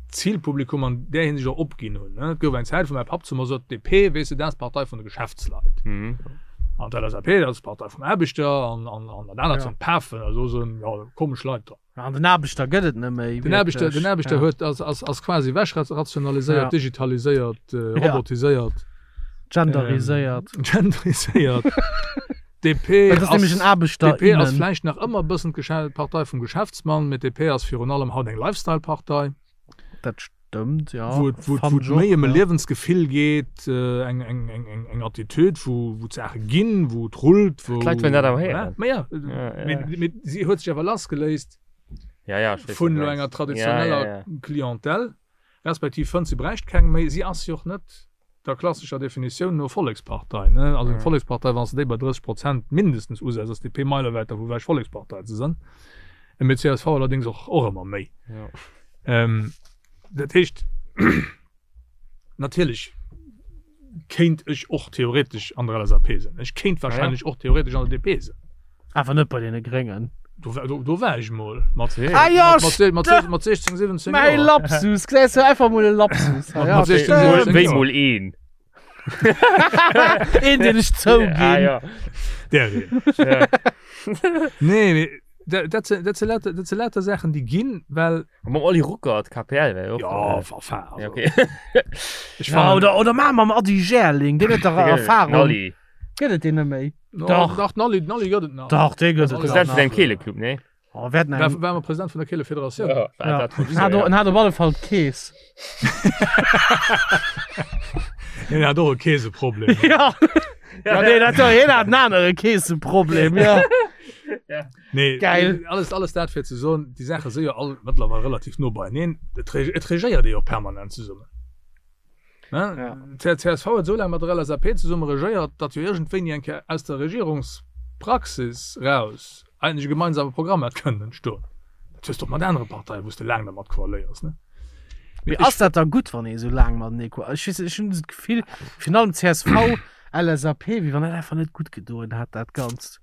d'Zilpublikum an där Hinsicht och opginn hunn. Et gouf eng Zäit, wou mäi Papp zu mer sot, DP, weess de, dat ass d'Partei vun de Geschäftsleit. An d'LSAP, dat ass d'Partei vum Aarbechter an, an, an dat anert Ja. sinn d'Pafen, also do sinn, jo, komesch Leit dran. An den Aarbechter gëtt et net méi. Den Aarbechter, den Aarbechter ja. huet, ass, ass, ass quasi wechrationaliséiert, Ja. digitaliséiert, äh, Ja. robotiséiert. Genderiséiert. Ähm, genderiséiert. DP Dat ass nämlech en Aarbechter. DP ass vläicht nach ëmmer e bëssen d'Geschä d'Partei vum Geschäftsmann, mee DP ass virun allem haut eng Lifestyle-Partei. Dat stëmmt, ja. Wou et, wou et, wou et méi ëm e Liewensgefill geet, eng, eng, eng, eng, eng Attitude, wou, wou d'Saache ginn, wou et rullt, wou. D'Leit wëllen dat awer héieren. Ma ja, mee, mee si huet sech awer lassgeléist Ja, ja, ech weess, vun wat du elo mengs. enger traditioneller Ja, ja, ja. Clientèle, respektiv fënnt si bräicht keng méi. Si ass jo och net der klassescher Definitioun no Vollekspartei, ne? Also eng Vollekspartei, wann s de déi bei 30 Prozent mindestens usetz, ass DP meilewäit dervu ewech Vollekspartei ze sinn. Mee csv allerdéngs och, och ëmmer méi. Dat heescht, natierlech kéint ech och theoretesch an der LSAP sinn. Ech kéint wahrscheinlech och theoretesch an der DP sinn. Awer net bei deene Gréngen. Do, do, do war ech mol mat, Ah ja, mat, mat, mat, mat 16, 17 Mäi Joer. Lapsus, gesäis du, einfach mol e Lapsus. Mat- Ja, mat 16, stimmt. 17 Wéi Joer. mol een. Een, deen ech zouginn. Ah, ja. Der een. Ja. Nee, mee dat, dat, sinn- dat, sinn lauter, dat sinn lauter Saachen, déi ginn, well. Mam Oli Ruckert, KPL, wär jo och. Ja, enfin, also. Ja, okay. Ech Ja, fannen- oder, oder maa mam Ady Gerling, deen huet dach Erfahrung. Nalli. Gëtt et deen net méi? No, Dach. Dach, Nalli, Nalli gëtt et nach. Dach, dee gëtt et President nach. vun engem Keeleclub, nee? Oh, wer hat War, eng- war mal President vun der Keele Federatioun. Ja. Ja. Dat En hat, en hat op alle Fall d'Kees. Hien hat och e Keeseproblem. Ja. Ja, nee, dat, hien hat en anere Keeseproblem, ja. Nee, Geil. Alles, alles dat fir ze soen, déi Saache si jo all mëttlerweil relativ no beieneen. Et reg- et regéiert ee jo och permanent zesummen. D'CSV huet esou laang mat der LSAP zesumme regéiert, datt jo iergendwéini eng Kéier aus der Regierungspraxis raus eigentlech e gemeinsame Programm hätt kënnen entstoen. Dat hues de och mat anere Parteien, wou s de laang dermat koaléiers, ne? Mee ass dat da gutt, wann ee esou laang matenee koa-, ech weess net, ech hunn esou d'Gefill, virun allem csv, LSAP, wéi wann dat einfach net gutt gedoen hätt, dat Ganzt.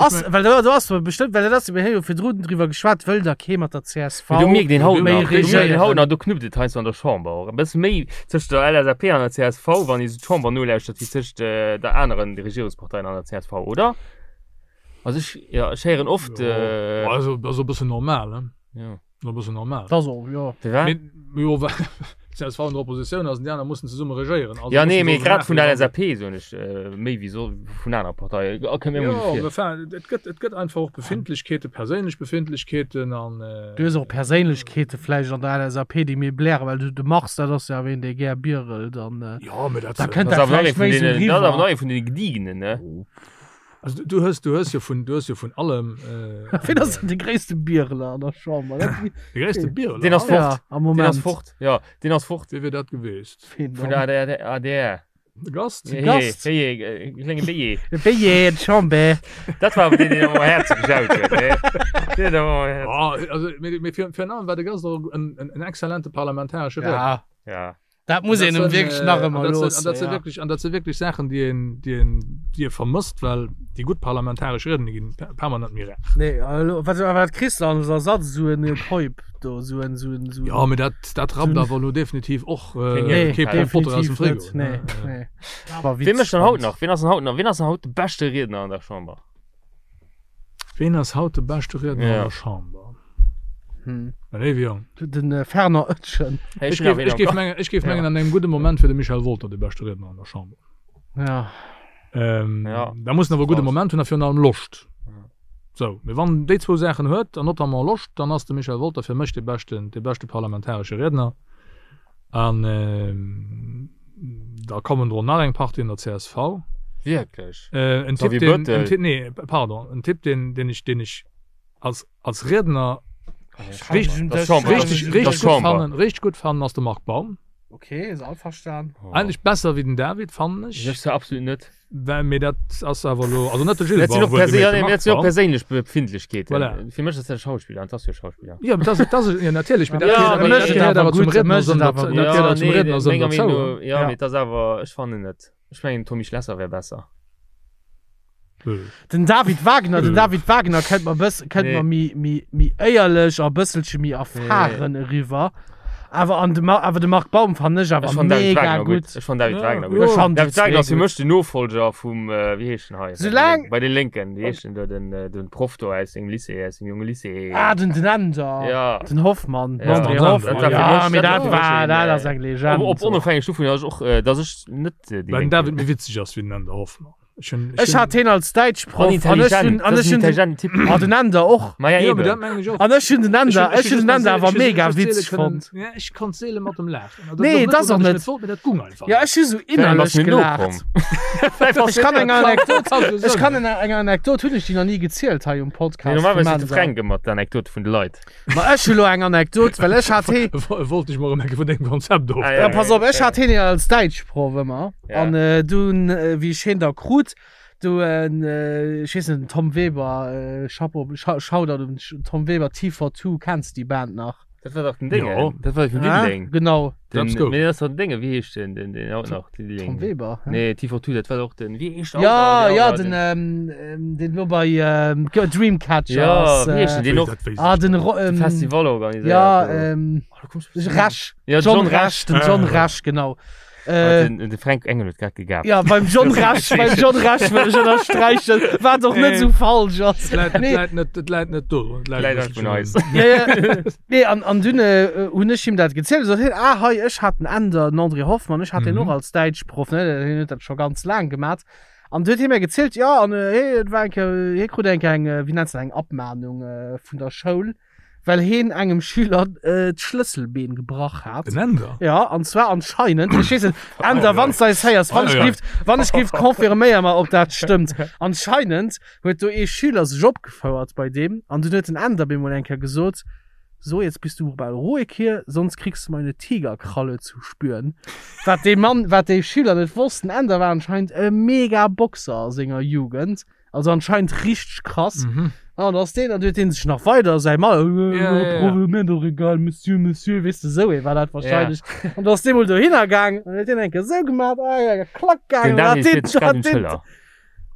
Ass, well do, do ass bestëmmt, well dat ass, mir hu jo virdrun driwwer geschwat, wëll da kee mat der csv Du mierkt een haut méi nach, du mierkt een regéieren. haut nach, do knuppt et heiansdo an der Chamber och e bësse méi tëscht der LSAP an der csv, wann ee sou d'Chamber nolauschtert, wéi tëscht der aneren Regierungsparteien an der csv, oder? Also ech, jo, ech héieren oft. Jo, also, ass e bëssen normal, ne? Jo. E bëssen normal. Dat ass och, jo. Firwat? Mee, jo, well csv an der Oppositioun ass an déi aner mussen zesumme regéieren. Also Ja, nee, mussen mee se grad vun der maachen. LSAP soen ech, méi wéi so vun anere Parteien. Oh, kënnt mir emol Jo, esou vir. mee enfin, et gëtt, et gëtt einfach och Befindlechkeeten, perséinlech Befindlechkeeten an. Du hues och Perséinlechkeete vläicht an der LSAP, déi méi blären, well du, de Mars, dat ass jo awer een, dee gär bierelt an Jo, mee dat. da kënnt Dat dat ass awer nach vläicht ee vun méi esou deenen, dat ass awer eriwwer. nach ee vun deene Gediegenen, ne? Also du hues, du hues jo vun, du hues jo vun allem. Äh, Wien ass denn de gréisste Biereler an der Chamber? Dat De gréisste Biereler? Deen ass fort. Ja, am Moment. Deen ass fort. Ja, deen ass fort. Wie wier dat geweest? Wien Vun dann? der ADR. ADR. De Gast? Hey, Gast? Hey, hey, äh, klenge Béier. De Béier, d'Chamber. Dat war awer deen, deen am Häerze gejaut huet, ne? Deen huet awer am Häerze. Ah, also, mee, mee fir, fir en allem war de Gast och en, en, en exzellente parlamentaresche Riedner. Ja. Ja. Dat muss een em wierklech nach ëmmer loossen. An dat si wierklech, an dat si wierklech Saachen, déi een, déi een, déi ee vermësst, well déi gutt parlamentaresch Rieden, déi ginn permanent méi rar. Nee, elo, wat, wat kriss de als Ersatz? Esou en Keup do, esou en, esou en, esou en. Jo, mee dat, dat rappt awer elo definitiv och Nee, kee Pont Botter aus dem definitiv Frigo. net. Nee, nee. War Wien mécht witzeg dann haut fand. nach? Wien ass dann haut nach, wien ass dann haut de beschte Riedner an der Chamber? Ween ass haut de beschte Riedner Ja. an der Chamber? Hm. Léiwe Jong. Den äh, Fernand Oetschen. Hey, Ech hun awer géif, een ech am géif Kopf. mengen, ech géif Ja. mengen, an engem gudde Moment wier de Michel Wolter de beschte Riedner an der Chamber. Ja. Ähm, Ja. Da muss en awer e gudde Krass. Moment hunn a virun allem Loscht. Ja. Sou, mee wann en déi zwou Saachen huet, an notamment Loscht, dann ass de Michel Wolter fir mech de beschten, de beschte parlamentaresche Riedner. An ähm, da kommen dro nach eng Partie an der csv. Wierklech? Äh, en Typ, Xavier den, en Bettel. Typ, nee, pardon, en Typ, den, den ich, den ich als, als Riedner richtig, Das ist Chamber. richtig, Das richtig ist gut Chamber. fannen, richtig gut fannen ass de Marc Baum. Okay, ist einverstanden. Oh. Eigentlich besser wéi den David, fannen ech. Ech zwar absolut net. Well, mee dat ass awer elo, also net de Gilles Dat sinn Baum, och perse wuelgemerkt, ja, de nee, Marc dat sinn och Baum. perséinlech Befindlechkeeten. Voilà. Fir mech ass dat e Schauspiller, an 't ass jo e Schauspiller. Ja, dat ass, dat ass, ja, natierlech, mee dat Ja, gehéiert mee awer, dat mécht et gehéiert awer awer zum gutt, Riedner mécht et sënn, awer dat gutt. gehéiert awer zum nee, Riedner sënn menger derzou. Meenung no, ja, Ja. mee 't ass awer, ech fannen net. Ech mengen, Tommy Schlesser wär besser. Den David Wagner, den Äh. David Wagner kënnt mer bëss, kënnt Nee. mer méi, méi, méi éierlech a bësselche méi erfahren eriwwer. Awer an de, awer de Marc Baum fannen ech awer Ech fannen David mega Wagner gutt. gutt. Ech fannen David Ja, Wagner jo. gutt. Ech fannen déi David Wagner zwee ass fir gutt. mech den Nofolger vum, äh, wéi heescht den hei? Soulaang- Bei den Lénken, wéi heescht den do, den, äh, den Proff do aus sengem Lycée, aus dem jonge Lycée. Ah, den, den Änder. Ja. Den Hoffmann. Den Ja. André Den Änder. Hoffmann. Dat war fir Ja, mech- mee dat dat war fir war, mech dat een, ass eng Legend. Op, op onofhängeg dovun, dass ech och, äh, dass ech net äh, déi Well den Lénk David bin. méi witzeg ass wéi den Änder Hoffmann. Ech hunn, Ech hat heen als Däitschproff An an ech intelligent. hunn, an Das ech ist ein hunn den, intelligenten Typ. ah, den Änder och. Ma ja, Ja, mee dat eben. mengen ech och. An ech hunn den Ech Änder, hunn, ech hunn den Änder awer mega witzeg fonnt. Ja, ech konnt seele mat em laachen. Also, Nee, dat dat ass och net, net. net wollt, mee dat gung einfach Ja, net. ech hu sou Vielleicht ass innerlech mir gelaacht. nokomm. Ech kann eng Anekdot, Kann ech kann eng, eng Anekdot hunn ech déi nach ni gezielt hei um Nee, Podcast vum normalerweis seet de Änder. Fränk ëmmer d'Anekdote vun de Leit. Ma ech hu lo eng Anekdot, well ech hat hee, Wollt ech mol erëm eng Kéier vun dengem Konzept of. Ah, ja, pass op, ech hat heen jo als Däitschproff ëmmer. Ja. An äh, dunn, äh, wéi ech heen da krut, du, äh, ech weess net, den Tom Weber, äh, Chapeau, Shoutout un Tom Weber, T42, kenns déi Band nach? Dat war dach den Déngen. Jo. Dat war vun Ah, Diddeleng. genau. Den, Let's go. nee, dat war den Déngen, wéi heescht den, den, den haut nach? Diddeleng. Tom Weber. hä? Nee, T42, dat war doch den, wéi heescht der Ja, haut nach? ja, Der- den, ähm, ähm, den lo bei ähm, Dreamcatcher Ja, ass. wéi heescht Äh, den? Den och Dat weess ah, ich den net. Ro de ähm, Festival organiséiert. Ja, do. ähm, Oh, du kommst bestimmt. Resch. Ja, John, John Resch, den John Ah. Resch, genau. Ah, Äh, den, de Fränk Engel huet grad gegabt. ja, beim John Resch, beim John Resch wëll ech ënnersträichen, wat och net Nee. sou falsch ass. Et läit, et Nee. läit net, et läit net do. Et läit Läit e einfach bësselchen un eis. Ja, ja. Nee, an, an dunn äh, hunn ech him dat gezielt. Sot hien, ah, hei, ech hat den Änder, den André Hoffmann, ech hat den Mhm. och als Däitschproff, ne, hien huet dat scho ganz laang gemat. An du huet hie mir gezielt, ja, an äh, hie, et war eng Kéier, hie krut eng Kéier eng, äh, wéi nennt se dat, eng Abmahnung äh, vun der Schoul, well heen engem Schüler äh, d'Schlësselbeen gebrach hat. Den Änder? Ja, an zwar anscheinend, ech weess net, Änder, wann s du eis héiers, wann ech Ei, ei, ei. gift, wann ech gift, confirméier mer, ob dat stëmmt. Anscheinend huet do ee Schüler sech opgefouert bei deem an dunn huet den Änder bemol eng Kéier gesot, So, jetzt bist du mal ruhig hier, sonst kriegst du meine Tigerkralle zu spüren. Wat dee Mann, wat dee Schüler net wosst, den Änder war anscheinend e mega Boxer a senger Jugend. Also anscheinend richteg krass. Mhm. An ass deen, an huet deen sech nach weider säi Mann, Ja, ja, ja. mir doch egal, Monsieur, Monsieur, weess de, sou ee war dat wahrscheinlech. An da ass dee mol dohinner gaang an huet deen eng Kéier sou gemaat, ah, ja, klack gaang, Den an Daniel hat deen, fiert sech grad hat un deen, d'Schëller.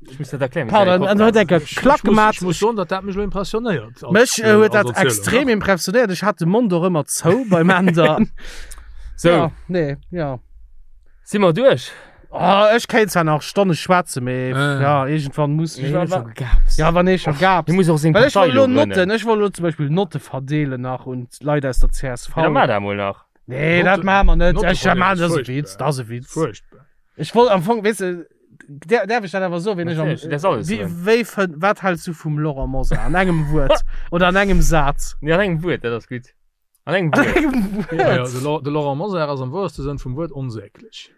Ech muss dat erklären. pardon, an huet eng Kéier Ech klack muss, gemaat. ech muss soen, datt dat mech elo impressionéiert. als, Mech äh, huet als dat Erzielung, extrem ne? impressionéiert. Ech hat de Mond och ëmmer zou beim Änder. Sou, Ja, nee, ja. si mer duerch? Oh, ech kéint zwar nach Stonne schwätzen, mee Äh. ja, iergendwann muss Mir ech. hunn scho gegaapst. Ja, wann ee scho gaapst. Hie muss och seng Well ech Partei wollt elo elo Notten, grënnen. ech wollt elo zum Beispill Notte verdeelen nach un d'Leit aus der CSV. Ja, da maach dat mol nach. Nee, dat Notte- maache mer net. Notte Ech verdeelen maachen, ass dat ass e furchtbar. Witz, dat ass e Witz. Furchtbar. Ech wollt am Fong, weess de, där, däerf ech dat awer soen, wien ech am, Natierlech, du däerfs alles wéi, soen. wéi fënn, wat häls du vum Laurent Mosar? An engem Wuert oder an engem Saz? Nee, an engem Wuert, dat ass gutt. An engem An Wuert. engem Ja, ja, Wuert. de, Lau- de Laurent Mosar ass am woerste Sënn vum Wuert onsäglech.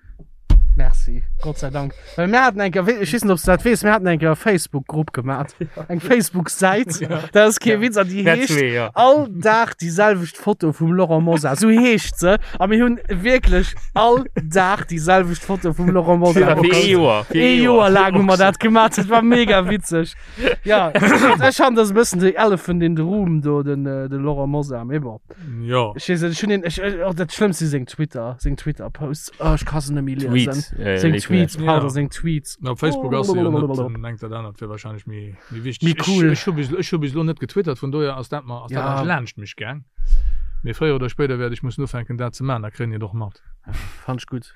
Merci, Gott sei Dank. Well mir haten eng Kéier, ech weess net, ob s du dat weess, mir haten eng Kéier e Facebook-Grupp gemat, eng Facebook-Säit, dat ass kee Witz, an déi Mär heescht zwee, ja. All Dag déi selwecht Foto vum Laurent Mosar, sou heescht se. A mir hunn wierklech all Dag déi selwecht Foto vum Laurent Mosar Fir ee gepost. Joer. Fir Ee Joer laang hu mer dat gemat, dat war mega witzeg. Ja, ech fannen, dat ass e bëssen the elephant in the room do, den, de Laurent Mosar, mee bon. Jo. Ech weess net, ech hunn een, ech, oh, dat Schlëmmst si seng Twitter, seng Twitter-Posts. Oh, ech ka se net méi liesen. Tweets. Äh, Seng léif Tweets, mir. pardon, Ja. seng Tweets. Na, op Facebook ass se jo net, dann engt dat anert wier wahrscheinlech méi, méi wichteg. Méi cool. Ech, ech hu bis, ech hu bis elo net getwittert, vun dohier ass dat mer, ass dat Ja. eigentlech laanscht mech gaang. Mee fréier oder spéider wäert ech mussen ufänken dat ze man, da kréien déi et och mat. Fand ech gutt.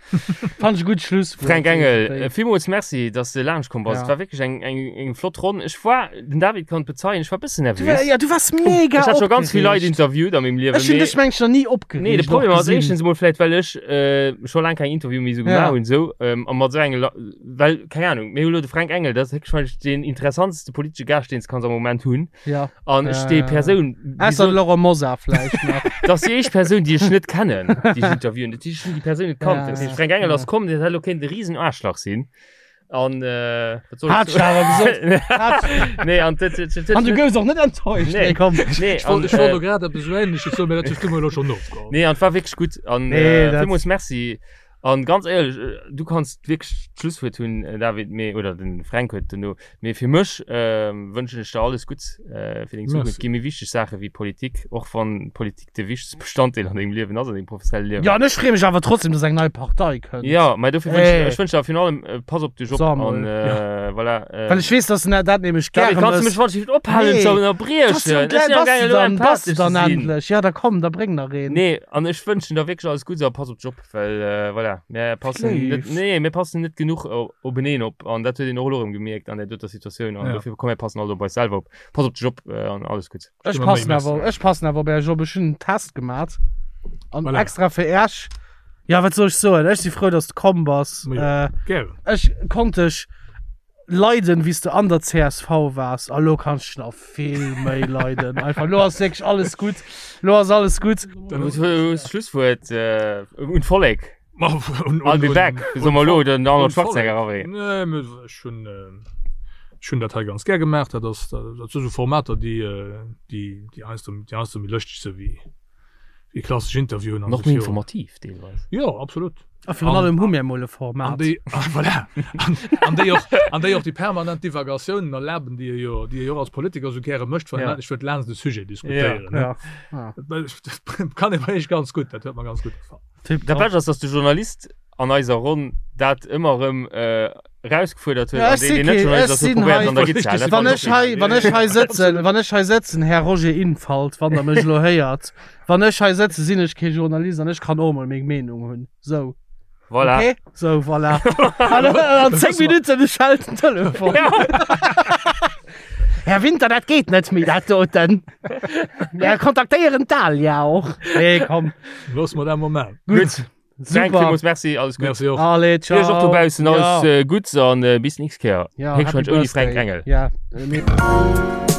Fand ech e gutt Schlusswuert. Fränk Engel, villmools Merci, dass de laanscht komm bass. Ja. Et war wierklech eng, eng, eng flott Ronn. Ech war, den David kann et bezeien, ech war e bëssen Du, nervös. ja, du wars mega Ech hat scho ganz vill Leit opgereegt. interviewt a mengem Liewen. Ech hunn mee- dech mengt nach ni opgereegt. Nee, de Problem och ass gesinn. éischtens emol vläit, well ech äh, scho laang keng Interview méi esou Ja. gemaach hunn, esou, ähm, a mat esou enge La well, keng Ahnung, mir hu lo de Fränk Engel, dat ass héchstwahrscheinlech deen interessanteste politesche Gaascht, deen s de kanns am Moment hunn. Ja. An ech déi Äh, Persoun, déi Ausser so, Laurent Mosar vläicht nach. dat ass déi éischt Persoun, déi ech net kennen, déi ech interviewen. Dat heescht, ech hunn déi Persoun net kannt. Ja, Dat heescht, ja, Fränk Engel ja. ass komm, dat hätt elo kéint e risen Aarschlach sinn. An äh, wat soll ech Hat ech awer gesot. Hat soen? Nee, an dat, dat, dat, An du goufs och net enttäuscht. Nee. Nee, komm. Nee, Ech wollt, an, ech wollt äh, elo grad eppes esou Ähnleches soen, mee dat hues du mer elo schonn ofgeholl. Nee, an et war wierklech gutt. An Nee, äh, dat- villmools Merci. An ganz éierlech, du kanns wierklech d'Schlusswuert hunn, David, mee, oder den Fränk huet duerno, mee fir mech wënschen ech der alles Gutts fir deng Zukunft. Et gi méi wichteg Saache wéi Politik, och wann Politik de wichtegste Bestanddeel an dengem Liewen ass, an dengem professionelle Liewen. Jo, an ech freeë mech awer trotzdem, dass eng nei Partei kënnt. Jo, mä dofir wënschen ech, ech wënschen der virun allem, pass op dech op an voilà. Well ech weess, dass en dat nämlech gäre mécht. David, kanns du mech wann ech ophalen ze ënnerbriechen? Bass du dann, bass du dann endlech? Jo, da komm, da bréng nach een. Nee, an ech wënschen der wierklech alles Gutts a pass op dech op. Well äh, voilà, mir passen net, nee, mir passen net genuch openeen op an dat huet een och elo erëm gemierkt an der doter Situatioun an ja. dofir komm mir passen all op eis selwer op. Pass op dech op äh, an alles gutt. Ech passen awer, ech passen awer op Äech op. Ech hunn en Test gemat an voilà. extra fir Äech. Ja, wat soll ech soen? Ech si frou, dass du komm bass. Ja, äh, ech konnt dech leiden, wéi s de an der csv waars. A lo kanns ech nach vill méi leiden. Einfach, lo ass wierklech alles gutt. Lo ass alles gutt. Dann hues du d'Schlusswuert un d'Vollek. I'll be back, soe mer elo, den Arnold Schwarzenegger erawéi. Nee, mee ech hunn, ech hunn dat hei ganz gär gemaach. Dat ass, dat si sou Formater, déi, déi, déi heiansdo, déi heiansdo méi lëschteg si wéi, Déi klassesch Interviewen an och méi informativ deelweis. Jo, absolut. A virun allem hu mir emol e Format. An déi, voilà, an, an déi och, an déi och déi permanent Divagatiounen erlaben, déi e jo, déi e jo och als Politiker esou gäre mécht, wann en endlech wëllt laanscht e Sujet diskutéieren. Ja, ja. Dat kann ee bei Iech ganz gutt, dat huet mer ganz gutt gefall. Dat Bescht ass, dass de Journalist an eiser Ronn dat ëmmer erëm erausgefuerdert huet, Ja, an ech deen, si deen net kee, Journalist ech ass, huet sinn probéiert hei, an der Gitt ze halen. Dat wann fand ech hei, wann ech hei sëtzen, wann ech hei sëtzen, Här Roger Infalt, wann Der mech elo héiert, wann ech hei sëtzen, sinn ech kee Journalist an ech kann och emol meng Meenung hunn. Sou. Voilà. Okay? Sou, voilà. An an 10 Minutten schellt den Telefon. Här Winter, dat geet net méi, dat doten. Mir kontaktéieren d'Alia och. Nee, komm. Loosse mer dat mol maachen. Gutt. Frank, Super. villmools Merci, alles Gutts. Merci och. Allez, ciao. Iech och dobaussen alles Ja. Gutts an bis nächst Kéier. Ja, happy Héchstwahrscheinlech ouni Birthday. Fränk Engel. Ja. Äh, nee.